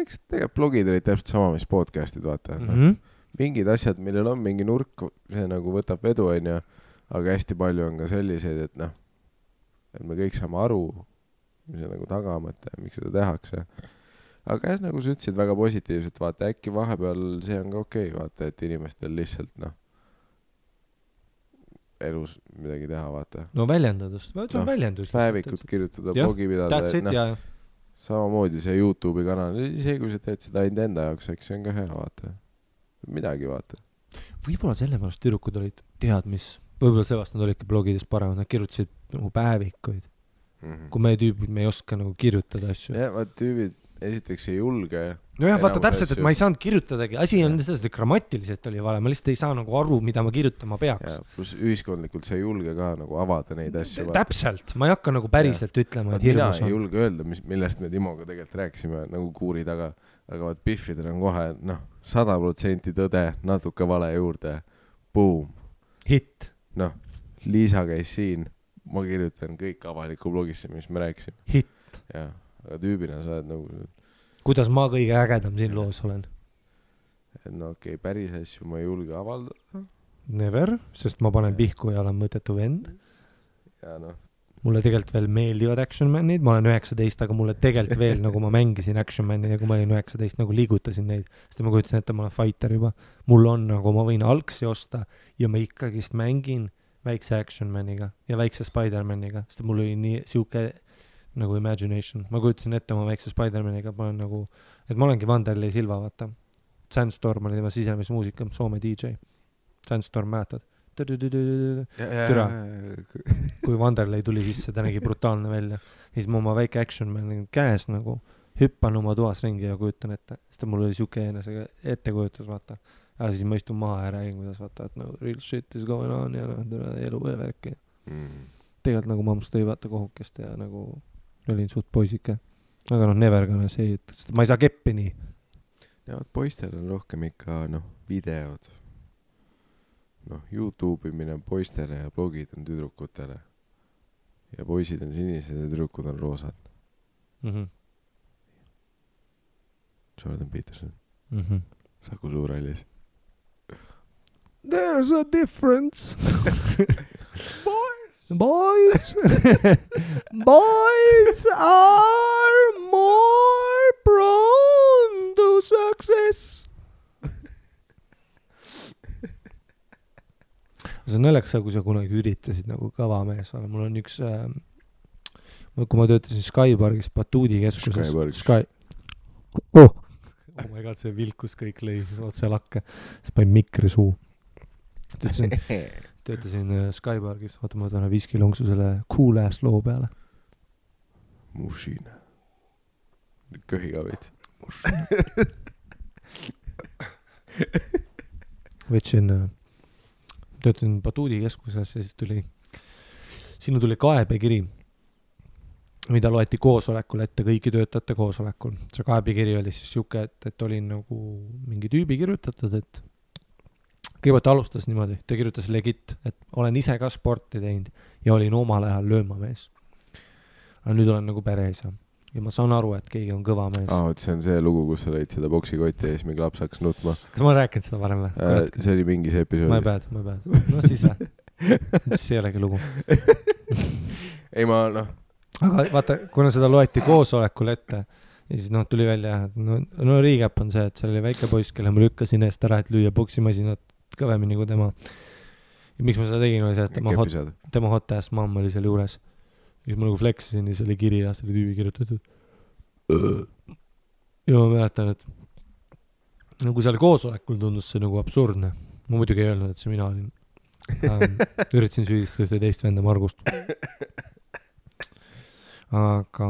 eks tegelikult blogid olid täpselt sama, mis podcast'id, vaata. Mingid asjad, millel on mingi nurk, see nagu võtab vedu, onju, aga hästi palju on ka selliseid, et noh, et me kõik saame aru, mis see nagu tagamõte, miks seda tehakse. aga jah, nagu sa ütlesid väga positiivselt, vaata, äkki vahepeal see on ka okei, vaata, et inimestel lihtsalt noh, elus midagi teha, vaata. no väljendadust, see on väljendus. päevikut kirjutada, blogi pidada, et noh, samamoodi see YouTube'i kanal, isegi kui sa teed seda ainult enda jaoks, eks see on ka hea, vaata. Midagi, vaata. Võib-olla sellepärast tüdrukud olid tead, mis, võib-olla seepärast nad olidki blogides paremad, nad kirjutasid nagu päevikuid. Kui meie tüübid, me ei oska nagu kirjutada asju. jah, vaat tüübid esiteks ei julge. no jah, vaata täpselt, et ma ei saanud kirjutadagi. Asi on sellest, et grammatiliselt oli vale. Ma lihtsalt ei saa nagu aru, mida ma kirjutama peaks. Plus ühiskondlikult sa ei julge ka nagu avada neid asju. Täpselt. Ma ei hakka nagu päriselt ütlema, et hirmus on. Mina ei julge öelda, millest me Timoga tegelikult rääkisime nagu kuuri taga. Aga vaat Biffidel on kohe, 100% tõde, natuke vale juurde. Boom. Hit. Liisa käis siin. Ma kirjutan kõik avaliku blogisse, mis me rääkisime. Hit. Jah. Aga tüübina sa oled nagu... Kuidas ma kõige ägedam siin loos olen? Et okei, päris asju ma ei julge avaldada. Never, sest ma panen pihku ja olen mõttetu vend. Ja Mulle tegelikult veel meeldivad Action Manid. Ma olen 19, aga mulle tegelikult veel, nagu ma mängisin Action Manid ja kui ma olin 19, nagu liigutasin neid. Sest ma kujutasin, et ma olen fighter juba. Mul on nagu, ma võin algsi osta ja ma ikkagist mängin väikse Action Maniga ja väikse Spider-Maniga. Sest mul oli nii siuke... nagu imagination. Ma kujutasin ette oma väikse Spider-Maniga, ma olen nagu, et ma olengi Vanderlei Silva, vaata. Sandstorm oli tema sisemismuusika, Soome DJ. Sandstorm mäletad? Türa. Kui Vanderlei tuli sisse, ta nägi brutaalne välja. Siis ma oma väike Action Man käes nagu hüppan oma toas ringi ja kujutan ette. Sest mul oli siuke enese ettekujutus, vaata. Ja siis ma istun maha ja räägin, kuidas vaata, et real shit is going on ja elu ja värki. Tegelikult nagu mammas tõi vaata kohukest ja nagu olin suht poisike. Aga never gonna say it. Sest ma ei saa keppi nii. Ja poistel on rohkem ikka videod. YouTube imine on poistele ja blogid on tüdrukutele. Ja poisid on sinised ja tüdrukud on roosad. Jordan Peterson. Saku Suurhallis. There's a difference. Boys are more prone to success. See on naljakas, kui sa kunagi üritasid nagu kõva mees olla. Mul on üks, kui ma töötasin Skypargis Batuudi keskuses. Oh my god, see vilkus kõik lõi otse lakke. See panin mikri suu. Töötasin Skypargis, vaata ma võtan viskilongsu selle cool ass loo peale. Mushina. Köhiga veits. Võtsin, töötasin Batuudi keskuses ja siis sinna tuli kaebekiri, mida loeti koosolekul ette, kõiki töötajate koosolekul. See kaebekiri oli siis siuke, et oli nagu mingi tüübi kirjutatud, et kõigepealt alustas niimoodi, ta kirjutas legit, et olen ise ka sporti teinud ja olin omal ajal löömamees. Aga nüüd olen nagu pereisa. Ja ma saan aru, et keegi on kõva mees. See on see lugu, kus sa lõid seda boksikotti ja siis mingi laps hakkas nutma. Kas ma rääkinud seda varem või? See oli mingis episoodis. Ma ei päed. No siis või? See ei olegi lugu. Ei ma Aga vaata, kuna seda loeti koosolekul ette ja siis tuli välja, no recap on see, et seal oli väike poiss, kelle ma lükkasin eest ära, et lüüa boksimasinat kõvemini kui tema. Ja miks ma seda tegin, oli see, et tema hot ass mamma oli seal juures. Ja ma nagu fleksisin ja see oli kiri ja see oli tüübi kirjutatud. Ja ma mäletan, et kui seal koosolekul tundus see nagu absurdne. Ma muidugi ei öelnud, et see mina olin. Üritasin süüdistada ühte teist venda Margust. Aga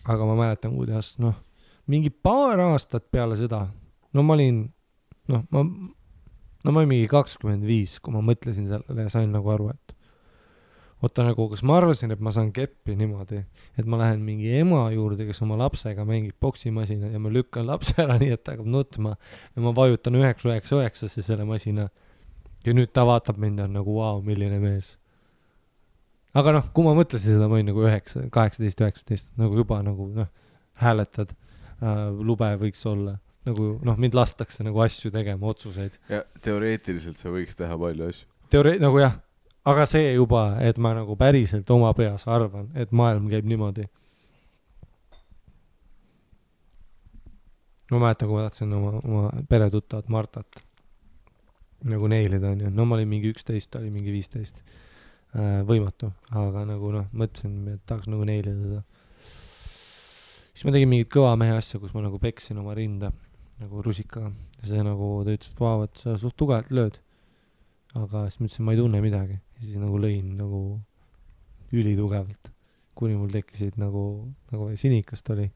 ma mäletan, kuidas mingi paar aastat peale seda, ma olin ma olin mingi 25, kui ma mõtlesin sellele ja sain nagu aru, et oota nagu, kas ma arvasin, et ma saan keppi niimoodi, et ma lähen mingi ema juurde, kes oma lapsega mängib poksimasina ja ma lükkan lapse ära nii, et ta hakkab nutma ja ma vajutan 999 selle masina ja nüüd ta vaatab mind ja on nagu vau, milline mees. Aga noh, kui ma mõtlesin seda, ma olin nagu 18-19, nagu juba nagu hääletad, lube võiks olla. Nagu mind lastakse nagu asju tegema, otsuseid. Ja teoreetiliselt sa võiks teha palju asju. Nagu jah, aga see juba, et ma nagu päriselt oma peas arvan, et maailm käib niimoodi. Ma mäletan, kui ma tahtsin oma peretuttavat Martat nagu neilida, on ju. No ma olin mingi 11, ta oli mingi 15. Võimatu, aga nagu mõtlesin, et tahaks nagu neilida teda. Siis ma tegin mingit kõva mehe asja, kus ma nagu peksin oma rinda nagu rusikaga. Ja see nagu, ta ütles, et vau, et sa suht tugevalt lööd. Aga siis ma ütlesin, ma ei tunne midagi. Ja siis nagu lõin nagu ülitugevalt. Kuni mul tekkisid nagu sinikast oli.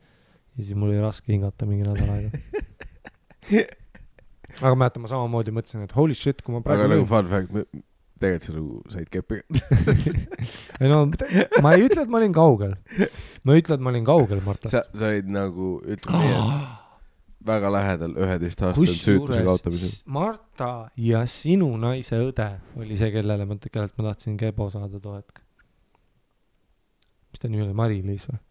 Ja siis mul oli raske hingata mingi nädal aega. Aga mäletan, ma samamoodi mõtlesin, et holy shit, kui ma praegu aga nagu fun fact, tegelikult sa nagu said keppi. No, ma ei ütle, et ma olin kaugel. Ma ütle, et ma olin kaugel, Martast. Sa olid nagu, ütleme nii, väga lähedal 11-aastasel süütuse kaotamisel. Marta ja sinu naise õde oli see, kellelt ma tahtsin kebo saada too hetk. Mis ta nii oli? Mari-Liis või?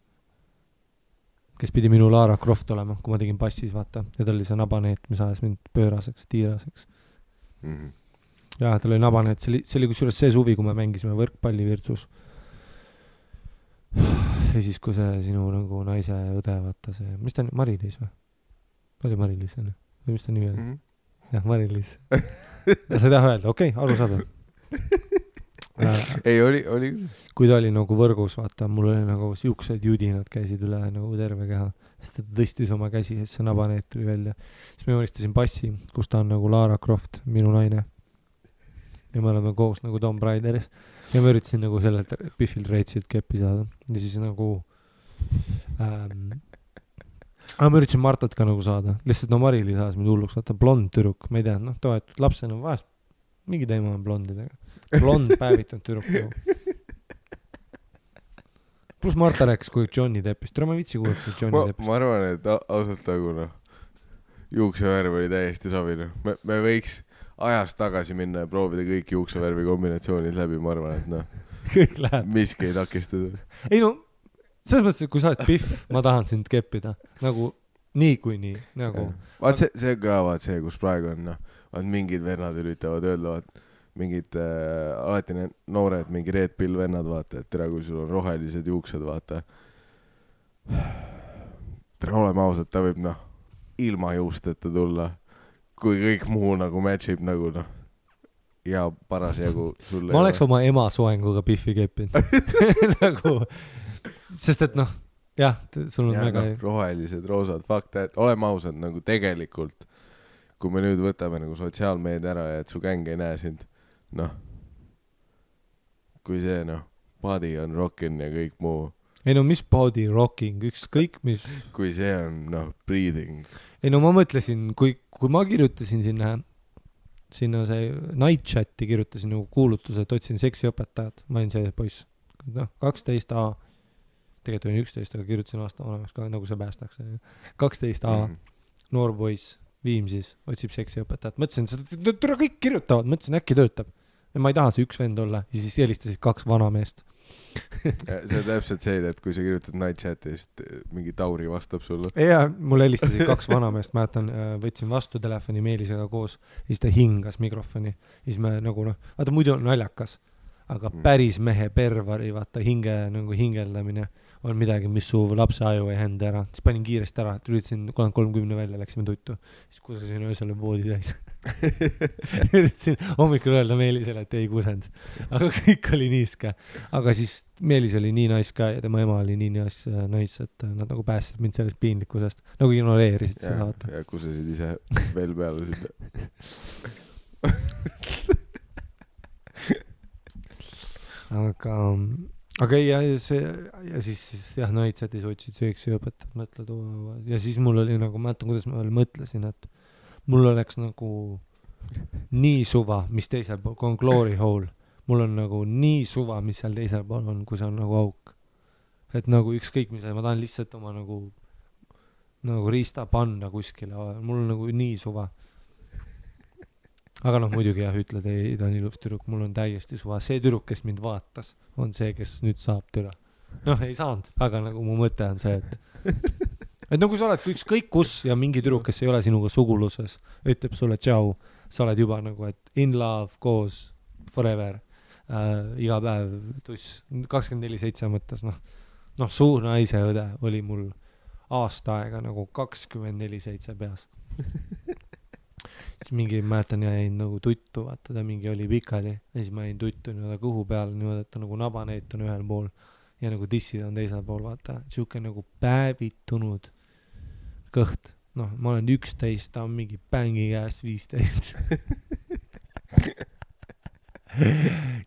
Kes pidi minu Lara Croft olema, kui ma tegin passis, vaata. Ja ta oli see nabaneet, mis ajas mind pööraseks, tiiraseks. Mm-hmm. Ja tal oli nabaneet. See oli kusjuures see suvi, kui me mängisime võrkpalli Virtsus. Ja siis, kui see sinu nagu naise õde, vaata see, mis ta on, Mari-Liis või? Oli Mari-Liis, on? Või mis ta nimi oli? Jah, Mari-Liis. Ja sa ei taha öelda, okei, aru saada. Ei, oli. Kui ta oli nagu võrgus, vaata, mul oli nagu siuksed judinad käisid üle nagu terve keha. Sest ta tõstis oma käsi, see nabaneet tuli välja. Siis me joonistasin passi, kus ta on nagu Lara Croft, minu naine. Ja me oleme koos nagu Tomb Raideris. Ja ma üritasin nagu sellelt Biffilt reitsilt keppi saada. Ja siis nagu aga ma üritasin Martat ka nagu saada. Lihtsalt Mari-Liis saas mind hulluks, vaata blond tüdruk, ma ei tea, toetud lapsena vahest mingi teema on blondidega. Blond päevitanud tüdruk nagu. Plus Marta rääkis, kui Johnny Deppist. Tere, ma vitsi kuulata Johnny Deppist. Ma arvan, et ausalt nagu juuksevärv oli täiesti sobine. Me võiks ajast tagasi minna ja proovida kõik juuksevärvi kombinatsioonid läbi, ma arvan, et kõik läheb. Miski ei takistada. Ei no, selles mõttes, et kui sa oled Biff, ma tahan sind keppida. Nagu nii kui nii. Nagu. Vaat see ka, vaat see, kus praegu on, vaat mingid vennad üritavad öelda, vaat mingid alati need noored, mingi Red Pill vennad, vaata, et tere, kui sul on rohelised juuksed, vaata. Tere, oleme ausad, ta võib ilma juusteta tulla, kui kõik muu nagu matchib nagu ja parasjagu sulle. Ma oleks oma ema soenguga Biffi keppinud. Nagu, sest et jah, sul on väga rohelised, roosad, fuck that, oleme ausad, nagu tegelikult, kui me nüüd võtame nagu sotsiaalmeedia ära ja et su gäng ei näe sind, kui see body on rockin ja kõik muu. Ei no, mis body rocking, ükskõik mis. Kui see on breathing. Ei no, ma mõtlesin, kui ma kirjutasin sinna see night chati, kirjutasin nagu kuulutuse, et otsin seksiõpetajad, ma olin see poiss, 12A, tegelikult olin 11, aga kirjutasin aasta vanemaks ka, nagu see päästaks. 12A, noor poiss, Viimsis, otsib seksiõpetajat. Mõtlesin, seda kõik kirjutavad, mõtlesin, äkki töötab. Ja ma ei taha see üks vend olla, ja siis helistasid 2 vanameest. See on täpselt see, et kui sa kirjutad night chati, siis mingi Tauri vastab sulle. Ja mul helistasid 2 vanameest, mäletan, võtsin vastu telefoni Meelisega koos, ja siis ta hingas mikrofoni. Ja siis me nagu vaata muidu on naljakas, aga päris mehe pervari, vaata hingeldamine on midagi, mis su lapse aju ei hända ära. Siis panin kiiresti ära, et üritasin 30 välja, läksime tuttu. Siis kusasin öösel voodi täis. Üritasin hommikul öelda Meelisele, et ei kusend. Aga kõik oli niiske. Aga siis Meelis oli nii nais ka ja tema ema oli nii nais, et nad nagu päästsid mind sellest piinlikkusest. Nagu ignoreerisid seda, vaata. Ja kusasid ise veel peale seda. Aga ja siis jah, naitsetis otsid sööksi õpetajad, mõtled, ja siis mul oli nagu, mäletan, kuidas ma veel mõtlesin, et mul oleks nagu nii suva, mis teisel pool, kui on glory hole, mul on nagu nii suva, mis seal teisel pool on, kui see on nagu auk. Et nagu ükskõik mis, ma tahan lihtsalt oma nagu riista panna kuskile, mul on nagu nii suva. Aga noh, muidugi jah, ütled, ei, ta on ilus tüdruk, mul on täiesti suva. See tüdruk, kes mind vaatas, on see, kes nüüd saab türa. Noh, ei saanud, aga nagu mu mõte on see, et nagu sa oled ükskõik kus ja mingi tüdruk, kes ei ole sinuga suguluses, ütleb sulle tšau, sa oled juba nagu, et in love, koos, forever, iga päev tuss, 24/7 mõttes, noh, suur naise õde oli mul aasta aega nagu 24/7 peas. Siis mingi, mäletan, jäin nagu tuttu, vaata, ta mingi oli pikali ja siis ma jäin tuttu nii-öelda kõhu peal niimoodi, et ta nagu nabaneit on ühel pool ja nagu tissid on teisel pool, vaata, siuke nagu päevitunud kõht. Noh, ma olen 11, ta on mingi bängi käes 15.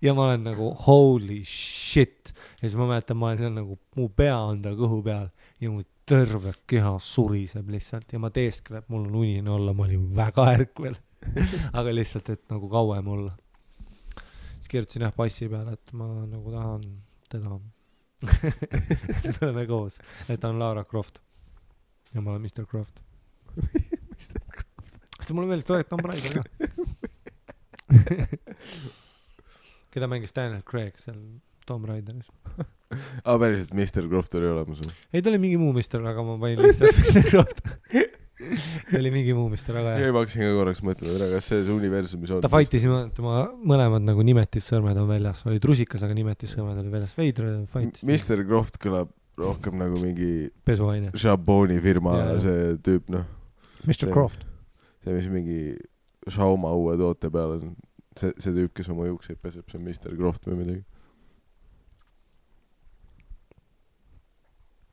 Ja ma olen nagu holy shit. Ja siis ma mäletan, ma olen seal nagu, mu pea on ta kõhu peal ja mu terve keha suriseb lihtsalt ja ma teeskleb, mul on unine olla, ma olin väga ärkvel. Aga lihtsalt, et nagu kauem olla. Siis kirjutasin jah passi peale, et ma nagu tahan teda. Me oleme koos, et ta on Lara Croft ja ma olen Mr. Croft. Mr. Croft. Sest mulle meeldis toet Tom Raider ka. Keda mängis Daniel Craig seal Tom Raideris. Päriselt Mr. Croft oli olemas. Ei, ta oli mingi muu mister, aga ma panin lihtsalt Mr. Croft. Ta oli mingi muu mister, aga jah. Ma hakkasin ka korraks mõtlema, kas see universumis on. Ta fightis, tema mõlemad nagu nimetissõrmed on väljas. Oli trusikas, aga nimetissõrmed oli väljas. Veidre fightis. Mr. Croft kõlab rohkem nagu mingi pesuaine. Jaboni firma see tüüp, noh. Mr. Croft. See, mis mingi Shauma uue toote peal on. See tüüp, kes oma juukseid peseb, see on Mr. Croft või midagi.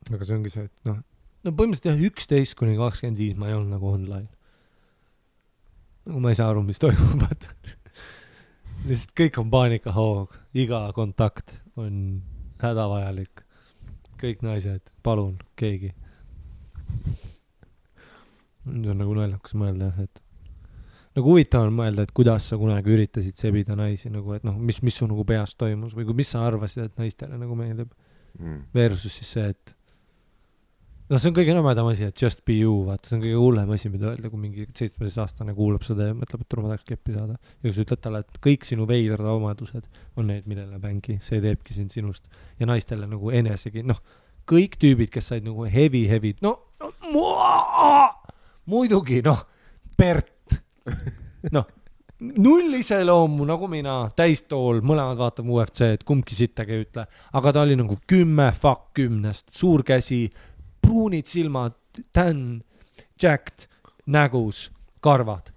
Aga see ongi see, et no põhimõtteliselt jah, 11-25 ma ei olnud nagu online. Nagu ma ei saa aru, mis toimub. Lihtsalt kõik on paanikahoog, iga kontakt on hädavajalik. Kõik naised, palun, keegi. Nüüd on nagu naljakas mõelda, et nagu huvitav on mõelda, et kuidas sa kunagi üritasid sebida naisi, nagu, et noh, mis su nagu peas toimus või mis sa arvasid, et naistele nagu meeldib. Versus siis see, et no see on kõige nõmedam asi, et just be you, vaata, see on kõige hullem asi, mida öelda, kui mingi 17-aastane kuulab seda ja mõtleb, et turma tahaks keppi saada. Ja kui sa ütled talle, et kõik sinu veidrad omadused on need, millele bängi, see teebki sind sinust. Ja naistele nagu enesegi, noh, kõik tüübid, kes said nagu heavy, muidugi, noh, Bert, noh, null iseloomu nagu mina, täistool, mõlemad vaatab UFC-d, kumbki sittagi ei ütle, aga ta oli nagu 10 suur käsi, pruunid silmad, tän, jacked, nägus, karvad.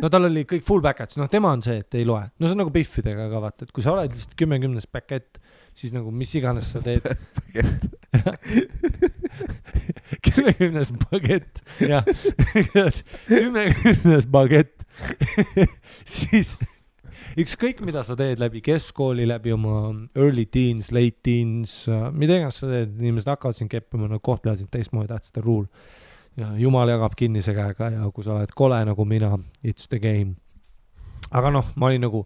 No tal oli kõik full package, noh tema on see, et ei loe. No see on nagu biffidega ka vaata, et kui sa oled lihtsalt 10 pakett, siis nagu mis iganes sa teed. 10 pakett, jah. 10 pakett. Siis ükskõik mida sa teed läbi keskkooli, läbi oma early teens, late teens, mida iganes sa teed, inimesed hakkavad sind keppima, nad kohtlevad sind teistmoodi, that's the rule. Ja Jumal jagab kinnise käega ja kui sa oled kole nagu mina, it's the game. Aga noh, ma olin nagu,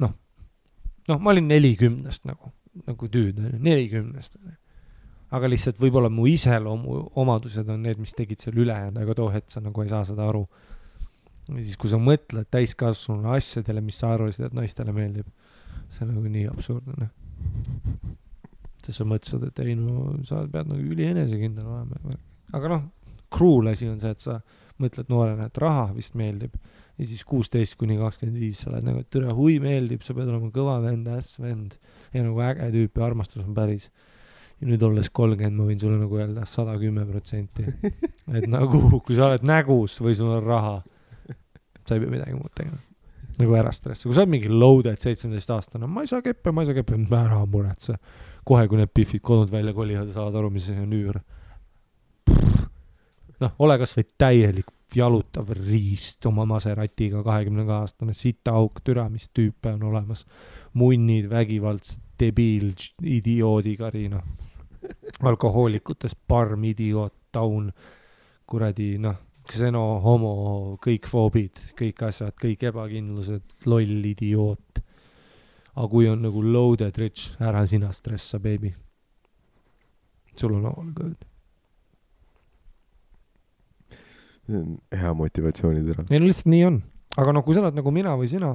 ma olin 40 nagu tüüd, 40. Aga lihtsalt võib-olla mu iseloomu omadused on need, mis tegid seal ülejäänud, aga too hetk sa nagu ei saa seda aru. Ja siis kui sa mõtled täiskasvanu asjadele, mis sa arvasid, et naistele meeldib, see on nagu nii absurdne. Sest sa mõtlesid, et ei no, sa pead nagu üli enesekindel olema. Aga noh, cruel asi on see, et sa mõtled noorena, et raha vist meeldib. Ja siis 16-25 sa oled nagu, et türa hui meeldib, sa pead olema kõva vend, vend. Ja nagu äge tüüp ja armastus on päris. Ja nüüd olles 30, ma võin sulle nagu öelda 110%. Et nagu, kui sa oled nägus või sul on raha, sa ei pea midagi muud tegema. Nagu ära stressi. Kui sa oled mingi loaded 17-aastane, ma ei saa keppe, ära muretse. Kohe, kui need piffid kodunud välja kolivad ja saavad aru, mis see on üür. Noh, ole kas või täielik jalutav riist oma Maseratiga 20-aastane sitaauk, türa, mis tüüpe on olemas. Munnid, vägivaldsed, debiil, idioodikari, noh. Alkohoolikutes parm, idioot, taun, kuradi, noh, kseno, homo, kõik foobid, kõik asjad, kõik ebakindlused, loll, idioot. aga kui on nagu loaded rich, ära sina stressa, baby. Sul on all good. see on hea motivatsioonitera. ei no lihtsalt nii on. aga no kui sa oled nagu mina või sina,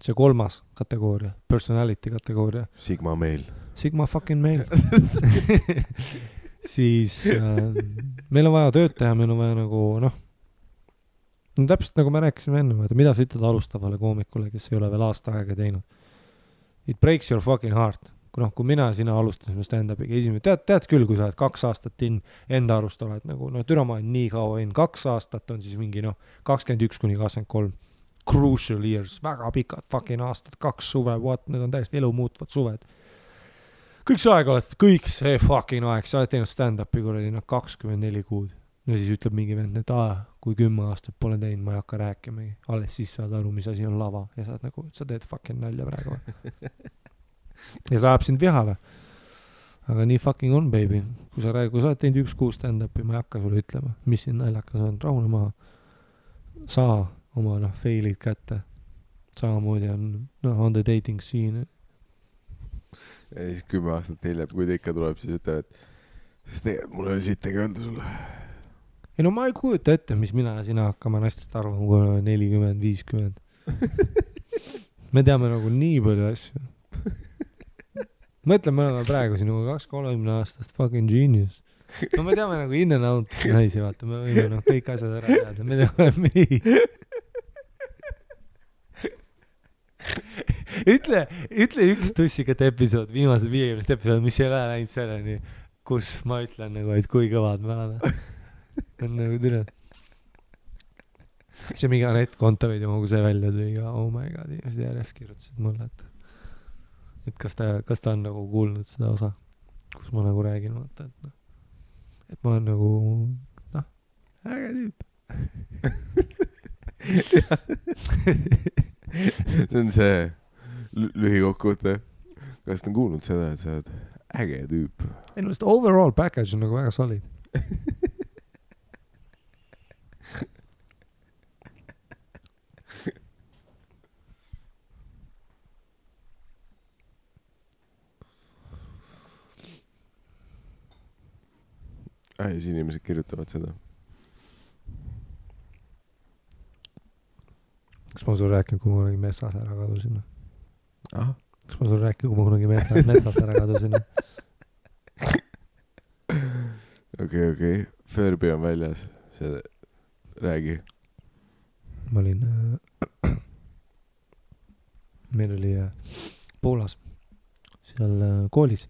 see 3. kategooria, personality kategooria. Sigma meil. Sigma fucking meil. siis meil on vaja tööd teha, meil on vaja nagu no täpselt nagu me rääkisime enne, mida sa ütled alustavale koomikule, kes ei ole veel aasta aega teinud. It breaks your fucking heart. Kui mina ja sina alustasime stand-upiga esimene, tead küll, kui sa oled 2 aastat enda arust oled nagu, türa ma olen nii kaua 2 aastat on siis mingi 21-23 crucial years, väga pikad fucking aastad, 2 suve, need on täiesti elu muutvad suved. Kõik see aeg oled, kõik see fucking aeg, sa oled teinud stand-upi kuradi 24 kuud. Ja siis ütleb mingi vend, et kui 10 aastat pole teinud, ma ei hakka rääkimagi. Alles siis saad aru, mis asi on lava ja saad nagu, sa teed fucking nalja praegu. Ja sa ajab sind vihale. Aga nii fucking on, baby. Kui sa oled teinud 1 kuu stand-upi, ma ei hakka sulle ütlema, mis siin naljakas on. Rahune maha. Saa oma failid kätte. Samamoodi on the dating scene. Ja siis 10 aastat hiljem, kui ta ikka tuleb, siis ütleb, et tegelikult mul oli sittegi öelda sulle. Ei no ma ei kujuta ette, mis mina ja sina hakkama naistest arvama, kui oleme 40-50. Me teame nagu nii palju asju. Mõtle, me oleme praegu sinuga 2-30 aastast fucking genius. No me teame nagu in and out naisi, vaata, me võime kõik asjad ära teada. Me teame nii. Ütle üks tussikat episood, viimased 50 episood, mis ei ole läinud selleni, kus ma ütlen nagu, et kui kõvad me oleme. On nagu türa. See mingi Anett Kontaveidi kui see välja tuli ja oh my god, inimesed järjest kirjutasid mulle, et kas ta on nagu kuulnud seda osa, kus ma nagu räägin, vaata, et ma olen nagu äge tüüp. See on see lühikokkuvõte. Kas ta on kuulnud seda, et sa oled äge tüüp? Ei no, overall package on nagu väga solid. Siis inimesed kirjutavad seda. Kas ma sul rääkinud, kui ma kunagi metsas ära kadusin? Kas ma sul rääkinud, kui ma kunagi metsas ära kadusin? Okei. Furby on väljas. See räägi. Ma olin meil oli Poolas seal koolis.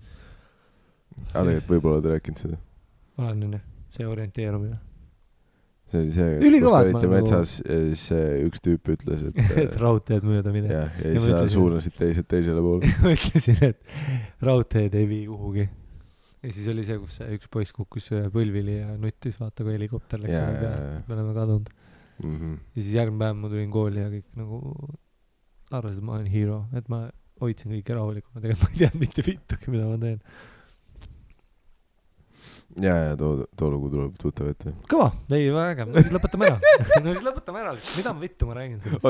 Tegelikult võib-olla oled rääkinud seda. Olen see orienteerumine. See oli see, kus olite metsas ja siis üks tüüp ütles, et raudteed mööda mine. Ja siis sa suunasid teisele poole. Ma ütlesin, et raudteed ei vii kuhugi. Ja siis oli see, kus üks poiss kukkus põlvili ja nuttis, vaata, kui helikopter läks ära peale. Me oleme kadunud. Ja siis järgmine päev ma tulin kooli ja kõik nagu arvasid, et ma olen hero, et ma hoidsin kõike rahulikuna. Tegelikult ma ei teadnud mitte vittugi, mida ma teen. Ja too lugu tuleb tuttav ette. Kõva, ei väga, no siis lõpetame ära. Mida ma vittu ma räägin sellest?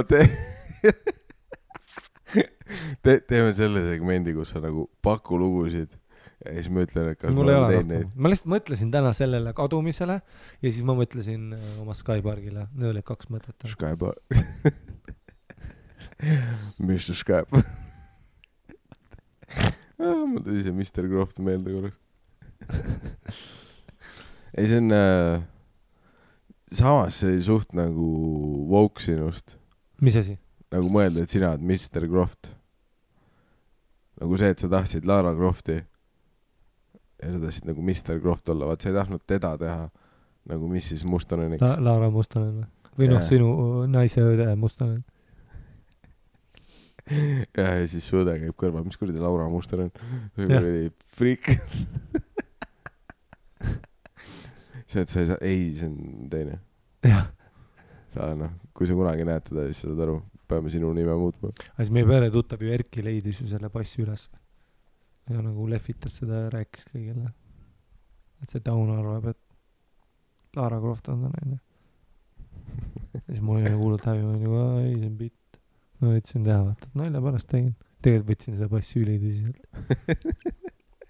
Teeme selle segmendi, kus sa nagu paku lugusid ja siis ma ütlen, et kas mul ei ole rohkem. Ma lihtsalt mõtlesin täna sellele kadumisele ja siis ma mõtlesin oma Skypargile. Need olid 2 mõtet. Skyparg. Mr. Skype. Mul tuli see Mr. Croft meelde korraks. Ei, see on samas see suht nagu woke sinust. Mis asi? Nagu mõelda, et sina oled Mr. Croft. Nagu see, et sa tahtsid Lara Crofti ja sa tahtsid nagu Mr. Croft olla. Vaat sa ei tahtnud teda teha nagu mis siis Mustoneniks. Lara Mustonen või sinu naise õde Mustonen. Ja siis su õde käib kõrval. Mis kuradi Laura Mustonen? Kuradi freak. See, et sa ei saa, see on teine. Jah. Sa kui sa kunagi näed teda, siis sa saad aru, peame sinu nime muutma. Siis meie pere tuttav ju Erki leidis ju selle passi üles. Ja nagu lehvitas seda ja rääkis kõigile. Et see Taun arvab, et Lara Croft on ta naine. Ja siis mul oli kuulnud häbi, ma olin nagu, ei, see on bitt. Ma võtsin teha, vaata, nalja pärast tegin. tegelikult võtsin seda passi ülitõsiselt.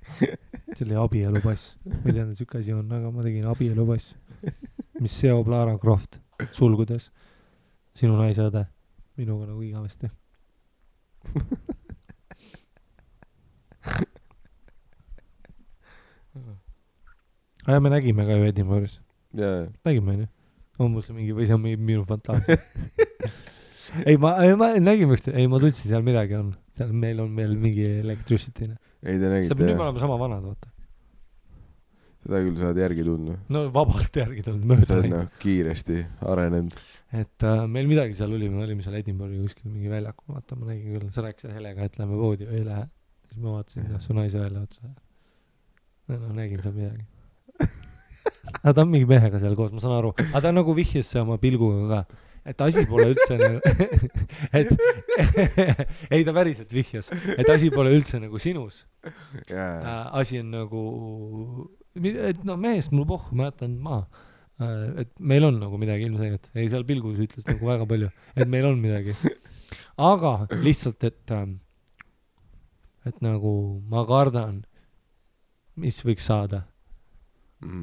See oli abielupass. Ma ei teadnud, siuke asi on, aga ma tegin abielupass, mis seob Lara Croft sulgudes sinu naise õde minuga nagu igavesti. Aga me nägime ka ju Edinburgh'is. Nägime, on ju? On mul see mingi, või see on minu fantaasia? ei, ma nägime üksteist, ei, ma tundsin, seal midagi on. Seal meil on veel mingi electricity. Ei, te nägite. Nüüd me oleme sama vanad, vaata. Seda küll saad järgi tundma. No vabalt järgi tundma, mööda läinud. Sa oled kiiresti arenenud. Et meil midagi seal oli, me olime seal Edinburgh'i kuskil mingi väljakul, vaata, ma nägin küll, sa rääkisid Helega, et lähme poodi või ei lähe. Siis ma vaatasin, su naise välja otsa. No nägin seal midagi. Aga ta on mingi mehega seal koos, ma saan aru. Aga ta nagu vihjes see oma pilguga ka. Et asi pole üldse nagu... ei, ta päriselt vihjas. Et asi pole üldse nagu sinus. Asi on nagu... Et no mehest mul pohhu, ma jätan maa. Et meil on nagu midagi ilmselgelt. Ei, seal pilgus ütles nagu väga palju. Et meil on midagi. Aga lihtsalt, et nagu ma kardan, mis võiks saada.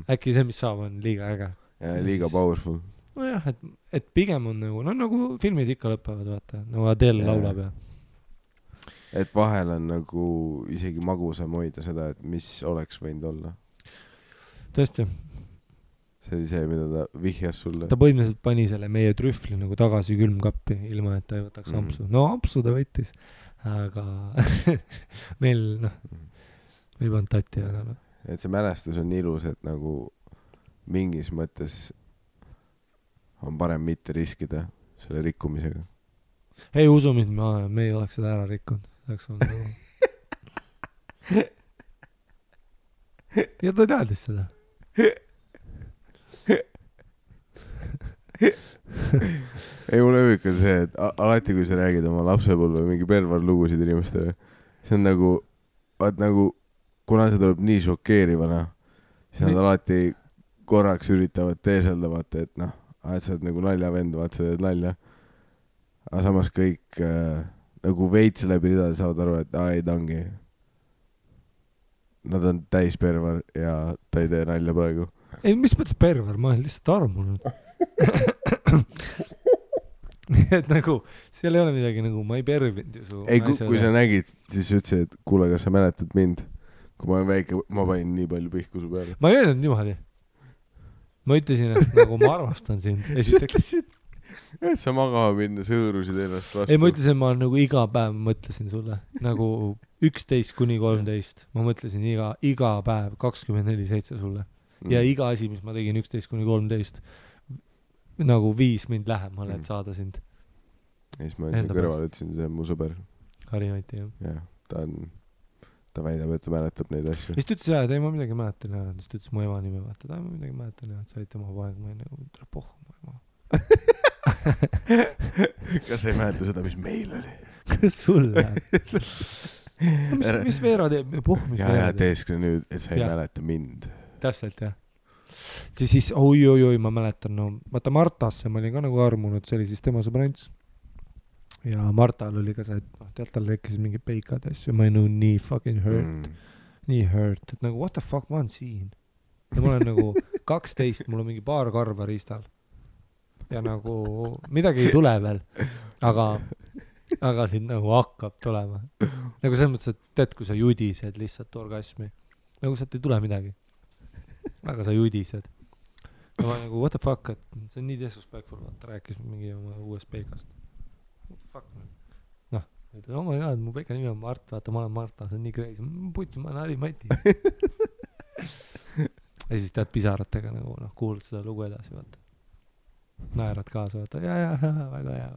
Äkki see, mis saab, on liiga äge. Ja liiga powerful. Nojah, et pigem on nagu, no nagu filmid ikka lõpevad, vaata, nagu Adele laulab ja. Et vahel on nagu isegi magusam hoida seda, et mis oleks võinud olla. Tõesti. See oli see, mida ta vihjas sulle. Ta põhimõtteliselt pani selle meie trühvli nagu tagasi külmkappi, ilma et ta ei võtaks ampsu. No ampsu ta võttis, aga meil, noh, ei pannud tatti, aga noh. Et see mälestus on ilus, et nagu mingis mõttes on parem mitte riskida selle rikkumisega. Ei usu mind, me ei oleks seda ära rikkunud. Nagu... ja ta teadis seda. ei, mulle huvitav see, et alati kui sa räägid oma lapsepõlve mingi pervarlugusid inimestele, see on nagu, vaat nagu kuna see tuleb nii šokeerivana, siis nad alati korraks üritavad teeselda, vaata, et noh, et sa oled nagu naljavend, vaata, sa teed nalja. Aga samas kõik nagu veits läbi ridade saavad aru, et ei tangi. Nad on täis pervar ja ta ei tee nalja praegu. Ei, mis mõttes pervar? Ma olen lihtsalt armunud. et nagu, seal ei ole midagi nagu, ma ei pervinud ju su ei, kui sa nägid, siis ütlesid, et kuule, kas sa mäletad mind? Kui ma olen väike, ma panin nii palju pihku su peale. Ma ei öelnud niimoodi. Ma ütlesin, et nagu ma armastan sind. Et sa magama minna, sõõrusid ennast vastu. Ei, ma ütlesin, ma nagu iga päev mõtlesin sulle. Nagu 11-13. Ma mõtlesin iga päev 24/7 sulle. Ja iga asi, mis ma tegin 11-13, nagu 5 mind lähemale, et saada sind. Ja siis ma siin kõrval ütlesin, see on mu sõber. Harimati, jah. Ja, ta väidab, et ta mäletab neid asju. Siis ta ütles, et ei, ma midagi mäletan. Siis ta ütles mu ema nime, vaata, ma midagi mäletan, et sa olid tema poeg, ma ei nagu, tere pohhu mu ema. Kas sa ei mäleta seda, mis meil oli? Kas sul läheb? mis Veera teeb? Pohhu, mis Veera teeb? Ja teeskle nüüd, et sa ei mäleta mind. Täpselt, jah. Siis, oi, ma mäletan, no, vaata Martasse ma olin ka nagu armunud, see oli siis tema sõbrants. Ja Martal oli ka see, et tead, tal tekkisid mingi peikad asju, ma ei nõu nii fucking hurt. Nii hurt, et nagu what the fuck, ma olen siin. Ja ma olen nagu 12, mul on mingi paar karva riistal. Ja nagu midagi ei tule veel, aga siin nagu hakkab tulema. Nagu selles mõttes, et tead, kui sa judised lihtsalt orgasmi, nagu sealt ei tule midagi. Aga sa judised. Ja ma nagu what the fuck, et see on nii disrespectful, vaata, rääkis mingi oma uuest peikast. Fuck man. Noh, ütles, oh my god, mu peika nimi on Mart, vaata, ma olen Marta, see on nii crazy. Putsi, ma olen Harimati. Ja siis tead pisaratega nagu, noh, kuulad seda lugu edasi, vaata. Naerad kaasa, vaata, ja, väga hea.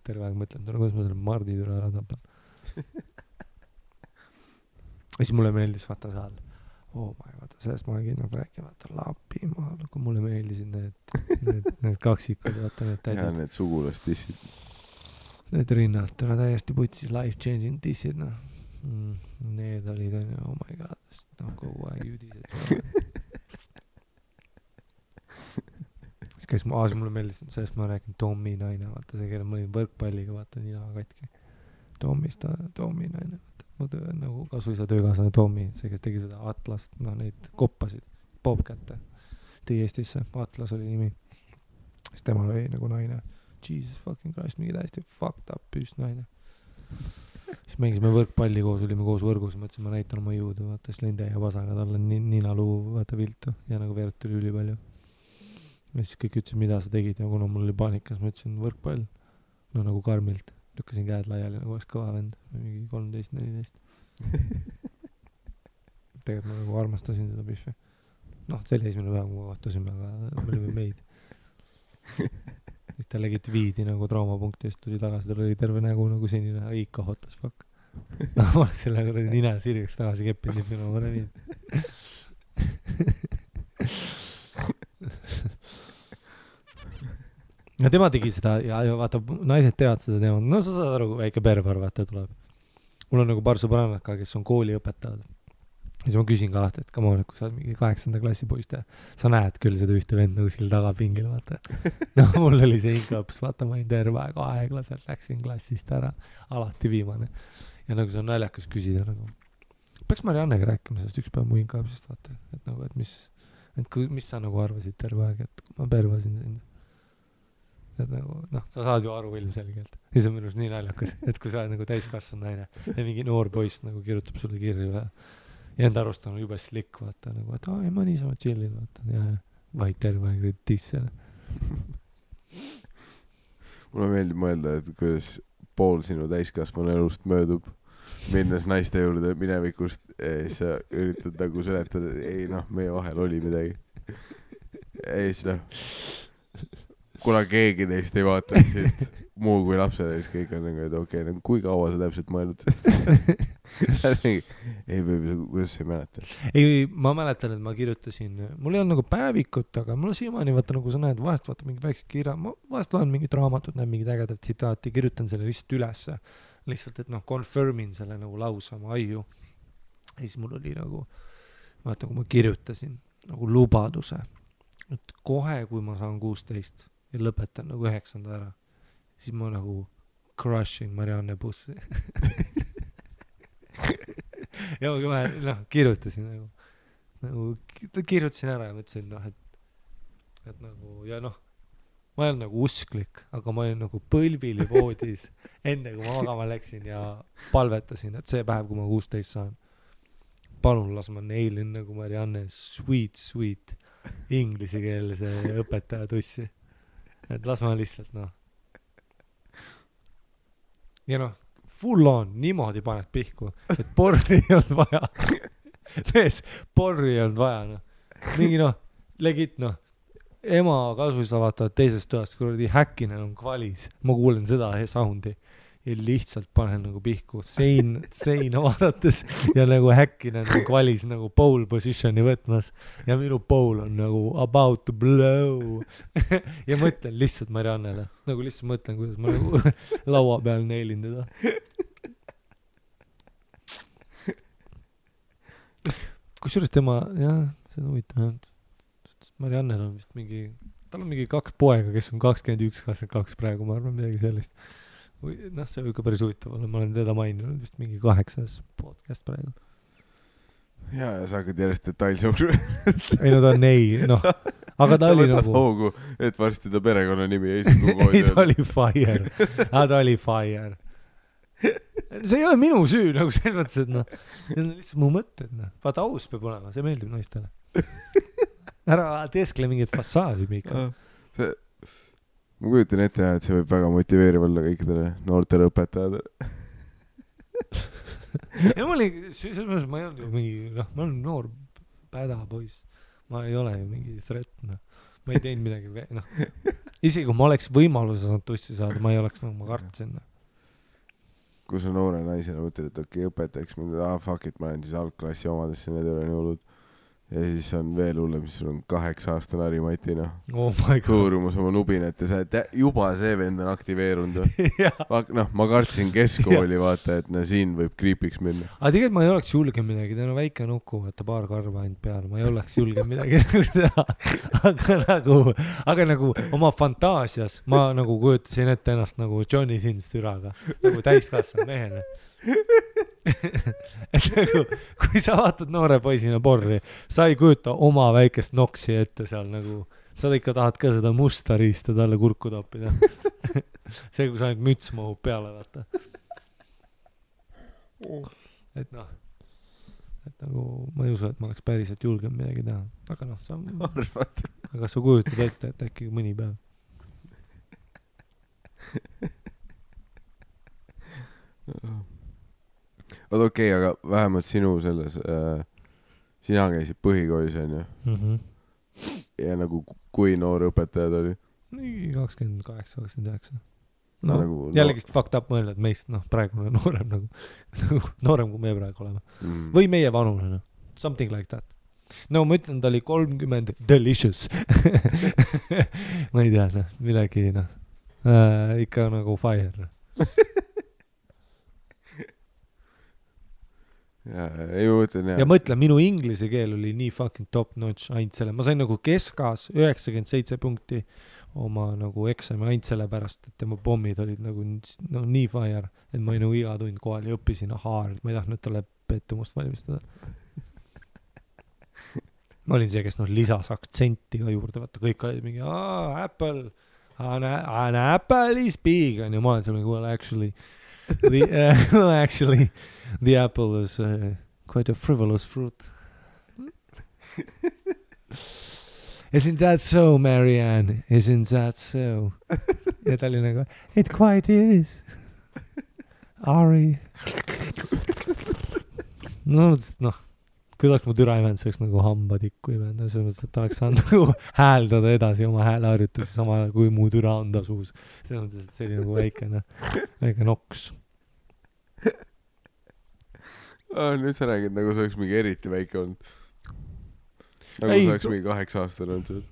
Terve aeg mõtlen, kuidas ma selle Mardi türa ära tapan. Ja siis mulle meeldis, vaata seal, vaata, sellest ma olen kindlalt rääkima, vaata, Lapimaal, kui mulle meeldisid need kaksikud, vaata, need täidid. Ja need sugulast-dissid. Need rinnalt, täiesti putsis life-changing dissid, noh. Need olid, oh my god, no kogu aeg judised. Siis käis mulle meeldis, sellest ma rääkin Tommi naine, vaata see, kelle ma olin võrkpalliga, vaata nina katki. Toomi naine, mu nagu kasuisa töökaaslane Toomi, see, kes tegi seda Atlast, noh neid koppasid, Bobcatte, tõi Eestisse, Atlas oli nimi, siis temal oli nagu naine, Jesus fucking Christ, mingi täiesti fucked up püüst naine. Siis mängisime võrkpalli koos, olime koos võrgus, mõtlesin, ma näitan oma jõudu, vaata, siis lõin täie vasaga talle ninaluu, vaata viltu ja nagu veerut tuli üli palju. Ja siis kõik ütlesid, mida sa tegid ja kuna mul oli paanikas, ma ütlesin võrkpall, no nagu karmilt, lükkasin käed laiali, nagu oleks kõva vend, mingi 13-14. Tegelikult ma nagu armastasin seda pihvi. Noh, see oli esimene päev, kui ma kohtusime, aga me olime meid. Siis ta legit viidi nagu traumapunkti, siis tuli tagasi, tal oli terve nägu nagu senine, ikka hot as fuck. No, ma oleks selle nagu nina sirgeks tagasi keppinud, nüüd ma olen viid. Ja tema tegi seda ja vaata, naised teavad seda teemat. No sa saad aru, kui väike pervar vaata tuleb. Mul on nagu paar sõbrannaka, kes on kooliõpetajad. Ja siis ma küsin ka alati, et come on, et kui sa oled mingi 8. klassi poist ja sa näed küll seda ühte vend nagu seal tagapingil, vaata. No mul oli see inkaps, vaata, ma olin terve aeg aeglaselt, läksin klassist ära, alati viimane. Ja nagu see on naljakas küsida, nagu peaks Mariannega rääkima sellest üks päev mu inkapsist, vaata, et nagu, et mis sa nagu arvasid terve aeg, et ma pervasin sind. Et nagu, noh, sa saad ju aru ilmselgelt. Ja see on minust nii naljakas, et kui sa oled nagu täiskasvanud naine ja mingi noor poiss nagu kirjutab sulle kirju ja enda arust on juba slick, vaata, nagu, et ei, ma niisama chillin, vaata, ja vaid terve aeg tissele. Mulle meeldib mõelda, et kuidas pool sinu täiskasvanu elust möödub, minnes naiste juurde minevikust ja siis sa üritad nagu seletada, ei noh, meie vahel oli midagi. Ei siis kuna keegi neist ei vaata siit muu kui lapsele, siis kõik on nagu, et okei, kui kaua sa täpselt mõelnud? Ei, kuidas sa ei mäleta? Ei, ma mäletan, et ma kirjutasin, mul ei olnud nagu päevikut, aga mul siiamaani vaata, nagu sa näed, vahest vaata mingi väikse kirja, ma vahest loen mingit raamatut, näen mingid ägedad tsitaati, kirjutan selle lihtsalt ülesse, lihtsalt, et noh, confirmin selle nagu lausa oma aiu. Ja siis mul oli nagu, vaata, kui ma kirjutasin nagu lubaduse, et kohe, kui ma saan 16 ja lõpetan nagu 9. ära, siis ma nagu crushing Marianne bussi. Ja ma kohe, noh, kirjutasin nagu kirjutasin ära ja mõtlesin, noh, et nagu, ja noh, ma ei olnud nagu usklik, aga ma olin nagu põlvili voodis enne kui ma magama läksin ja palvetasin, et see päev, kui ma 16 saan, palun las ma neilin nagu Marianne sweet inglisekeelse õpetaja tussi. Et las ma lihtsalt, noh. Ja noh, full on, niimoodi paned pihku, et porri ei olnud vaja. Mees, porri ei olnud vaja, noh. Mingi, noh, legit, noh, ema kasuisa vaatavad teisest toast, kuradi häkkinen on kvalis. Ma kuulen seda soundi ja lihtsalt panen nagu pihku seina vaadates ja nagu häkkinen on kvalis nagu pole positioni võtmas ja minu pole on nagu about to blow. Ja mõtlen lihtsalt Mariannele, nagu lihtsalt mõtlen, kuidas ma nagu laua peal neilin teda. Kusjuures tema, jah, see on huvitav. Mariannel on vist mingi, tal on mingi 2 poega, kes on 21-22 praegu, ma arvan midagi sellist. Noh, see on ikka päris huvitav olla, ma olen teda maininud vist mingi 8. podcast praegu. Ja sa hakkad järjest detailsõu. Ei, no ta on ei, noh. Aga ta oli nagu... hoogu, et varsti ta perekonna nimi ei sugu ei, ta oli fire. Ta oli fire. See ei ole minu süü, nagu selles mõttes, et noh, need on lihtsalt mu mõtted, noh. Vaata, aus peab olema, see meeldib naistele. Ära teeskle mingit fassaadi, Miika. Ma kujutan ette, et see võib väga motiveeriv olla kõikidele noortele õpetajad. Ja ma olin, selles mõttes ma ei olnud ju mingi, noh, ma olen noor päda poiss. Ma ei ole ju mingi threat, noh. Ma ei teinud midagi, noh. Isegi kui ma oleks võimaluse saanud tussi saada, ma ei oleks, nagu ma kartsin. Kui sa noore naisena mõtled, et okei, õpetajaks mind, fuck it, ma olen siis algklassi omadesse, need ei ole nii hullud. ja siis on veel hullem, siis sul on 8-aastane Harimati, noh. Oh my god. Hõõrumas oma nubinat ja sa oled juba see vend on aktiveerunud. Noh, ma kartsin keskkooli, vaata, et no siin võib kriipiks minna. Aga tegelikult ma ei oleks julge midagi, ta on väike nuku, vaata paar karva ainult peal, ma ei oleks julge midagi teha. Aga nagu oma fantaasias ma nagu kujutasin ette ennast nagu Johnny Sins türaga, nagu täiskasvanud mehena. Et nagu, kui sa vaatad noore poisina porri, sa ei kujuta oma väikest noksi ette seal nagu, sa ikka tahad ka seda musta riista talle kurku toppida. See, kui sa ainult müts mahub peale, vaata. Et noh, et nagu ma ei usu, et ma oleks päriselt julgem midagi teha. Aga noh, sa arvad. Aga sa kujutad ette, et äkki mõni päev. Oot okei, aga vähemalt sinu selles, sina käisid põhikoolis, on ju? Ja nagu kui noor õpetajad oli? 28, 29. No, nagu, jällegist fucked up mõelda, et meist, noh, praegu on noorem nagu noorem, kui me praegu oleme. Või meie vanune, noh. Something like that. No, ma ütlen, ta oli 30 delicious. Ma ei tea, noh, midagi, noh. Ikka nagu fire, noh. Ja mõtlen, minu inglise keel oli nii fucking top notch ainult selle. Ma sain nagu keskas 97 punkti oma nagu eksami ainult selle pärast, et tema pommid olid nagu no, nii fire, et ma ei nagu iga tund kohal ja õppisin hard. Ma ei tahtnud talle pettumust valmistada. Ma olin see, kes noh lisas aktsenti ka juurde, vaata kõik olid mingi Apple, an apple is big ja ma olen seal mingi well actually the apple is quite a frivolous fruit. Isn't that so, Marianne? Isn't that so? Ja ta oli nagu, it quite is. Ari. No, kui oleks mu türa imend, see oleks nagu hambatikku imend. See mõttes, et ta oleks saanud nagu hääldada edasi oma hääleharjutusi samal ajal, kui mu türa on ta suus. See mõttes, et see oli nagu väike noks. Nüüd sa räägid, nagu see oleks mingi eriti väike olnud. Nagu see oleks mingi 8-aastane olnud see.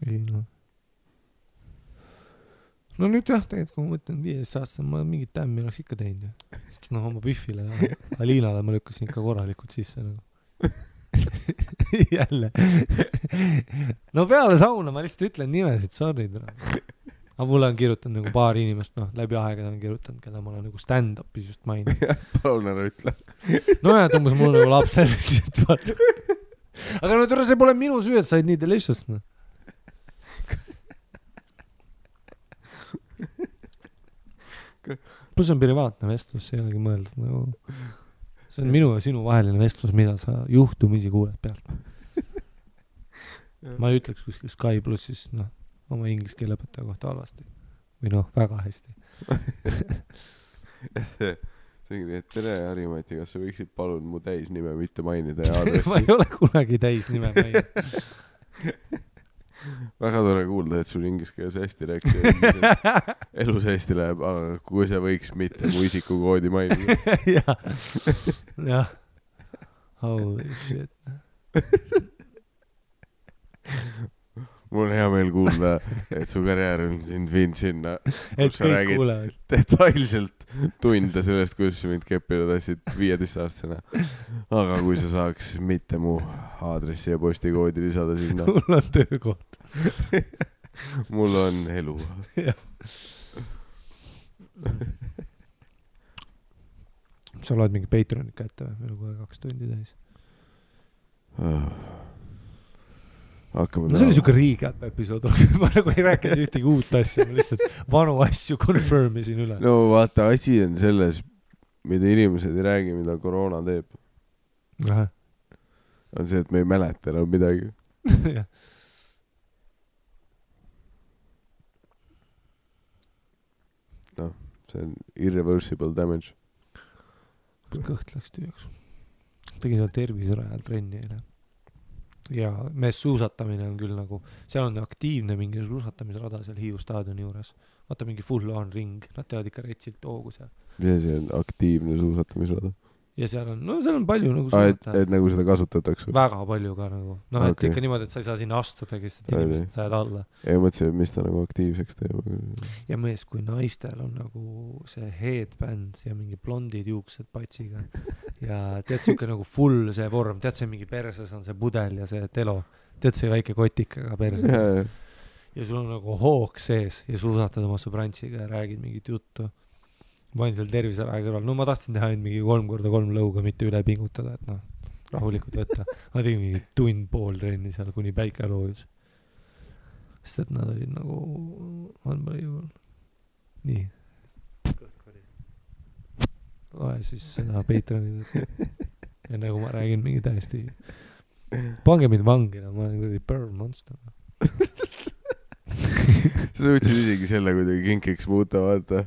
Ei, noh. No nüüd jah, tegelikult kui ma mõtlen 15-aastane, ma mingit tämmi oleks ikka teinud. Sest noh, oma Biffile ja Aliinale ma lükkasin ikka korralikult sisse nagu. Jälle. No peale sauna ma lihtsalt ütlen nimesid, sorry. Aga mulle on kirjutanud nagu paar inimest, noh, läbi aegade on kirjutanud, keda ma olen nagu stand-upis just maininud. Palun ära ütle. No jah, tõmbas mulle nagu lapsel lihtsalt, vaata. Aga no see pole minu süü, et said nii delicious, noh. Plus on privaatne vestlus, see ei olegi mõeldud nagu. See on minu ja sinu vaheline vestlus, mida sa juhtumisi kuuled pealt. Ma ei ütleks kuskil Sky Plussis, noh, oma inglise keele õpetaja kohta halvasti. Või noh, väga hästi. See on nii, et tere Harimati, kas sa võiksid palun mu täisnime mitte mainida ja aadressi? Ma ei ole kunagi täisnime maininud. Väga tore kuulda, et sul inglise keeles hästi rääkis. Elus hästi läheb, aga kui sa võiks mitte mu isikukoodi mainida. Jah. Holy shit. Mul on hea meel kuulda, et su karjäär on sind viinud sinna, kus sa räägid kuulevad. Detailselt tunde sellest, kuidas sa mind keppida tassid 15-aastasena. Aga kui sa saaks mitte mu aadressi ja postikoodi lisada sinna. Mul on töökoht. Mul on elu. Sa loed mingi Patreonit kätte või? Meil on kohe 2 tundi täis. See oli siuke recap episood, ma nagu ei rääkinud ühtegi uut asja, ma lihtsalt vanu asju confirmisin üle. No vaata, asi on selles, mida inimesed ei räägi, mida koroona teeb. Aha. On see, et me ei mäleta enam midagi. Noh, see on irreversible damage. Kõht läks tüüjaks. Tegin seal terviserajal trenni eile. Ja mees suusatamine on küll nagu, seal on aktiivne mingi suusatamisrada seal Hiiu staadioni juures. Vaata mingi full on ring, nad teevad ikka retsilt hoogu seal. Ja see on aktiivne suusatamisrada. ja seal on palju nagu et nagu seda kasutatakse väga palju ka nagu Okay. et ikka niimoodi, et sa ei saa sinna astudagi, sest et inimesed sajad alla ja mõtlesin, et mis ta nagu aktiivseks teeb ja mees, kui naistel on nagu see headband ja mingi blondid juuksed patsiga ja tead siuke nagu full see vorm, tead see mingi perses on see pudel ja see telo, tead see väike kotikaga perse ja sul on nagu hoog sees ja suusatad oma sõbrantsiga ja räägid mingit juttu. Ma olin seal terviseraja kõrval, ma tahtsin teha mingi 3x3 lõuga, mitte üle pingutada, et rahulikult võtta. Ma tegin mingi tund-pool trenni seal, kuni päike loojus. Sest et nad olid nagu unbelievable. Nii. Loe siis seda Patreoni. Ja nagu ma räägin mingi täiesti pange mind vangina, ma olen kuradi burn monster. Sa võtsid isegi selle kuidagi kinkiks muuta, vaata.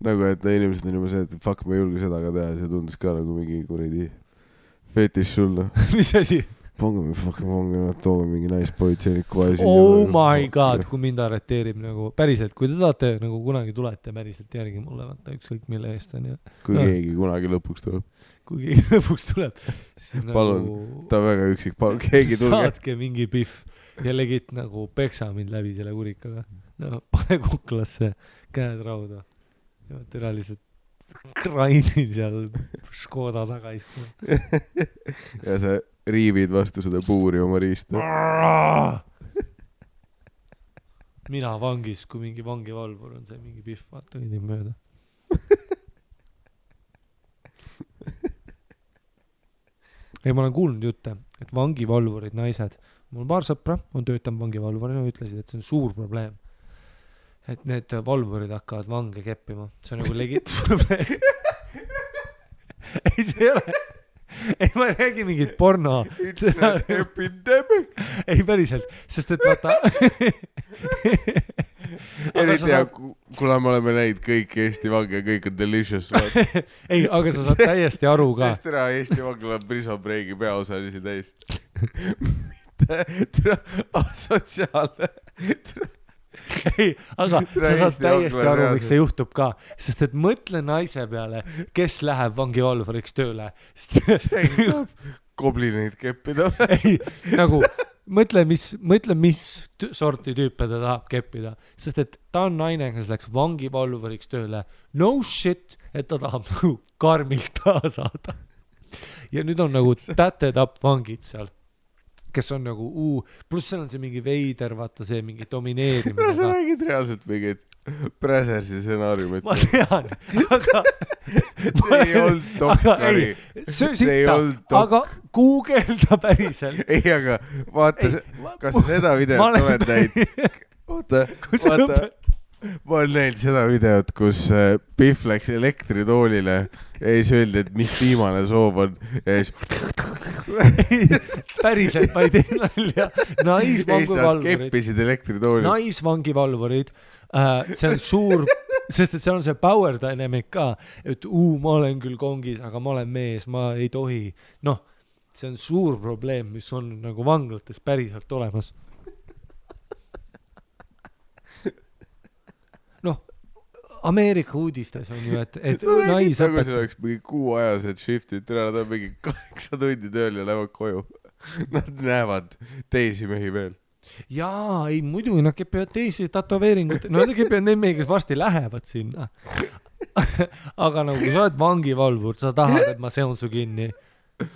Nagu, et inimesed on juba see, et fuck, ma ei julge seda ka teha. See tundus ka nagu mingi kuradi fetiš sulle. Mis asi? Pange mingi fucking vangina, toome mingi naispolitseinik kohe siin. Oh my god, kui mind arreteerib nagu päriselt, kui te tahate nagu kunagi tulete päriselt järgi mulle, vaata ükskõik mille eest on ja. Kui keegi kunagi lõpuks tuleb. Kui keegi lõpuks tuleb, siis palun, nagu ta on väga üksik, palun, keegi tulge. Saatke mingi pihv ja legit nagu peksa mind läbi selle kurikaga. No, pane kuklasse, käed rauda. Ja türa lihtsalt krainin seal Škoda taga istuma. Ja sa riivid vastu seda puuri oma riista. Mina vangis, kui mingi vangivalvur on see mingi pihv, vaata kõnnib mööda. Ei, ma olen kuulnud jutte, et vangivalvurid naised, mul paar sõpra on töötanud vangivalvurina, ütlesid, et see on suur probleem. Et need valvurid hakkavad vange keppima. See on nagu legit probleem. Ei, see ei ole. Ei, ma ei räägi mingit porno. It's an epidemic. Ei, päriselt. Sest et vaata... Eriti ja kuna me oleme näinud kõik Eesti vange ja kõik on delicious. Ei, aga sa saad täiesti aru ka. Sest türa Eesti vangla on Prison Breaki peaosalisi täis. Mitte türa asotsiaalne. Ei, aga sa saad täiesti aru, miks see juhtub ka. Sest et mõtle naise peale, kes läheb vangivalvuriks tööle. See saab koblineid keppida. Ei, nagu mõtle, mis sorti tüüpe ta tahab keppida. Sest et ta on naine, kes läks vangivalvuriks tööle. No shit, et ta tahab nagu karmilt taha saada. Ja nüüd on nagu täted up vangid seal. Kes on nagu, pluss seal on see mingi veider, vaata see mingi domineerimine. Sa räägid reaalselt mingid Presersi stsenaariumit. Ma tean, aga... See ei olnud dokkari. See ei olnud dokk. Aga googelda päriselt. Ei, aga vaata, kas sa seda videot oled näinud? Oota. Ma olen näinud seda videot, kus Pihv läks elektritoolile ja siis öeldi, et mis viimane soov on ja siis päriselt, ma ei tee nalja. Naisvangivalvurid. Keppisid elektritoolid. Naisvangivalvurid. See on suur, sest et seal on see power dynamic ka, et ma olen küll kongis, aga ma olen mees, ma ei tohi. Noh, see on suur probleem, mis on nagu vanglates päriselt olemas. Noh, Ameerika uudistes on ju, et nais nagu see oleks mingi kuuajased shiftid, nad on mingi 8 tundi tööl ja lähevad koju. Nad näevad teisi mehi veel. Jaa, ei muidugi, nad kepivad teisi tatoveeringut. No nad kepivad neid mehi, kes varsti lähevad sinna. Aga nagu kui sa oled vangivalvur, sa tahad, et ma seon su kinni.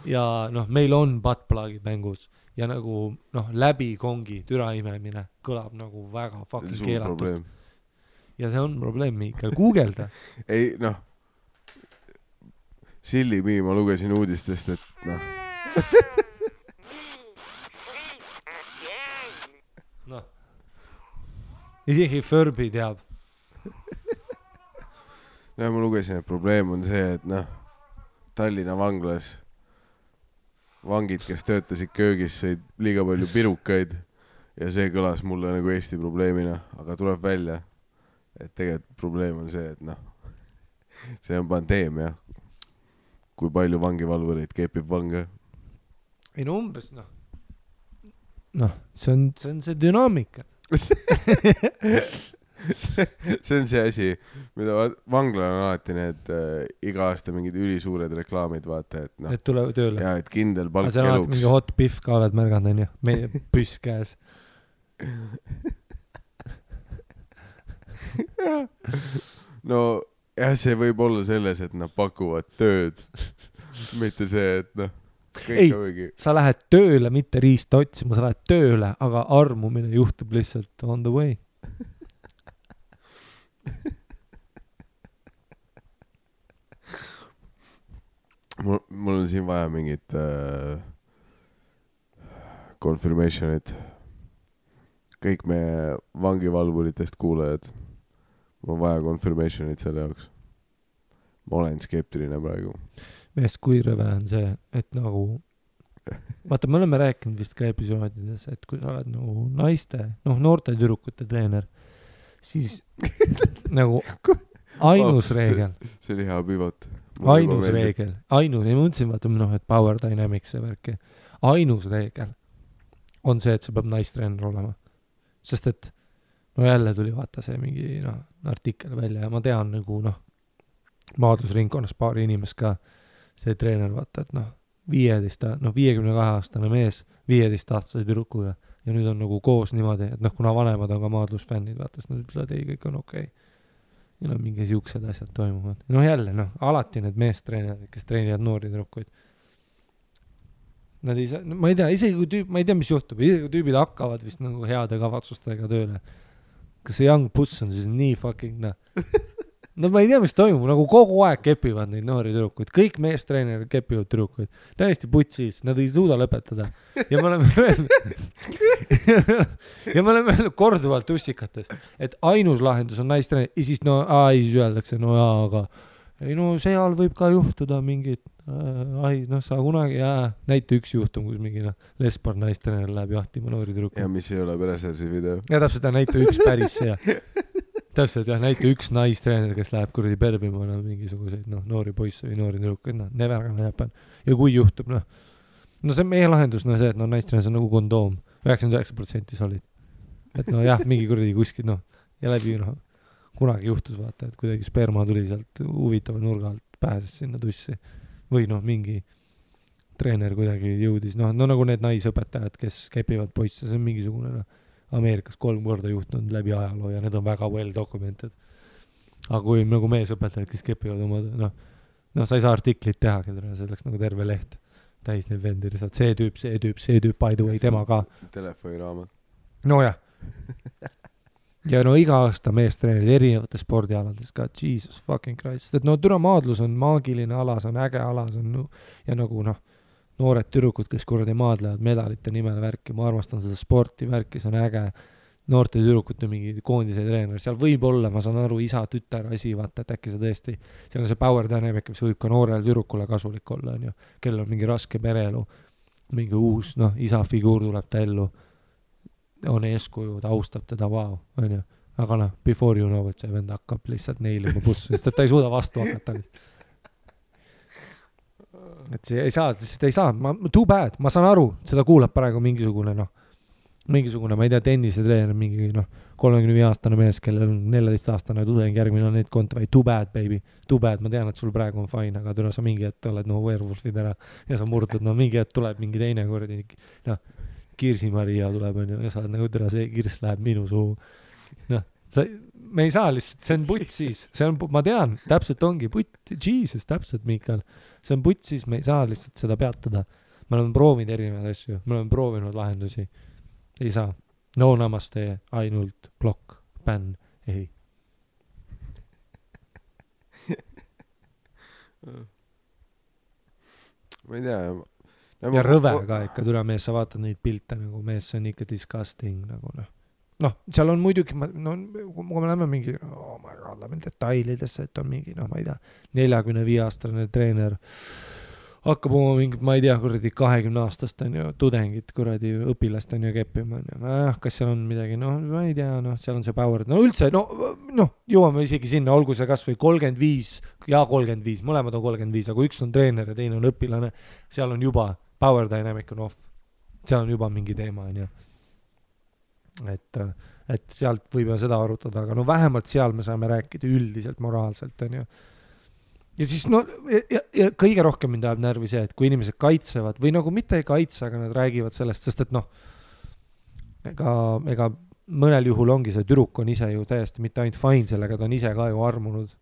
Ja noh, meil on buttplugid mängus. Ja nagu noh, läbi kongi türa imemine kõlab nagu väga fucking keelatud. Ja see on probleem, Miikal. Googelda. Ei, noh. Silli Mii, ma lugesin uudistest, et noh. Noh. Isegi Furby teab. No ma lugesin, et probleem on see, et noh, Tallinna vanglas vangid, kes töötasid köögis, sõid liiga palju pirukaid ja see kõlas mulle nagu Eesti probleemina, aga tuleb välja, et tegelikult probleem on see, et noh, see on pandeemia, kui palju vangivalvureid kepib vange. Ei no umbes, see on see dünaamika. see on see asi, mida vanglal on alati need iga aasta mingid ülisuured reklaamid, vaata, et noh. Et tulevad tööle. Ja, et kindel palk eluks. Aga see on mingi hot pihv ka oled märganud, on ju. Meie püss käes. No jah, see võib olla selles, et nad pakuvad tööd. Mitte see, et noh. Ei, sa lähed tööle, mitte riista otsima, sa lähed tööle, aga armumine juhtub lihtsalt on the way. Mul on siin vaja mingit confirmationit. Kõik meie vangivalvuritest kuulajad. Mul on vaja confirmationit selle jaoks. Ma olen skeptiline praegu. Meest kui rõve on see, et nagu vaata, me oleme rääkinud vist ka episoodides, et kui sa oled nagu naiste, noorte tüdrukute treener, siis nagu ainus reegel. See oli hea pivot. Ainus reegel. Ei mõtlesin, vaata, et Power Dynamics see värki. Ainus reegel on see, et see peab naistreener olema. Sest et jälle tuli vaata see mingi artikkel välja ja ma tean nagu maadlusringkonnas paari inimest ka see treener, vaata, et 52-aastane mees 15-aastase tüdrukuga ja nüüd on nagu koos niimoodi, et kuna vanemad on ka maadlusfännid, vaata, siis nad ütlevad, ei, kõik on okei. Ja mingi siuksed asjad toimuvad. Jälle, alati need meestreenerid, kes treenivad noori tüdrukuid. Nad ei saa, ma ei tea, isegi kui ma ei tea, mis juhtub, isegi kui tüübid hakkavad vist nagu heade kavatsustega tööle. Kas see young puss on siis nii fucking ma ei tea, mis toimub, nagu kogu aeg kepivad neid noori tüdrukuid, kõik meestreenerid kepivad tüdrukuid, täiesti putsis, nad ei suuda lõpetada ja me oleme öelnud korduvalt ussikates, et ainus lahendus on naistreener ja siis siis öeldakse, aga ei seal võib ka juhtuda mingid sa kunagi näite üks juhtum, kus mingi lesbar naistreener läheb jahtima noori tüdrukuid ja mis ei ole Peresersi video ja täpselt näite üks päris see täpselt näite üks naistreener, kes läheb kuradi perbima mingisuguseid noori poisse või noori tüdrukuid, never gonna happen. Ja kui juhtub, see on meie lahendus, see, et naistreener on nagu kondoom, 99% solid. Et mingi kuradi kuskil, ja läbi, kunagi juhtus, vaata, et kuidagi sperma tuli sealt huvitava nurga alt, pääses sinna tussi. Või mingi treener kuidagi jõudis, nagu need naisõpetajad, kes kepivad poisse, see on mingisugune, Ameerikas 3 korda juhtunud läbi ajaloo ja need on väga well documented. Aga kui nagu meesõpetajad, kes kepivad oma, sa ei saa artiklit teha, see oleks nagu terve leht täis neid vendir, see tüüp, by the way, tema ka. Telefoniraamat. Jah. Ja iga aasta meestreenerid erinevates spordialades ka, Jesus fucking Christ, et türa maadlus on maagiline ala, see on äge ala, see on ja nagu noored tüdrukud, kes kuradi maadlevad medalite nimel värki, ma armastan seda sporti värki, see on äge, noorte tüdrukute mingi koondise treener, seal võib olla, ma saan aru, isa, tütar, asi, vaata, et äkki see tõesti, seal on see power dynamic, mis võib ka noorel tüdrukule kasulik olla, on ju, kellel on mingi raske pereelu, mingi uus, isa figuur tuleb ta ellu, on eeskuju, ta austab teda, vau, on ju, aga before you know, et see vend hakkab lihtsalt neilima bussu, sest et ta ei suuda vastu hakata. Et see ei saa, too bad, ma saan aru, seda kuulab praegu mingisugune, ma ei tea, tennisetreener, mingi 35-aastane mees, kellel on 14-aastane tudeng, järgmine on neid kontra, too bad, baby, too bad, ma tean, et sul praegu on fine, aga sa mingi hetk oled werewolfid ära ja sa murdud, mingi hetk tuleb mingi teine kordi, Kirsi Maria tuleb, on ju, ja sa oled nagu see Kirs läheb minu suu, me ei saa lihtsalt, see on putsis, ma tean, täpselt ongi Jesus, täpselt Miikal, see on putsis, me ei saa lihtsalt seda peatada, me oleme proovinud erinevaid asju, me oleme proovinud lahendusi, ei saa, namaste, ainult blokk, bänn, ei. Ma ei tea, ja rõve ka ikka, türa mees, sa vaatad neid pilte nagu mees, see on ikka disgusting nagu seal on muidugi, kui me läheme mingi, ma lähen detailidesse, et on mingi, ma ei tea, 45-aastane treener hakkab oma mingit, ma ei tea, kuradi 20-aastast on ju tudengit, kuradi õpilast on ju keppima, kas seal on midagi, ma ei tea, seal on see power, üldse, jõuame isegi sinna, olgu see kas või 35 ja 35, mõlemad on 35, aga üks on treener ja teine on õpilane, seal on juba power dynamic on off, seal on juba mingi teema, on ju. et sealt võib ju seda arutada, aga no vähemalt seal me saame rääkida üldiselt moraalselt, on ju. Ja siis no, ja kõige rohkem mind ajab närvi see, et kui inimesed kaitsevad või nagu mitte ei kaitse, aga nad räägivad sellest, sest et noh, ega mõnel juhul ongi see tüdruk on ise ju täiesti mitte ainult fine sellega, ta on ise ka ju armunud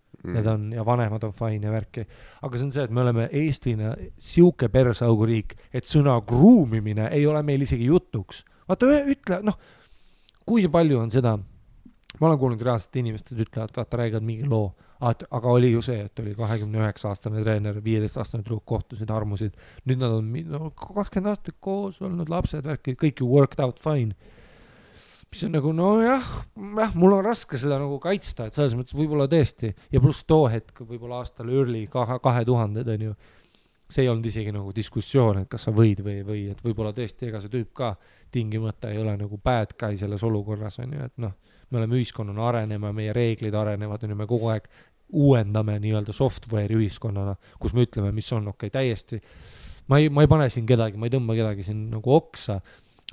ja vanemad on fine ja värki. Aga see on see, et me oleme Eestina siuke persauguriik, et sõna gruumimine ei ole meil isegi jutuks. Vaata, ütle, noh, kui palju on seda, ma olen kuulnud reaalselt inimesed ütlevad, vaata, räägivad mingi loo, aga oli ju see, et oli 29-aastane treener, 15-aastane tüdruk kohtusid, armusid, nüüd nad on 20 aastat koos olnud, lapsed, värki, kõik ju worked out fine. Mis on nagu, no jah, mul on raske seda nagu kaitsta, et selles mõttes võib-olla tõesti, ja pluss too hetk, võib-olla aastal early 2000 on ju, see ei olnud isegi nagu diskussioon, et kas sa võid või et võib-olla tõesti, ega see tüüp ka tingimata ei ole nagu bad guy selles olukorras, on ju, et noh, me oleme ühiskonnana arenema, meie reeglid arenevad, on ju, me kogu aeg uuendame nii-öelda software'i ühiskonnana, kus me ütleme, mis on okei, täiesti. Ma ei pane siin kedagi, ma ei tõmba kedagi siin nagu oksa,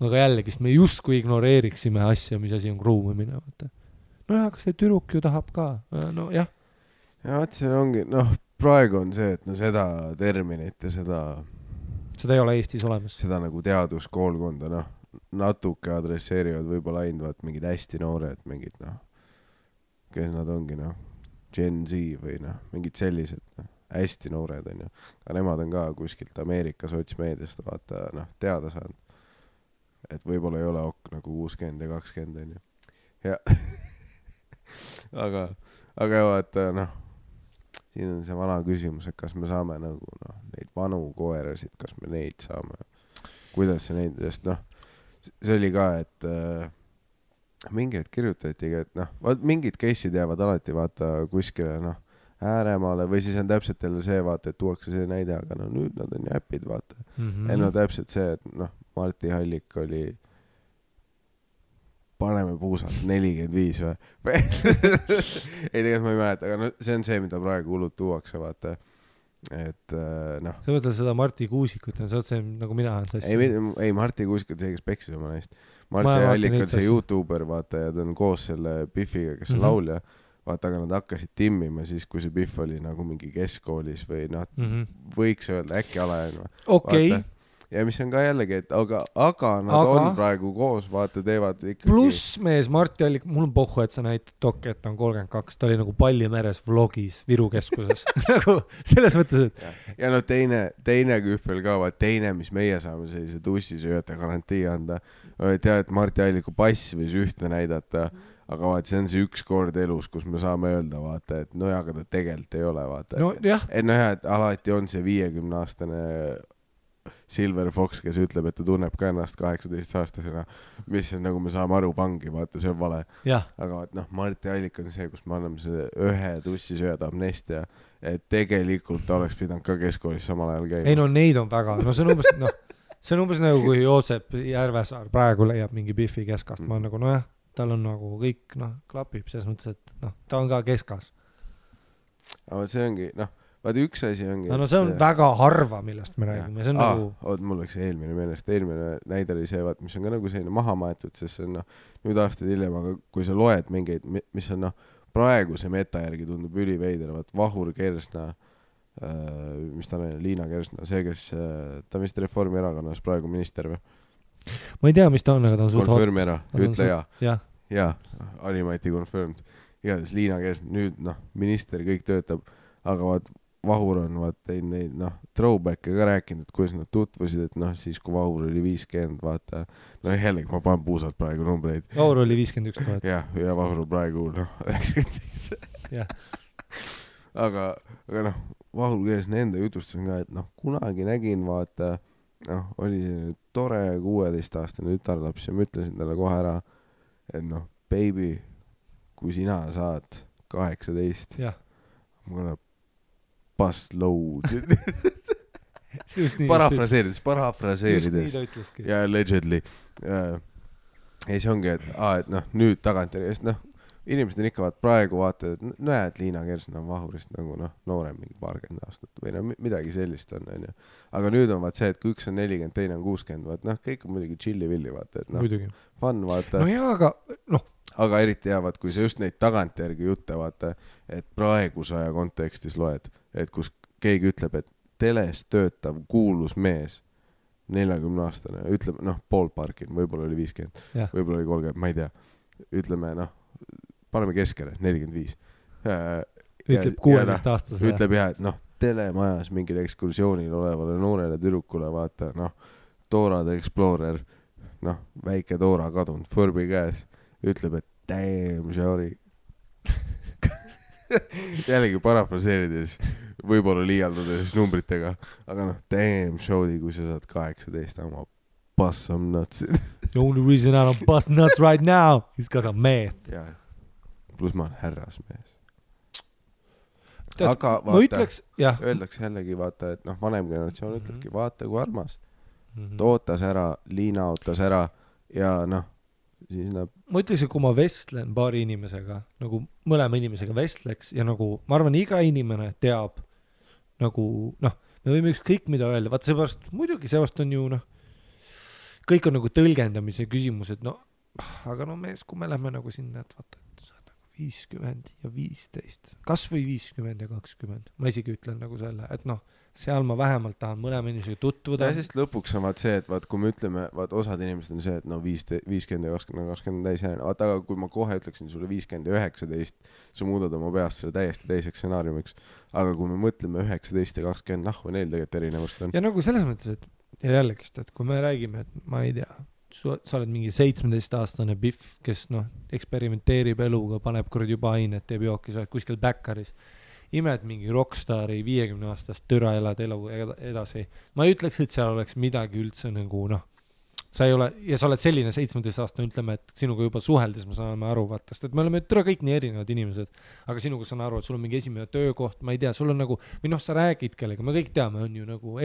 aga jällegi, me justkui ignoreeriksime asja, mis asi on gruumimine. No jah, aga see tüdruk ju tahab ka, no jah. Ja see ongi, noh, praegu on see, et no seda terminit ja seda ei ole Eestis olemas. Seda nagu teaduskoolkonda, noh, natuke adresseerivad võib-olla ainult mingid hästi noored, mingid, noh, kes nad ongi, noh, Gen Z või noh, mingid sellised, noh, hästi noored on ju. Aga nemad on ka kuskilt Ameerika sotsmeediast vaata, noh, teada saanud. Et võib-olla ei ole nagu 60 ja 20 on ju. Ja aga vaata, noh, siin on see vana küsimus, et kas me saame nagu, noh, neid vanu koerasid, kas me neid saame, kuidas see neid, sest noh, see oli ka, et mingid kirjutatigi, et noh, mingid case'id jäävad alati vaata kuskile, noh, ääremaale või siis on täpselt jälle see vaata, et tuuakse see näide, aga no nüüd nad on ju äpid vaata. No täpselt see, et noh, Marti Hallik oli paneme puusalt 45 või? Ei, tegelikult ma ei mäleta, aga no, see on see, mida praegu hullud tuuakse vaata. Et noh. Sa mõtled seda Marti Kuusikut, sa oled see nagu mina olen sassi. Ei, Marti Kuusikut see, kes peksis oma neist. Marti Hallik on see YouTuber vaata ja ta on koos selle Biffiga, kes on laulja. Vaata, aga nad hakkasid timmima siis, kui see Biff oli nagu mingi keskkoolis või noh, võiks öelda äkki alajaine. Okei. Ja mis on ka jällegi, et aga nad on praegu koos, vaata, teevad ikkagi. Pluss mees Marti Hallik, mul on pohhu, et sa näitad Toki, et ta on 32, ta oli nagu Pallimeres vlogis Viru keskuses. Nagu selles mõttes, et... Ja no teine kühvel ka, vaat teine, mis meie saame sellise tussisööjate garantii anda, tead, et Marti Halliku pass võis ühte näidata, aga vaat see on see üks kord elus, kus me saame öelda, vaata, et no aga ta tegelikult ei ole, vaata. No jah. Et no jah, et alati on see 50-aastane Silver Fox, kes ütleb, et ta tunneb ka ennast 18-aastasena, mis on nagu me saame aru vangi, vaata, see on vale. Aga vaat noh, Marti Hallik on see, kus me anname see ühe tussisööjad amnestia, et tegelikult ta oleks pidanud ka keskkoolis samal ajal käima. Ei no neid on väga, no see on umbes, noh, see on umbes nagu kui Joosep Järvesaar praegu leiab mingi Biffi keskast, ma on nagu, no jah, tal on nagu kõik, noh, klapib selles mõttes, et noh, ta on ka keskas. Aga see ongi, noh, vaata üks asi ongi... No see on väga harva, millest me räägime, see on nagu... Mul läks eelmine meelest, eelmine näide oli see, vaat, mis on ka nagu selline maha maetud, sest see on, noh, nüüd aastaid hiljem, aga kui sa loed mingeid, mis on, noh, praegu see meta järgi tundub üliveider, vaat Vahur Kersna, mis ta on, Liina Kersna, see, kes, ta on vist Reformierakonnas praegu minister või? Ma ei tea, mis ta on, aga ta on suht hot. Confirm ära, ütle ja. Ja, Animati confirmed. Igatahes Liina Kersna, nüüd, noh, minister kõik töötab, aga vaat Vahur on teinud neid, noh, throwback'e ka rääkinud, et kuidas nad tutvusid, et noh, siis kui Vahur oli 50, vaata, no jällegi ma panen puusalt praegu numbreid. Vahur oli 51 000. Ja Vahur praegu, noh, 97. Aga noh, Vahur Kersna enda jutustus on ka, et noh, kunagi nägin, vaata, noh, oli selline tore 16-aastane tütarlaps ja ma ütlesin talle kohe ära, et noh, baby, kui sina saad 18, ma olen bust load. Parafraseerides. Ja allegedly. Ja see ongi, et noh, nüüd tagantjärgi, sest noh, inimesed on ikka praegu vaatavad, et näed, Liina Kersna on vahurist nagu noorem mingi 20 aastat või midagi sellist on, onju. Aga nüüd on see, et kui üks on 40, teine on 60, vaat kõik on muidugi chilli-villi, vaata, et fun, vaata. No jaa, aga Aga eriti jäävad, kui sa just neid tagantjärgi jutte, vaata, et praeguse aja kontekstis loed, et kus keegi ütleb, et teles töötav kuulus mees, 40-aastane, ütleb, ballparkin, võib-olla oli 50, võib-olla oli 30, ma ei tea. Ütleme, paneme keskele, 45. Ütleb 16-aastase. Ütleb jah, et telemajas mingil ekskursioonil olevale noorele tüdrukule, vaata, Dora the Explorer, väike Dora kadunud, Furby käes, ütleb, et damn, sorry. Jällegi parafraseerides, võib-olla liialdades numbritega, aga damn, showdi, kui sa saad 18, ma bust some nuts. The only reason I don't bust nuts right now is because I'm math. Ja, plus ma olen härrasmees. Tead, aga ma vaata, ütleks, jah. öeldakse jällegi, vaata, et vanem generatsioon ütlebki, vaata kui armas. Tootas ära, Liina ootas ära ja siis ma ütleks, et kui ma vestlen paari inimesega, nagu mõlema inimesega vestleks ja nagu, ma arvan, iga inimene teab nagu, me võime ükskõik mida öelda, vaat seepärast, muidugi seepärast on ju, kõik on nagu tõlgendamise küsimused, aga mees, kui me lähme nagu sinna, et vaata, et sa oled nagu 50 ja 15, kas või 50 ja 20, ma isegi ütlen nagu selle, et seal ma vähemalt tahan mõlema inimesega tutvuda. Ja sest lõpuks on see, et vaat kui me ütleme, vaat osad inimesed on see, et 50 ja 20 täis jääne, vaata, aga kui ma kohe ütleksin sulle 50 ja 19, sa muudad oma peast selle täiesti teiseks stsenaariumiks, aga kui me mõtleme 19 ja 20, või neil tegelikult erinevust on. Ja nagu selles mõttes, et ja jällegist, et kui me räägime, et ma ei tea, sa oled mingi 17-aastane Biff, kes eksperimenteerib eluga, paneb kuradi juba ainet, teeb jooki, sa oled kuskil Backeris, imed mingi rockstari 50-aastast türa elad elu edasi. Ma ei ütleks, et seal oleks midagi üldse nagu, sa ei ole, ja sa oled selline 17-aastane, ütleme, et sinuga juba suheldes me saame aru, vaata, sest et me oleme türa kõik nii erinevad inimesed, aga sinuga saan aru, et sul on mingi esimene töökoht, ma ei tea, sul on nagu, või sa räägid kellega, me kõik teame, on ju nagu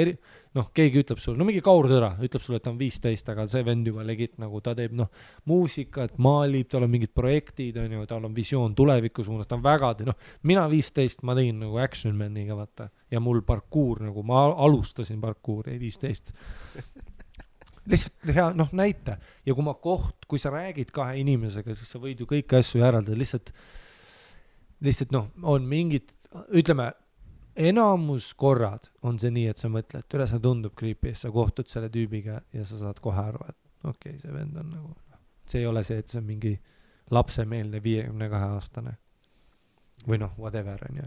keegi ütleb sulle, mingi kaurtõra, ütleb sulle, et ta on 15, aga see vend juba legit, nagu ta teeb, muusikat, maalib, tal on mingid projektid, on ju, tal on visioon tuleviku suunas, ta on väga, mina 15, ma tegin nagu Action Maniga, vaata, ja mul parkuur, nagu ma alustasin parkuuri 15. Lihtsalt hea, näita. Ja kui sa räägid kahe inimesega, siis sa võid ju kõiki asju järeldada. Lihtsalt on mingid, ütleme, enamus korrad on see nii, et sa mõtled, et üle sa tundub creepy, sa kohtud selle tüübiga ja sa saad kohe aru, et okei, see vend on nagu, see ei ole see, et see on mingi lapsemeelne 52-aastane. Või whatever, on ju.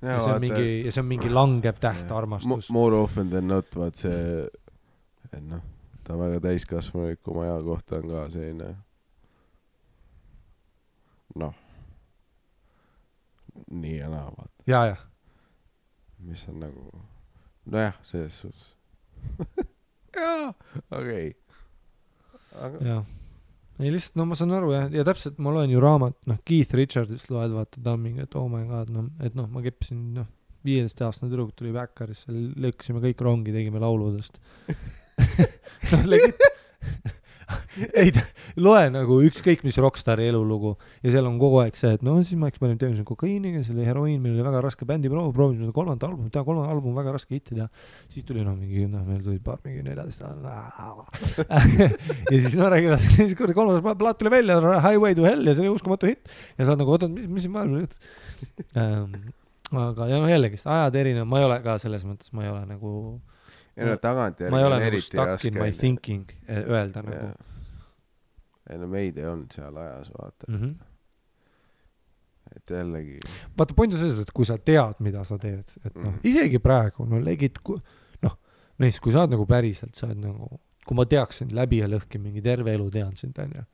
Ja see on mingi langev täht armastus. More often than not, vaat see et ta väga täiskasvanulik oma aja kohta on ka selline nii ja naa, vaata. Ja. Mis on nagu nojah, selles suhtes. Jaa, okei. Jaa. Ei lihtsalt, ma saan aru ja täpselt ma loen ju raamat, Keith Richardsist loed, vaata, ta on mingi, et oh my god, et ma keppisin, 15-aastane tüdruk tuli Backerisse, lõkkasime kõik rongi, tegime lauludest. Legit. Ei, loe nagu ükskõik mis rockstari elulugu ja seal on kogu aeg see, et siis ma eksperimenteerisin kokaiiniga, see oli heroiin, meil oli väga raske bändi proovisime seda kolmanda album väga raske hittida, siis tuli meil tuli paar mingi 14 ja siis räägivad, siis kolmandas plaat tuli välja, Highway to Hell ja see oli uskumatu hitt ja sa oled nagu, ootad, mis siin maailma nüüd aga jällegi, ajad erinev, ma ei ole ka selles mõttes, ma ei ole nagu ma ei ole nagu stuck in my thinking öelda nagu. Ei meid ei olnud seal ajas, vaata. Et jällegi. Vaata, point on selles, et kui sa tead, mida sa teed, et isegi praegu, legid, mees, kui sa oled nagu päriselt, sa oled nagu, kui ma teaksin läbi ja lõhki mingi terve elu tean sind, on ju,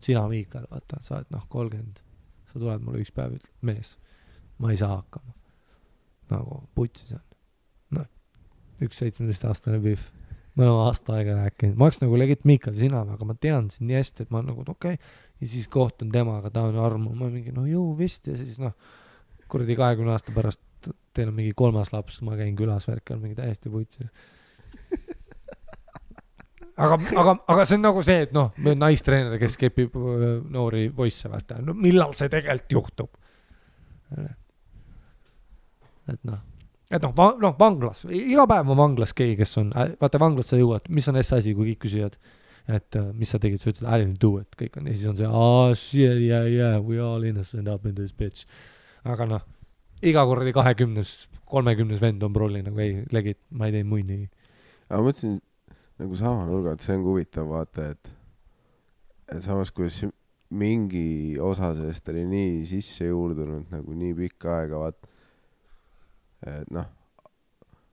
sina Miikal, vaata, sa oled 30, sa tuled mulle üks päev, ütled, mees, ma ei saa hakkama. Nagu putsis on. Üks 17-aastane Biff. Ma olen aasta aega rääkinud. Ma oleks nagu legit Miikal sina, aga ma tean sind nii hästi, et ma nagu, okei. Ja siis kohtun temaga, ta on armu. Ma mingi, jõu vist. Ja siis kuradi 20 aasta pärast teil on mingi 3. laps, ma käin külas värkal mingi täiesti putsis. aga see on nagu see, et noh, naistreener, kes kepib noori poisse, vaata, no millal see tegelikult juhtub? Et noh, vanglas, iga päev on vanglas keegi, kes on, vaata vanglas sa jõuad, mis on asi, kui kõik küsivad, et mis sa tegid, sa ütled, I didn't do it, kõik on, ja siis on see, shit, yeah, we all innocent up in this bitch. Aga noh, iga kordi 20-30 vend on prolli, nagu ei, legid, ma ei tee muid nii. Aga ma mõtlesin, nagu sama nurga, et see on huvitav vaata, et samas kuidas mingi osa sellest oli nii sisse juurdunud nagu nii pikka aega, vaat, et noh,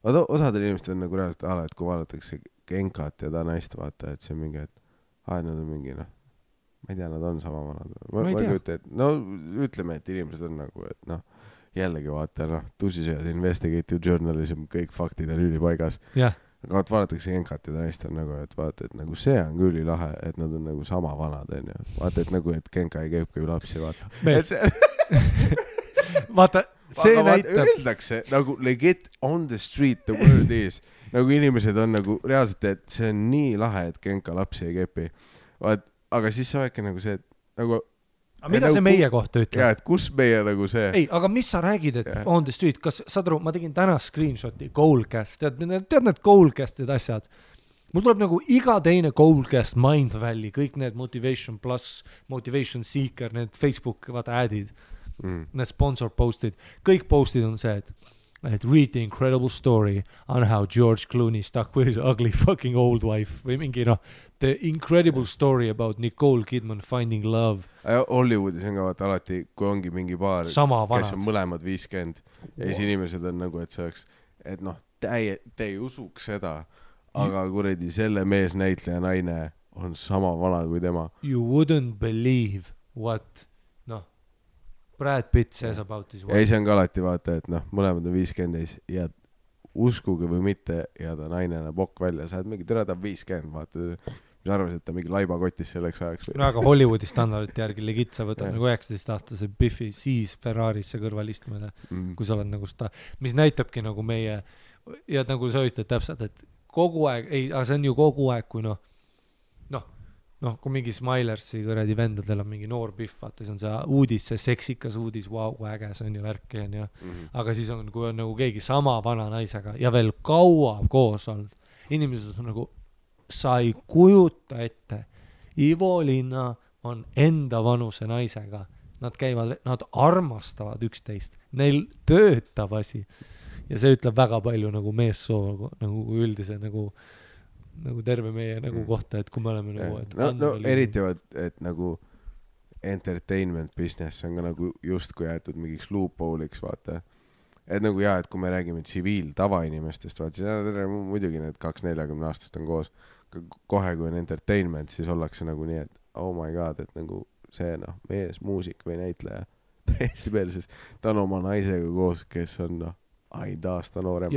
osadel inimestel on nagu reaalselt ala, et kui vaadatakse Genkat ja ta naist vaata, et see on mingi, et nad on mingi, noh, ma ei tea, nad on sama vanad. Ma ei tea. No ütleme, et inimesed on nagu, et noh, jällegi vaata, noh, tusisööd, investigative journalism, kõik faktid on ülipaigas. Yeah. Aga vaadatakse Genkat ja ta naist on nagu, et vaata, et nagu see on küll lahe, et nad on nagu sama vanad, on ju. Vaata, et nagu, et Genka ei käibki lapsi, vaata. Vaata, see näitab. Öeldakse nagu legit on the street the word is. Nagu inimesed on nagu reaalselt, et see on nii lahe, et Genka lapsi ei kepi. Vaat, aga siis sa väike nagu see, et nagu... Aga mida see meie kohta ütleb? Jaa, et kus meie nagu see... Ei, aga mis sa räägid, et on the street? Kas saad aru, ma tegin täna screenshoti Goalcast, tead need Goalcastid asjad? Mul tuleb nagu iga teine Goalcast, Mindvalley, kõik need Motivation Plus, Motivation Seeker, need Facebook adid, need sponsor postid, kõik postid on see, et read the incredible story on how George Clooney stuck with his ugly fucking old wife või mingi the incredible story about Nicole Kidman finding love. Hollywoodis on ka vaata alati, kui ongi mingi paar, kes on mõlemad 50 ja siis inimesed on nagu, et see oleks, et noh, te ei usuks seda, aga kuredi selle meesnäitleja naine on sama vana kui tema. You wouldn't believe what Brad Pitt says about his wife. Ja see on ka alati vaata, et noh, mõlemad on 50 ja uskuge või mitte ja ta naine näeb okk välja, sa oled mingi ta 50, vaata, mis arvasid, et ta mingi laibakotis selleks ajaks. No aga Hollywoodi standardite järgi legit sa võtad nagu 19-aastase Biffi siis Ferrarisse kõrval istmele, kui sa oled nagu seda, mis näitabki nagu meie, ja nagu sa ütled täpselt, et kogu aeg, aga see on ju kogu aeg, kui kui mingi Smilersi kõredi vendadel on mingi noor Biff, vaata, see on see uudis, see seksikas uudis, wow, äge, see on ju värki, on ju. Aga siis on, kui on nagu keegi sama vana naisega ja veel kaua koos olnud, inimesed on nagu, sa ei kujuta ette, Ivo Linna on enda vanuse naisega, nad armastavad üksteist, neil töötab asi ja see ütleb väga palju nagu meessoo, nagu üldise nagu terve meie nagu kohta, et kui me oleme nagu... eriti, et nagu entertainment business on ka nagu justkui jäetud mingiks loophole'iks, vaata. Et nagu et kui me räägime tsiviil tavainimestest, vaata, siis muidugi need 2-40 aastast on koos. Kohe kui on entertainment, siis ollakse nagu nii, et oh my god, et nagu see mees, muusik või näitleja täiesti peelses. Ta on oma naisega koos, kes on ainult aasta noorem.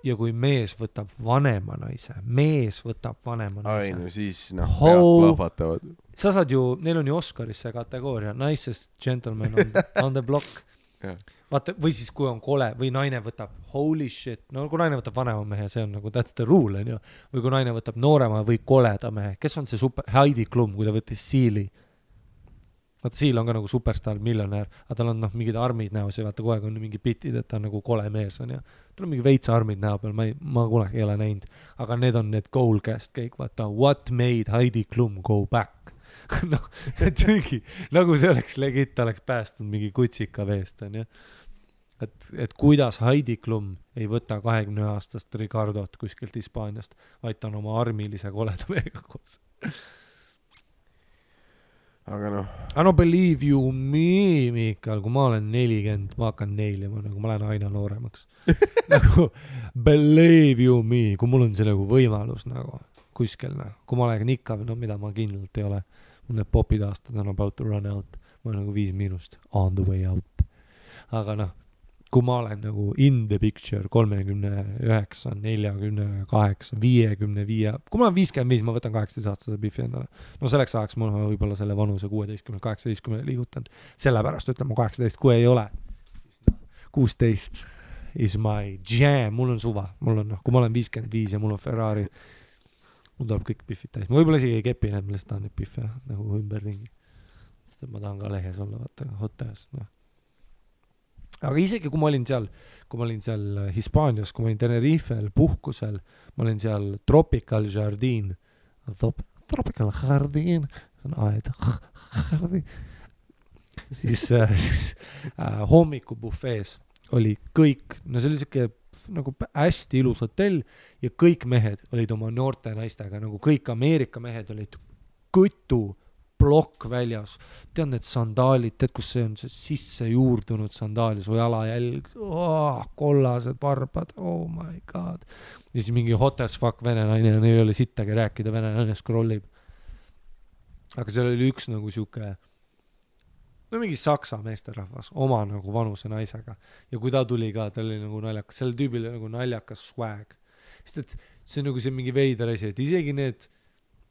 Ja kui mees võtab vanema naise. Ai, no siis pead plahvatavad. Sa saad ju, neil on ju Oscarisse kategooria, nicest gentleman on the block. Vaata, või siis kui on kole, või naine võtab holy shit, no kui naine võtab vanema mehe, see on nagu that's the rule, on ju. Või kui naine võtab noorema või koleda mehe, kes on see super, Heidi Klum, kui ta võttis Seali. Vaata, Seal on ka nagu superstar, miljonär, aga tal on mingid armid näos ja vaata kogu aeg on mingi bitid, et ta on nagu kole mees on ja tal on mingi veitsa armid näo peal, ma kunagi ei ole näinud, aga need on need Goalcast kõik, vaata, what made Heidi Klum go back? Et mingi, nagu see oleks legit, ta oleks päästnud mingi kutsika veest, on ja. Et kuidas Heidi Klum ei võta 20-aastast Ricardot kuskilt Hispaaniast, vaid ta on oma armilise koleda mehega koos. Aga believe you me, Miikal, kui ma olen 40, ma hakkan neilima, nagu ma lähen aina nooremaks. Nagu, believe you me, kui mul on see nagu võimalus nagu kuskil, kui ma olen ikka, mida ma kindlalt ei ole, mul need popid aastad on about to run out, ma olen nagu 5 on the way out. Aga kui ma olen nagu in the picture 39, 48, 55, kui ma olen 55, ma võtan 18-aastase Biffi endale. No selleks ajaks mul võib-olla selle vanuse 16, 18 liigutanud. Sellepärast ütleme 18, kui ei ole. 16 is my jam, mul on suva. Mul on, kui ma olen 55 ja mul on Ferrari, mul tuleb kõik pihvid täis, ma võib-olla isegi ei kepi need, ma lihtsalt tahan neid pihve nagu ümberringi, sest et ma tahan ka lehes olla, vaata, hotellis, noh. Aga isegi kui ma olin seal Hispaanias, kui ma olin Tenerifel puhkusel, ma olin seal Tropical Jardin, see on aed, siis hommikubufees oli kõik, no see oli siuke nagu hästi ilus hotell ja kõik mehed olid oma noorte naistega, nagu kõik Ameerika mehed olid kõtu plokk väljas, tead need sandaalid, tead kus see on see sisse juurdunud sandaal ja su jalajälg, kollased varbad, oh my god, ja siis mingi hot as fuck vene naine, neil ei ole sittagi rääkida, vene naine scrollib, aga seal oli üks nagu siuke no mingi saksa meesterahvas oma nagu vanuse naisega ja kui ta tuli ka, ta oli nagu naljakas, selle tüübil nagu naljakas swag, sest et see on nagu see mingi veider asi, et isegi need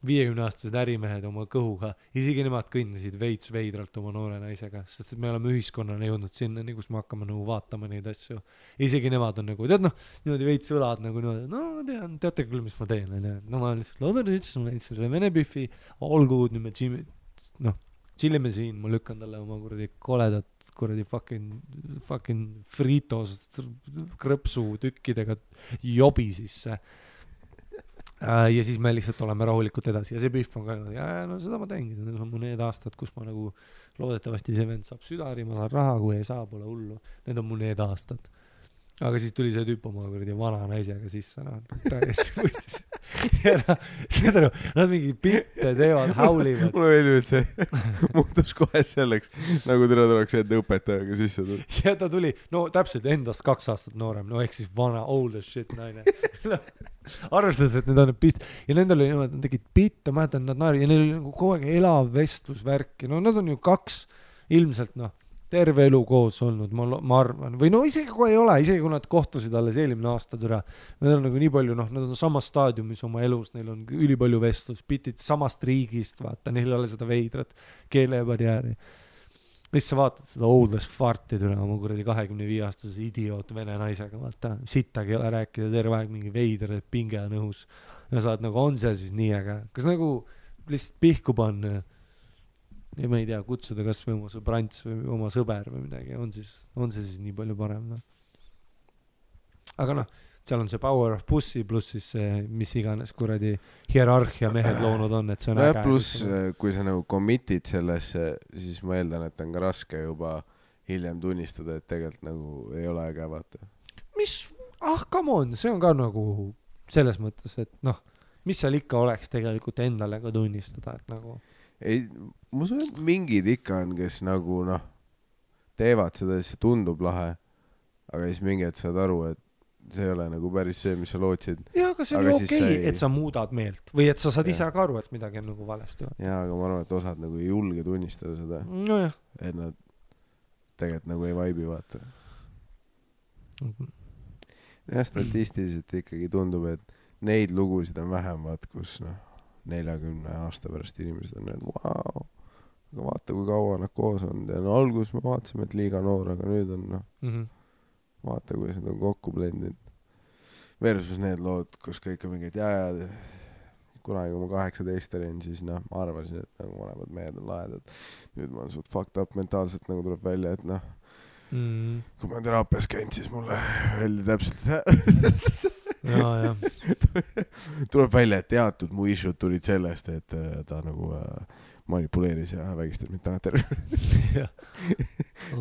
50-aastased ärimehed oma kõhuga, isegi nemad kõndisid veits veidralt oma noore naisega, sest et me oleme ühiskonnana jõudnud sinna, kus me hakkame nagu vaatama neid asju, isegi nemad on nagu, tead noh, niimoodi veits õlad nagu niimoodi, no ma tean, teate küll, mis ma teen, no ma lihtsalt loodan, et ma näitsin selle vene pühvi, olgu, nüüd me noh, chillime siin, ma lükkan talle oma kuradi koledat kuradi fucking fritos krõpsu tükkidega jobi sisse ja siis me lihtsalt oleme rahulikult edasi ja see pühv on ka no seda ma teengi, need on mu need aastad, kus ma nagu loodetavasti see vend saab südari, ma saan raha, kui ei saa, pole hullu, need on mu need aastad. Aga siis tuli see tüüp oma kuradi vana naisega sisse, noh, täiesti võtsis. Ja seda nad mingi pilte teevad, haulivad. Mulle meeldib, et see muutus kohe selleks, nagu teda tuleks enda õpetajaga sisse tuli. Ja ta tuli, no täpselt endast 2 aastat noorem, no ehk siis vana, old as shit naine. Arvestades, et need on pist ja nendel oli niimoodi, nad tegid pitte, ma mäletan, nad naeri ja neil oli nagu kogu aeg elav vestlusvärki, no nad on ju 2 ilmselt, noh, terve elu koos olnud, ma arvan, või no isegi kui ei ole, isegi kui nad kohtusid alles eelmine aasta türa, nad on nagu nii palju, noh, nad on samas staadiumis oma elus, neil on ülipalju vestlus, pitid samast riigist, vaata, neil ei ole seda veidrat keelebarjääri. Mis sa vaatad seda oldest farti türa, oma kuradi 25-aastase idioot vene naisega, vaata, sittagi ei ole rääkida, terve aeg mingi veider, pinge on õhus. Ja saad nagu, on see siis nii äge? Kas nagu lihtsalt pihku panna ja ma ei tea, kutsuda kas või oma sõbrants või oma sõber või midagi, on see siis nii palju parem, noh. Aga noh, seal on see power of pussy pluss siis see, mis iganes kuradi hierarhia mehed loonud on, et see on äge. Pluss, kui sa nagu commitid sellesse, siis ma eeldan, et on ka raske juba hiljem tunnistada, et tegelikult nagu ei ole äge, vaata. Mis, come on, see on ka nagu selles mõttes, et noh, mis seal ikka oleks tegelikult endale ka tunnistada, et nagu ei, ma usun, et mingid ikka on, kes nagu noh, teevad seda, siis see tundub lahe, aga siis mingi, et saad aru, et see ei ole nagu päris see, mis sa lootsid. Jaa, aga see on ju okei, et sa muudad meelt või et sa saad ise ka aru, et midagi on nagu valesti. Jaa, aga ma arvan, et osad nagu ei julge tunnistada seda. No jah. Et nad tegelikult nagu ei vaibi, vaata. Ja statistiliselt ikkagi tundub, et neid lugusid on vähem, vaat, kus noh, 40 aasta pärast inimesed on need, vau, aga vaata, kui kaua nad koos on. Ja no algus me vaatasime, et liiga noor, aga nüüd on noh, vaata, kuidas nad on kokku blendid. Versus need lood, kus kõik on mingid jääd. Kunagi, kui ma 18 olin, siis noh, ma arvasin, et nagu vanemad mehed on laedad. Nüüd ma olen suht fucked up mentaalselt, nagu tuleb välja, et noh, kui ma teraapias käinud, siis mulle öeldi täpselt ja. Tuleb välja, et teatud mu issued tulid sellest, et ta nagu manipuleeris ja vägistas mind tagantjärgi.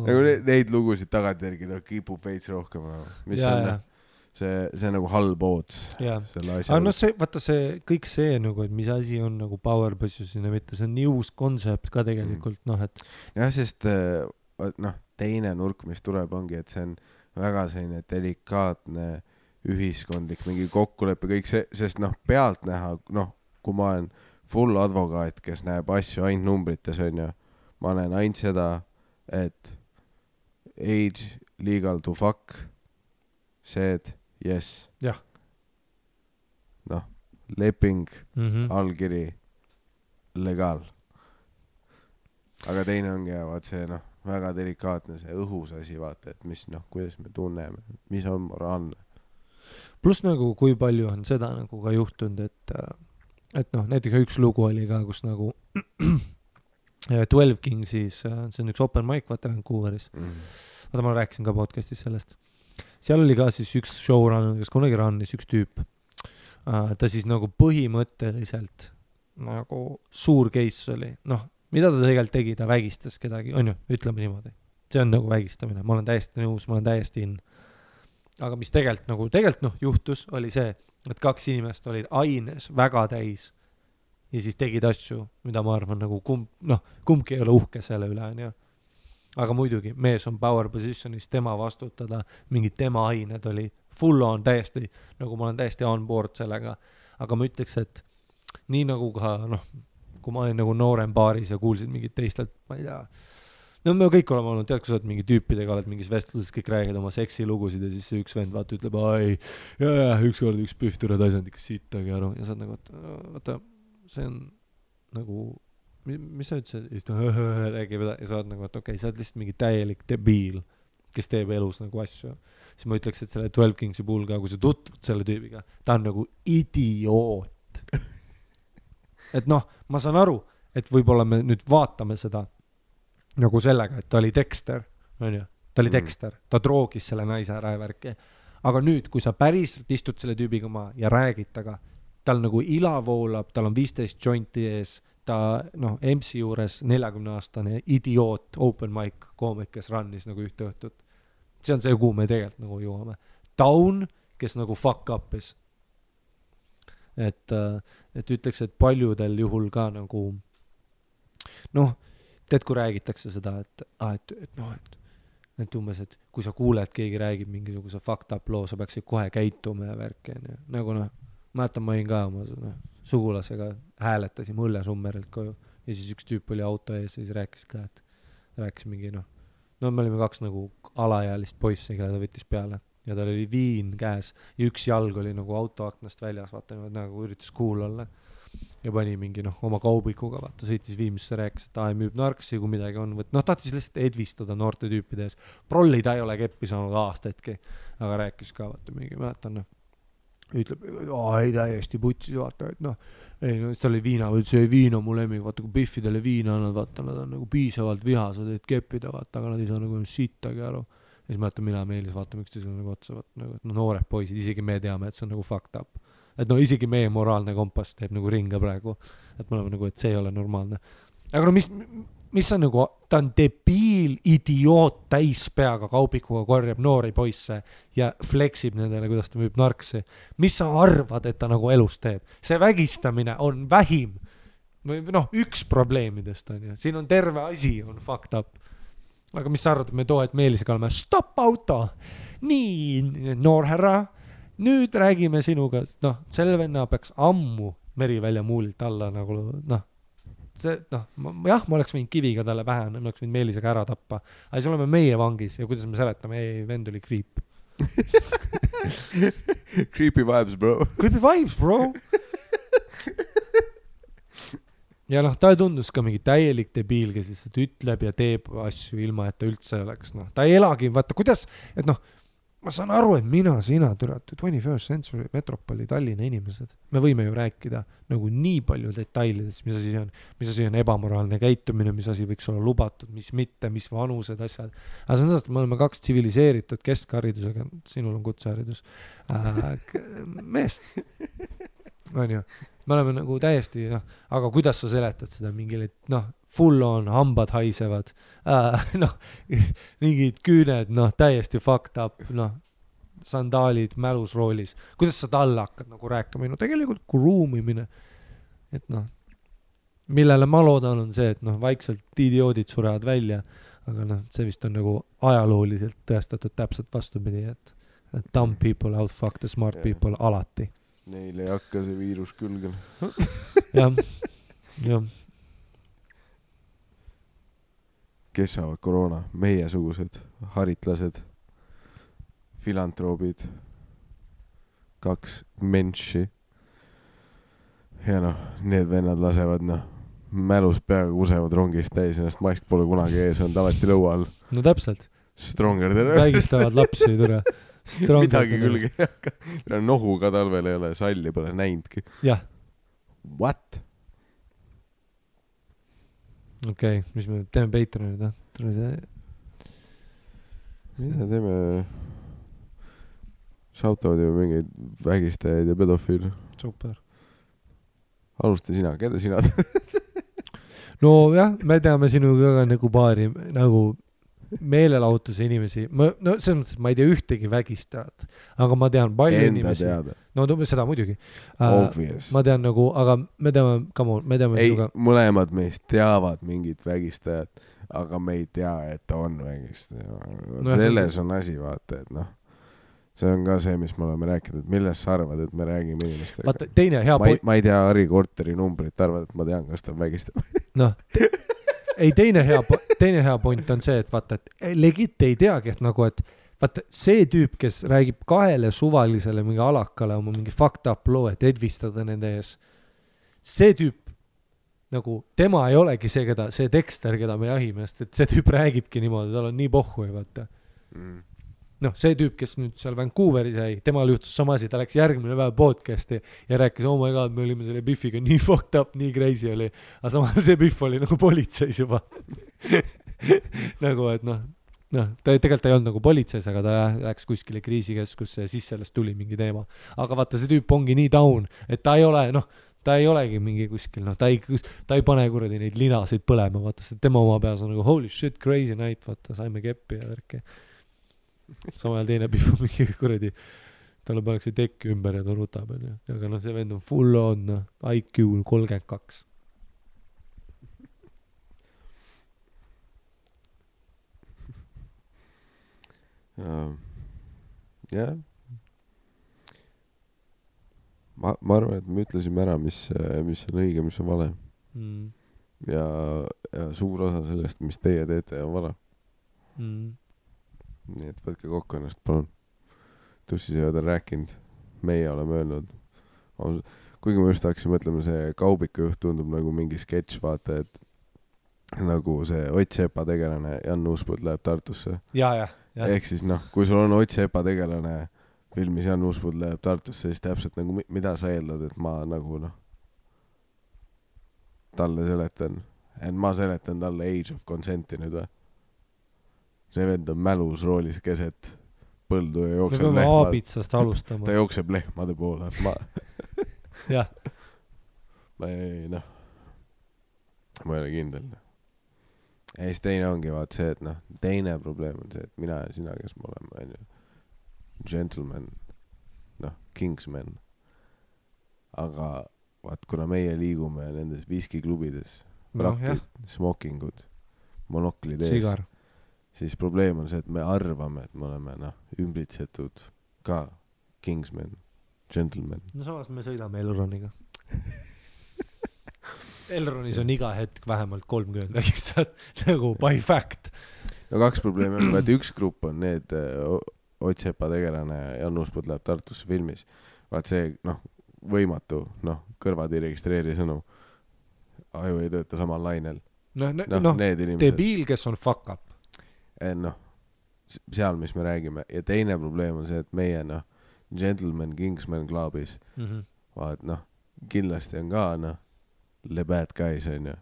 Nagu neid lugusid tagantjärgi kipub veits rohkem. Mis on see nagu halb oots. Aga no see, vaata see, kõik see nagu, et mis asi on nagu power position ja mitte, see on nii uus kontsept ka tegelikult, noh, et jah, sest noh, teine nurk, mis tuleb, ongi, et see on väga selline delikaatne ühiskondlik mingi kokkulepe, kõik see, sest noh, pealt näha, noh, kui ma olen full advokaat, kes näeb asju ainult numbrites, on ju, ma näen ainult seda, et age legal to fuck, said yes. Jah. Noh, leping, allkiri, legaal. Aga teine ongi, vaat see, noh, väga delikaatne see õhus asi, vaata, et mis, noh, kuidas me tunneme, mis on moraalne. Plus nagu, kui palju on seda nagu ka juhtunud, et et noh, näiteks üks lugu oli ka, kus nagu 12 King siis, see on üks open mic, vaata Vancouveris. Vaata, ma rääkisin ka podcastis sellest. Seal oli ka siis üks showrunner, kes kunagi runnis, üks tüüp. Ta siis nagu põhimõtteliselt nagu suur case oli. Noh, mida ta tegelikult tegi, ta vägistas kedagi, on ju, ütleme niimoodi. See on nagu vägistamine, ma olen täiesti nõus, ma olen täiesti in. Aga mis tegelikult juhtus, oli see, et 2 inimest olid aines väga täis ja siis tegid asju, mida ma arvan nagu kumbki ei ole uhke selle üle, on ju. Aga muidugi, mees on power positionis, tema vastutada, mingid tema ained oli full on täiesti, nagu ma olen täiesti on board sellega. Aga ma ütleks, et nii nagu ka, kui ma olin nagu noorem baaris ja kuulsin mingid teistelt, ma ei tea, no me kõik oleme olnud, tead, kui sa oled mingi tüüpidega, oled mingis vestluses, kõik räägid oma seksilugusid ja siis see üks vend vaata ütleb, ükskord üks pühtura taisand ikka sittagi aru ja sa oled nagu, vaata, see on nagu, mis sa ütlesid? Ja siis ta räägib ja sa oled nagu, et okei, sa oled lihtsalt mingi täielik debiil, kes teeb elus nagu asju. Siis ma ütleks, et selle 12 Kingsi puhul ka, kui sa tutvud selle tüübiga, ta on nagu idioot. Et ma saan aru, et võib-olla me nüüd vaatame seda nagu sellega, et ta oli Dexter, on ju, ta oli Dexter, ta droogis selle naise ära ja värki. Aga nüüd, kui sa päriselt istud selle tüübiga maa ja räägid taga, tal nagu ila voolab, tal on 15 jointi ees, ta MC juures 40-aastane idioot, open mic koomik, kes runnis nagu ühte õhtut. See on see, kuhu me tegelikult nagu jõuame. Down, kes nagu fuck up'is. Et ütleks, et paljudel juhul ka nagu tead, kui räägitakse seda, et umbes, et kui sa kuuled, keegi räägib mingisuguse fucked up loo, sa peaksid kohe käituma ja värki. Nagu mäletan, ma olin ka oma sugulasega, hääletasime Õllesummerilt koju ja siis üks tüüp oli auto ees ja siis rääkis ka, et rääkis mingi me olime 2 nagu alaealist poissi, kelle ta võttis peale ja tal oli viin käes ja üks jalg oli nagu autoaknast väljas, vaata, nagu üritas cool olla ja pani mingi oma kaubikuga, vaata, sõitis Viimsisse, rääkis, et müüb narksi, kui midagi on, tahtis lihtsalt edvistada noorte tüüpide ees. Prolli ta ei ole keppi saanud aastaidki, aga rääkis ka, vaata, mingi mäletan, ütleb, ei täiesti putsis, vaata, et siis ta oli viina, see viin on mu lemmik, vaata, kui Biffidele viina annad, vaata, nad on nagu piisavalt vihased, et keppida, vaata, aga nad ei saa nagu sittagi aru. Ja siis mäletan, mina Meelis vaatame üksteisele nagu otsa, vaata, et noored poisid, isegi me teame, et see on nagu fucked up. Et isegi meie moraalne kompass teeb nagu ringa praegu, et me oleme nagu, et see ei ole normaalne. Aga mis on nagu, ta on debiil, idioot, täis peaga kaubikuga korjab noori poisse ja fleksib nendele, kuidas ta müüb narksi. Mis sa arvad, et ta nagu elus teeb? See vägistamine on vähim, üks probleemidest on ju. Siin on terve asi, on fucked up. Aga mis sa arvad, et me et Meelisega oleme, stop auto, nii noorherra, nüüd räägime sinuga, selle venna peaks ammu Merivälja muulilt alla nagu, see, ma oleks võinud kiviga talle pähe, ma oleks võinud Meelisega ära tappa, aga siis oleme meie vangis ja kuidas me seletame, vend oli creep. Creepy vibes, bro. Creepy vibes, bro. Ja ta tundus ka mingi täielik debiil, kes lihtsalt ütleb ja teeb asju ilma, et ta üldse oleks, ta ei elagi, vaata, kuidas, et ma saan aru, et sina, 21st century metropoli Tallinna inimesed, me võime ju rääkida nagu nii palju detailidest, mis asi on ebamoraalne käitumine, mis asi võiks olla lubatud, mis mitte, mis vanused, asjad. Aga see on sellest, et me oleme 2 tsiviliseeritud keskharidusega, sinul on kutseharidus, meest, on ju, me oleme nagu täiesti, aga kuidas sa seletad seda mingile, full on, hambad haisevad, mingid küüned, täiesti fucked up, sandaalid mälusroolis. Kuidas sa talle hakkad nagu rääkima? Tegelikult ruumimine, et millele ma loodan on see, et vaikselt idioodid surevad välja, aga see vist on nagu ajalooliselt tõestatud täpselt vastupidi, et dumb people outfuck the smart people alati. Neil ei hakka see viirus külgen. jah. Kes saavad koroona? Meiesugused, haritlased, filantroobid, 2 menši. Ja need vennad lasevad, mälus peaga kusevad rongist täis, ennast mask pole kunagi ees, on alati lõua all. No täpselt. Stronger tere. Vägistavad lapsi, tere. Midagi külge ei hakka. Nohu ka talvel ei ole, salli pole näinudki. Jah. what? okei, mis me teeme Patreonid, mida teeme? Shoutavad ju mingeid vägistajaid ja pedofiile. super. Alusta sina, keda sina no jah, me teame sinuga ka nagu paari nagu meelelahutuse inimesi. No selles mõttes, et ma ei tea ühtegi vägistajat, aga ma tean palju enda inimesi. teada. No seda muidugi. Obvious. Ma tean nagu, aga me teame, come on, me teame ei, sinuga. mõlemad meist teavad mingit vägistajat, aga me ei tea, et ta on vägistaja. No, selles on asi, vaata, et noh. See on ka see, mis me oleme rääkinud, et millest sa arvad, et me räägime inimestega. Vaata, teine hea ma ei tea Harri Korteri numbrit, arvad, et ma tean, kas ta vägistab. noh, ei, teine hea point on see, et vaata, et legit ei teagi, et nagu, et vaata, see tüüp, kes räägib kahele suvalisele mingi alakale oma mingi fucked up loo, et edvistada nende ees, see tüüp nagu, tema ei olegi see tekster, keda me jahime, sest et see tüüp räägibki niimoodi, tal on nii pohhu ja vaata. Noh, see tüüp, kes nüüd seal Vancouveris jäi, temal juhtus sama asi, ta läks järgmine päev podcasti ja rääkis, oh my god, me olime selle Biffiga nii fucked up, nii crazy oli, aga samal see Biff oli nagu politseis juba. nagu, et noh, ta tegelikult ei olnud nagu politseis, aga ta läks kuskile kriisikeskusse ja siis sellest tuli mingi teema. Aga vaata, see tüüp ongi nii down, et ta ei ole, ta ei olegi mingi kuskil, ta ei pane kuradi neid linasid põlema, vaata, see tema oma peas on nagu holy shit, crazy night, vaata, saime keppi ja värki. Samal teine Biff on mingi kuradi, talle pannakse tekki ümber ja ta rutab, aga see vend on full on IQ 32. jah. Ma arvan, et me ütlesime ära, mis on õige, mis on vale. Ja suur osa sellest, mis teie teete, on vale. Nii et võtke kokku ennast, palun. Tussisööd on rääkinud, meie oleme öelnud. Kuigi ma just hakkasin mõtlema, see Kaubiku juht tundub nagu mingi sketš, vaata, et nagu see Ott Sepa tegelane Jan Uuspõld läheb Tartusse. Ja. Ehk siis kui sul on Ott Sepa tegelane filmis Jan Uuspõld läheb Tartusse, siis täpselt nagu, mida sa eeldad, et ma nagu talle seletan. Et ma seletan talle Age of Consenti nüüd või? See vend on mälus roolis keset põldu ja jookseb lehmad. Me peame aabitsast alustama. Ta jookseb lehmade poole. jah. Ma ei ole kindel. Ja siis teine ongi vaat see, et teine probleem on see, et mina ja sina, kes me oleme, gentleman, kingsman. Aga vaat, kuna meie liigume nendes viskiklubides, praktid, smokingud, monoklid ees. Sigar. Siis probleem on see, et me arvame, et me oleme ümbritsetud ka kingsman, gentleman. No samas me sõidame Elroniga. Elronis on iga hetk vähemalt 30 vägistajat, nagu by fact. No 2 probleemi on, et üks grupp on need Ott Sepa tegelane Jan Uuspõld läheb Tartusse filmis. Vaat see, võimatu, kõrvad ei registreeri sõnu. Aju ei tööta samal lainel. Debiil, kes on fuck up. Seal, mis me räägime. Ja teine probleem on see, et meie, gentleman, kingsman klubis, vaat, kindlasti on ka, le bad guys, on ju.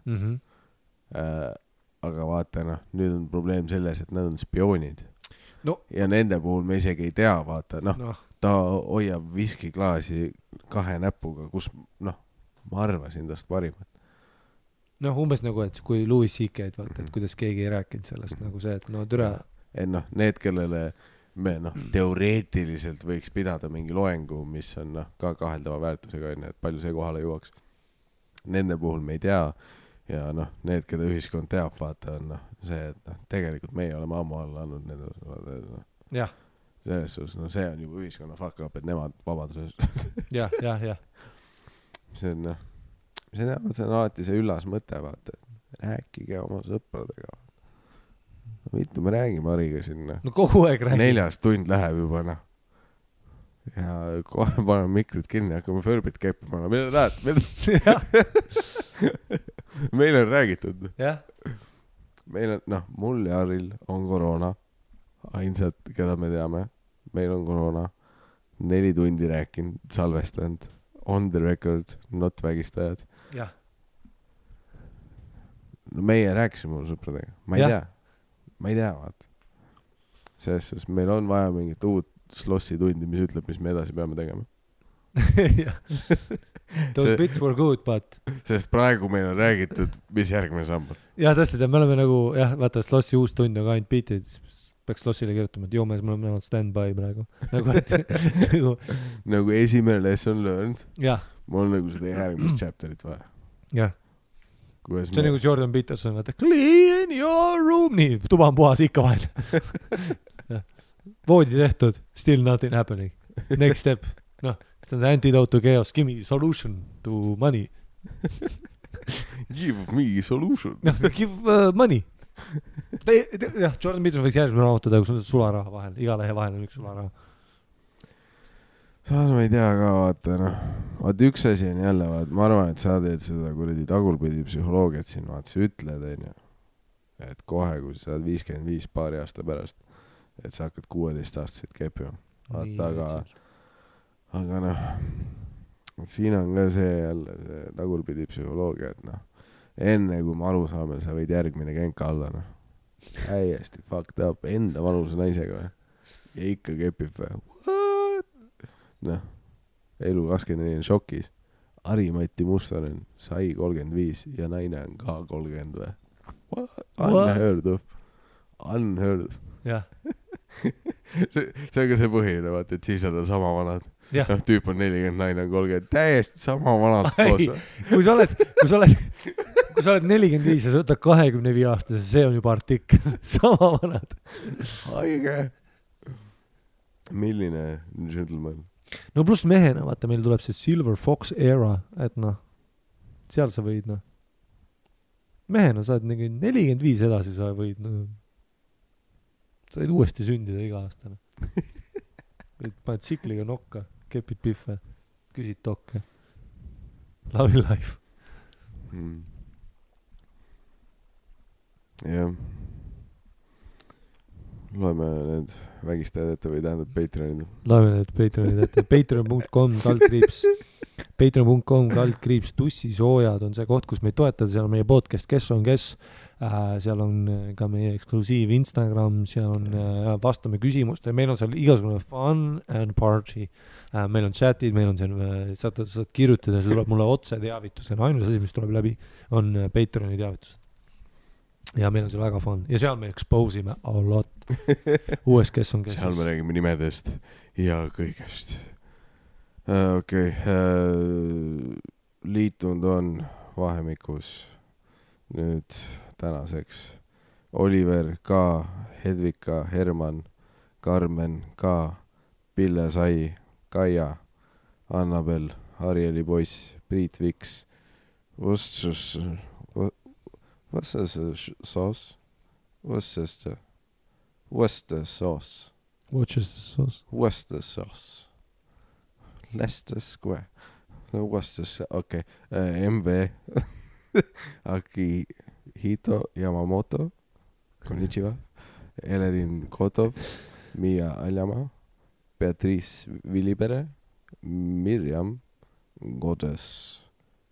Aga vaata, nüüd on probleem selles, et nad on spioonid. Ja nende puhul me isegi ei tea, vaata, ta hoiab viskiklaasi 2 näpuga, kus, ma arvasin tast parimat. Umbes nagu, et kui Louis C.K.'d vaata, et kuidas keegi ei rääkinud sellest, nagu see, et türa. Et need, kellele me, teoreetiliselt võiks pidada mingi loengu, mis on, ka kaheldava väärtusega, et palju see kohale jõuaks. Nende puhul me ei tea. Ja need, keda ühiskond teab, vaata, on see, et tegelikult meie oleme ammu alla andnud nende. Jah. Selles suhtes, see on juba ühiskonna fuck up, et nemad vabaduses. jah. See on alati see üllas mõte, vaata, et rääkige oma sõpradega. Mitu me räägime Hariga sinna. Kogu aeg räägime. 4 tund läheb juba, Ja kohe paneme mikrid kinni, hakkame Förbit keppima. Mida tahad? Meil on räägitud. Jah. Meil on, mul ja Haril on koroona. Ainsad, keda me teame. Meil on koroona. 4 tundi rääkinud, salvestanud. on the record, not vägistajad. jah. No meie rääkisime mul sõpradega, ma ei tea, vaata. Selles suhtes meil on vaja mingit uut slossi tundi, mis ütleb, mis me edasi peame tegema. Those bits were good, but sest praegu meil on räägitud, mis järgmine samm on. jah, tõesti, me oleme nagu, vaata, slossi uus tund on ka ainult beatid, peaks slossile kirjutama, et mees, me oleme stand-by praegu. Nagu esimene lesson learned. Jah. Mul on nagu seda järgmist chapterit vaja. Jah. See on nagu Jordan Peterson, vaata, clean your room, nii, tuba on puhas ikka vahel. Voodi tehtud, still nothing happening. Next step, see on the antidote to chaos, give me solution to money. Give me solution. Give money. Jah, Jordan Peterson võiks järgmine raamatu teha, kus on sularaha vahel, iga lehe vahel on üks sularaha. Saas ma ei tea ka, vaata üks asi on jälle, ma arvan, et sa teed seda kuradi tagurpidi psühholoogiat siin, sa ütled, et kohe, kui sa saad 55 paari aasta pärast, et sa hakkad 16-aastaseid kepima. Vaata, aga siin on ka see jälle see tagurpidi psühholoogia, et enne kui me aru saame, sa võid järgmine kenka alla, häiesti fucked up, enda vanuse naisega ja ikka kepib või. Elu 24 on šokis. Harimati Mustonen sai 35 ja naine on ka 30 või. Unheard of. Jah. See on ka see põhiline, vaata, et siis on sama vanad. Tüüp on 40, naine on 30. Täiesti sama vanad koos. Kui sa oled 45 ja sa võtad 25 aastase, see on juba artikkel. Sama vanad. Haige. Milline gentleman? No pluss mehena, vaata, meil tuleb see Silver Fox era, et seal sa võid, mehena saad 45 edasi, sa võid, sa võid uuesti sündida iga aastane. Paned tsikliga nokka, kepid pihve, küsid tokke. Love life. Jah. Loeme need vägistajad ette või tähendab Patreonid. Loeme need Patreonid ette. Patreon.com/Patreon.com/. Tussisoojad on see koht, kus meid toetada. Seal on meie podcast Kes on kes. Seal on ka meie eksklusiiv Instagram. Seal on vastame küsimuste. Meil on seal igasugune fun and party. Meil on chatid, meil on seal, saad kirjutada, see tuleb mulle otse teavitusena. Ainus asi, mis tuleb läbi, on Patreoni teavitused. Ja meil on see väga fun. Ja seal me expose'ime a lot. Uues Kes on kes. Seal me räägime nimedest ja kõigest. Okei. Liitunud on vahemikus nüüd tänaseks Oliver K, Hedvika, Herman, Karmen K, Pille Sai, Kaia, Annabel, Arieli poiss, Priit Viks, What's this sauce? Worcester sauce. Worcester sauce. Leicester Square. No, Worcester, okei. MV. Akihito Yamamoto. Konnichiwa. Elerin Kotov. Mia Aljama. Beatrice Vilipere. Mirjam Godes.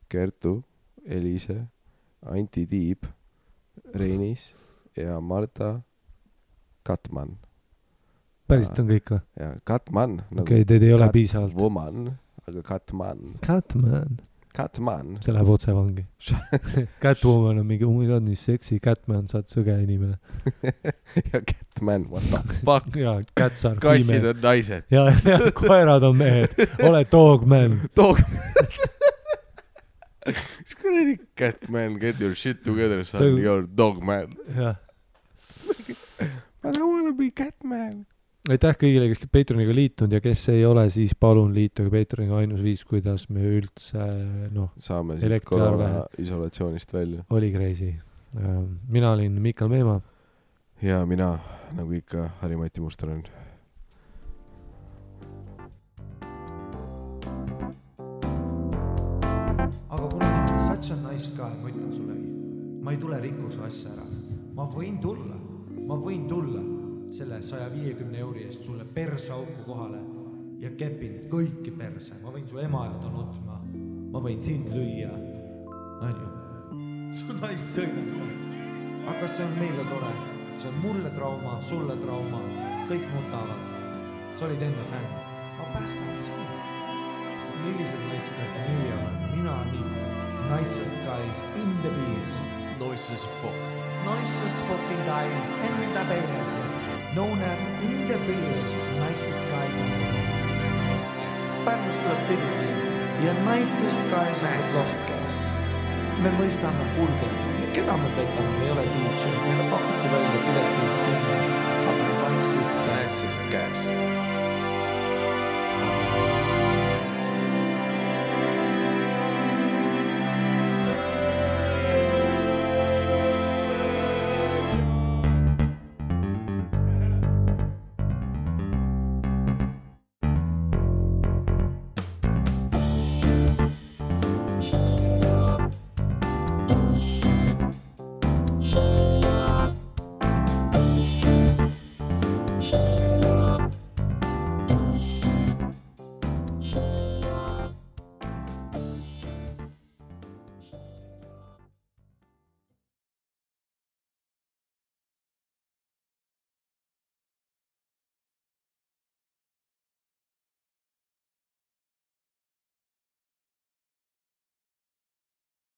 Kertu. Elise. Anti Tiib, Reinis ja Marta Katman. Päriselt on kõik või? Ja Katman. Okei, teid ei ole piisavalt. Woman, aga Katman. Catman. See läheb otse vangi. Catwoman on mingi, oh my god, nii seksi. Catman, saad sõge inimene. Ja Catman, what the fuck? Ja, cats are Kassid female. on naised. Ja, koerad on mehed. Ole dogman. Kuradi Catman, get your shit together, son, you're dogman. Jah. But I wanna be Catman. Aitäh kõigile, kes Patreoniga liitunud ja kes ei ole, siis palun liituge Patreoniga. Ainus viis, kuidas me üldse saame siit korona isolatsioonist välja. Oli crazy. Mina olin Mikal Meemaa. Ja mina, nagu ikka, Harimati Mustonen. Aga kuna ma olen such a nice guy, ma ütlen sulle, ma ei tule rikkuse asja ära. Ma võin tulla selle 150 € eest sulle persauku kohale ja kepin kõiki perse. Ma võin su ema jada nutma. Ma võin sind lüüa. On ju? Su naist sõidab. Aga see on meile tore. See on mulle trauma, sulle trauma. Kõik nutavad. Sa olid enne fänn. Ma päästan sinu. Millised naiskad meie on? Mina nii. Nicest guys in the bees. Nicest fuck. Nicest fucking guys in the bees. Known as in the bees. Nicest guys in the bees. Pärnust tuleb tihti. Ja nicest guys in the bees. Me mõistame, kuulge, keda me petame, me ei ole DJ. Meile pakuti välja piletit 10. Aga nicest guys.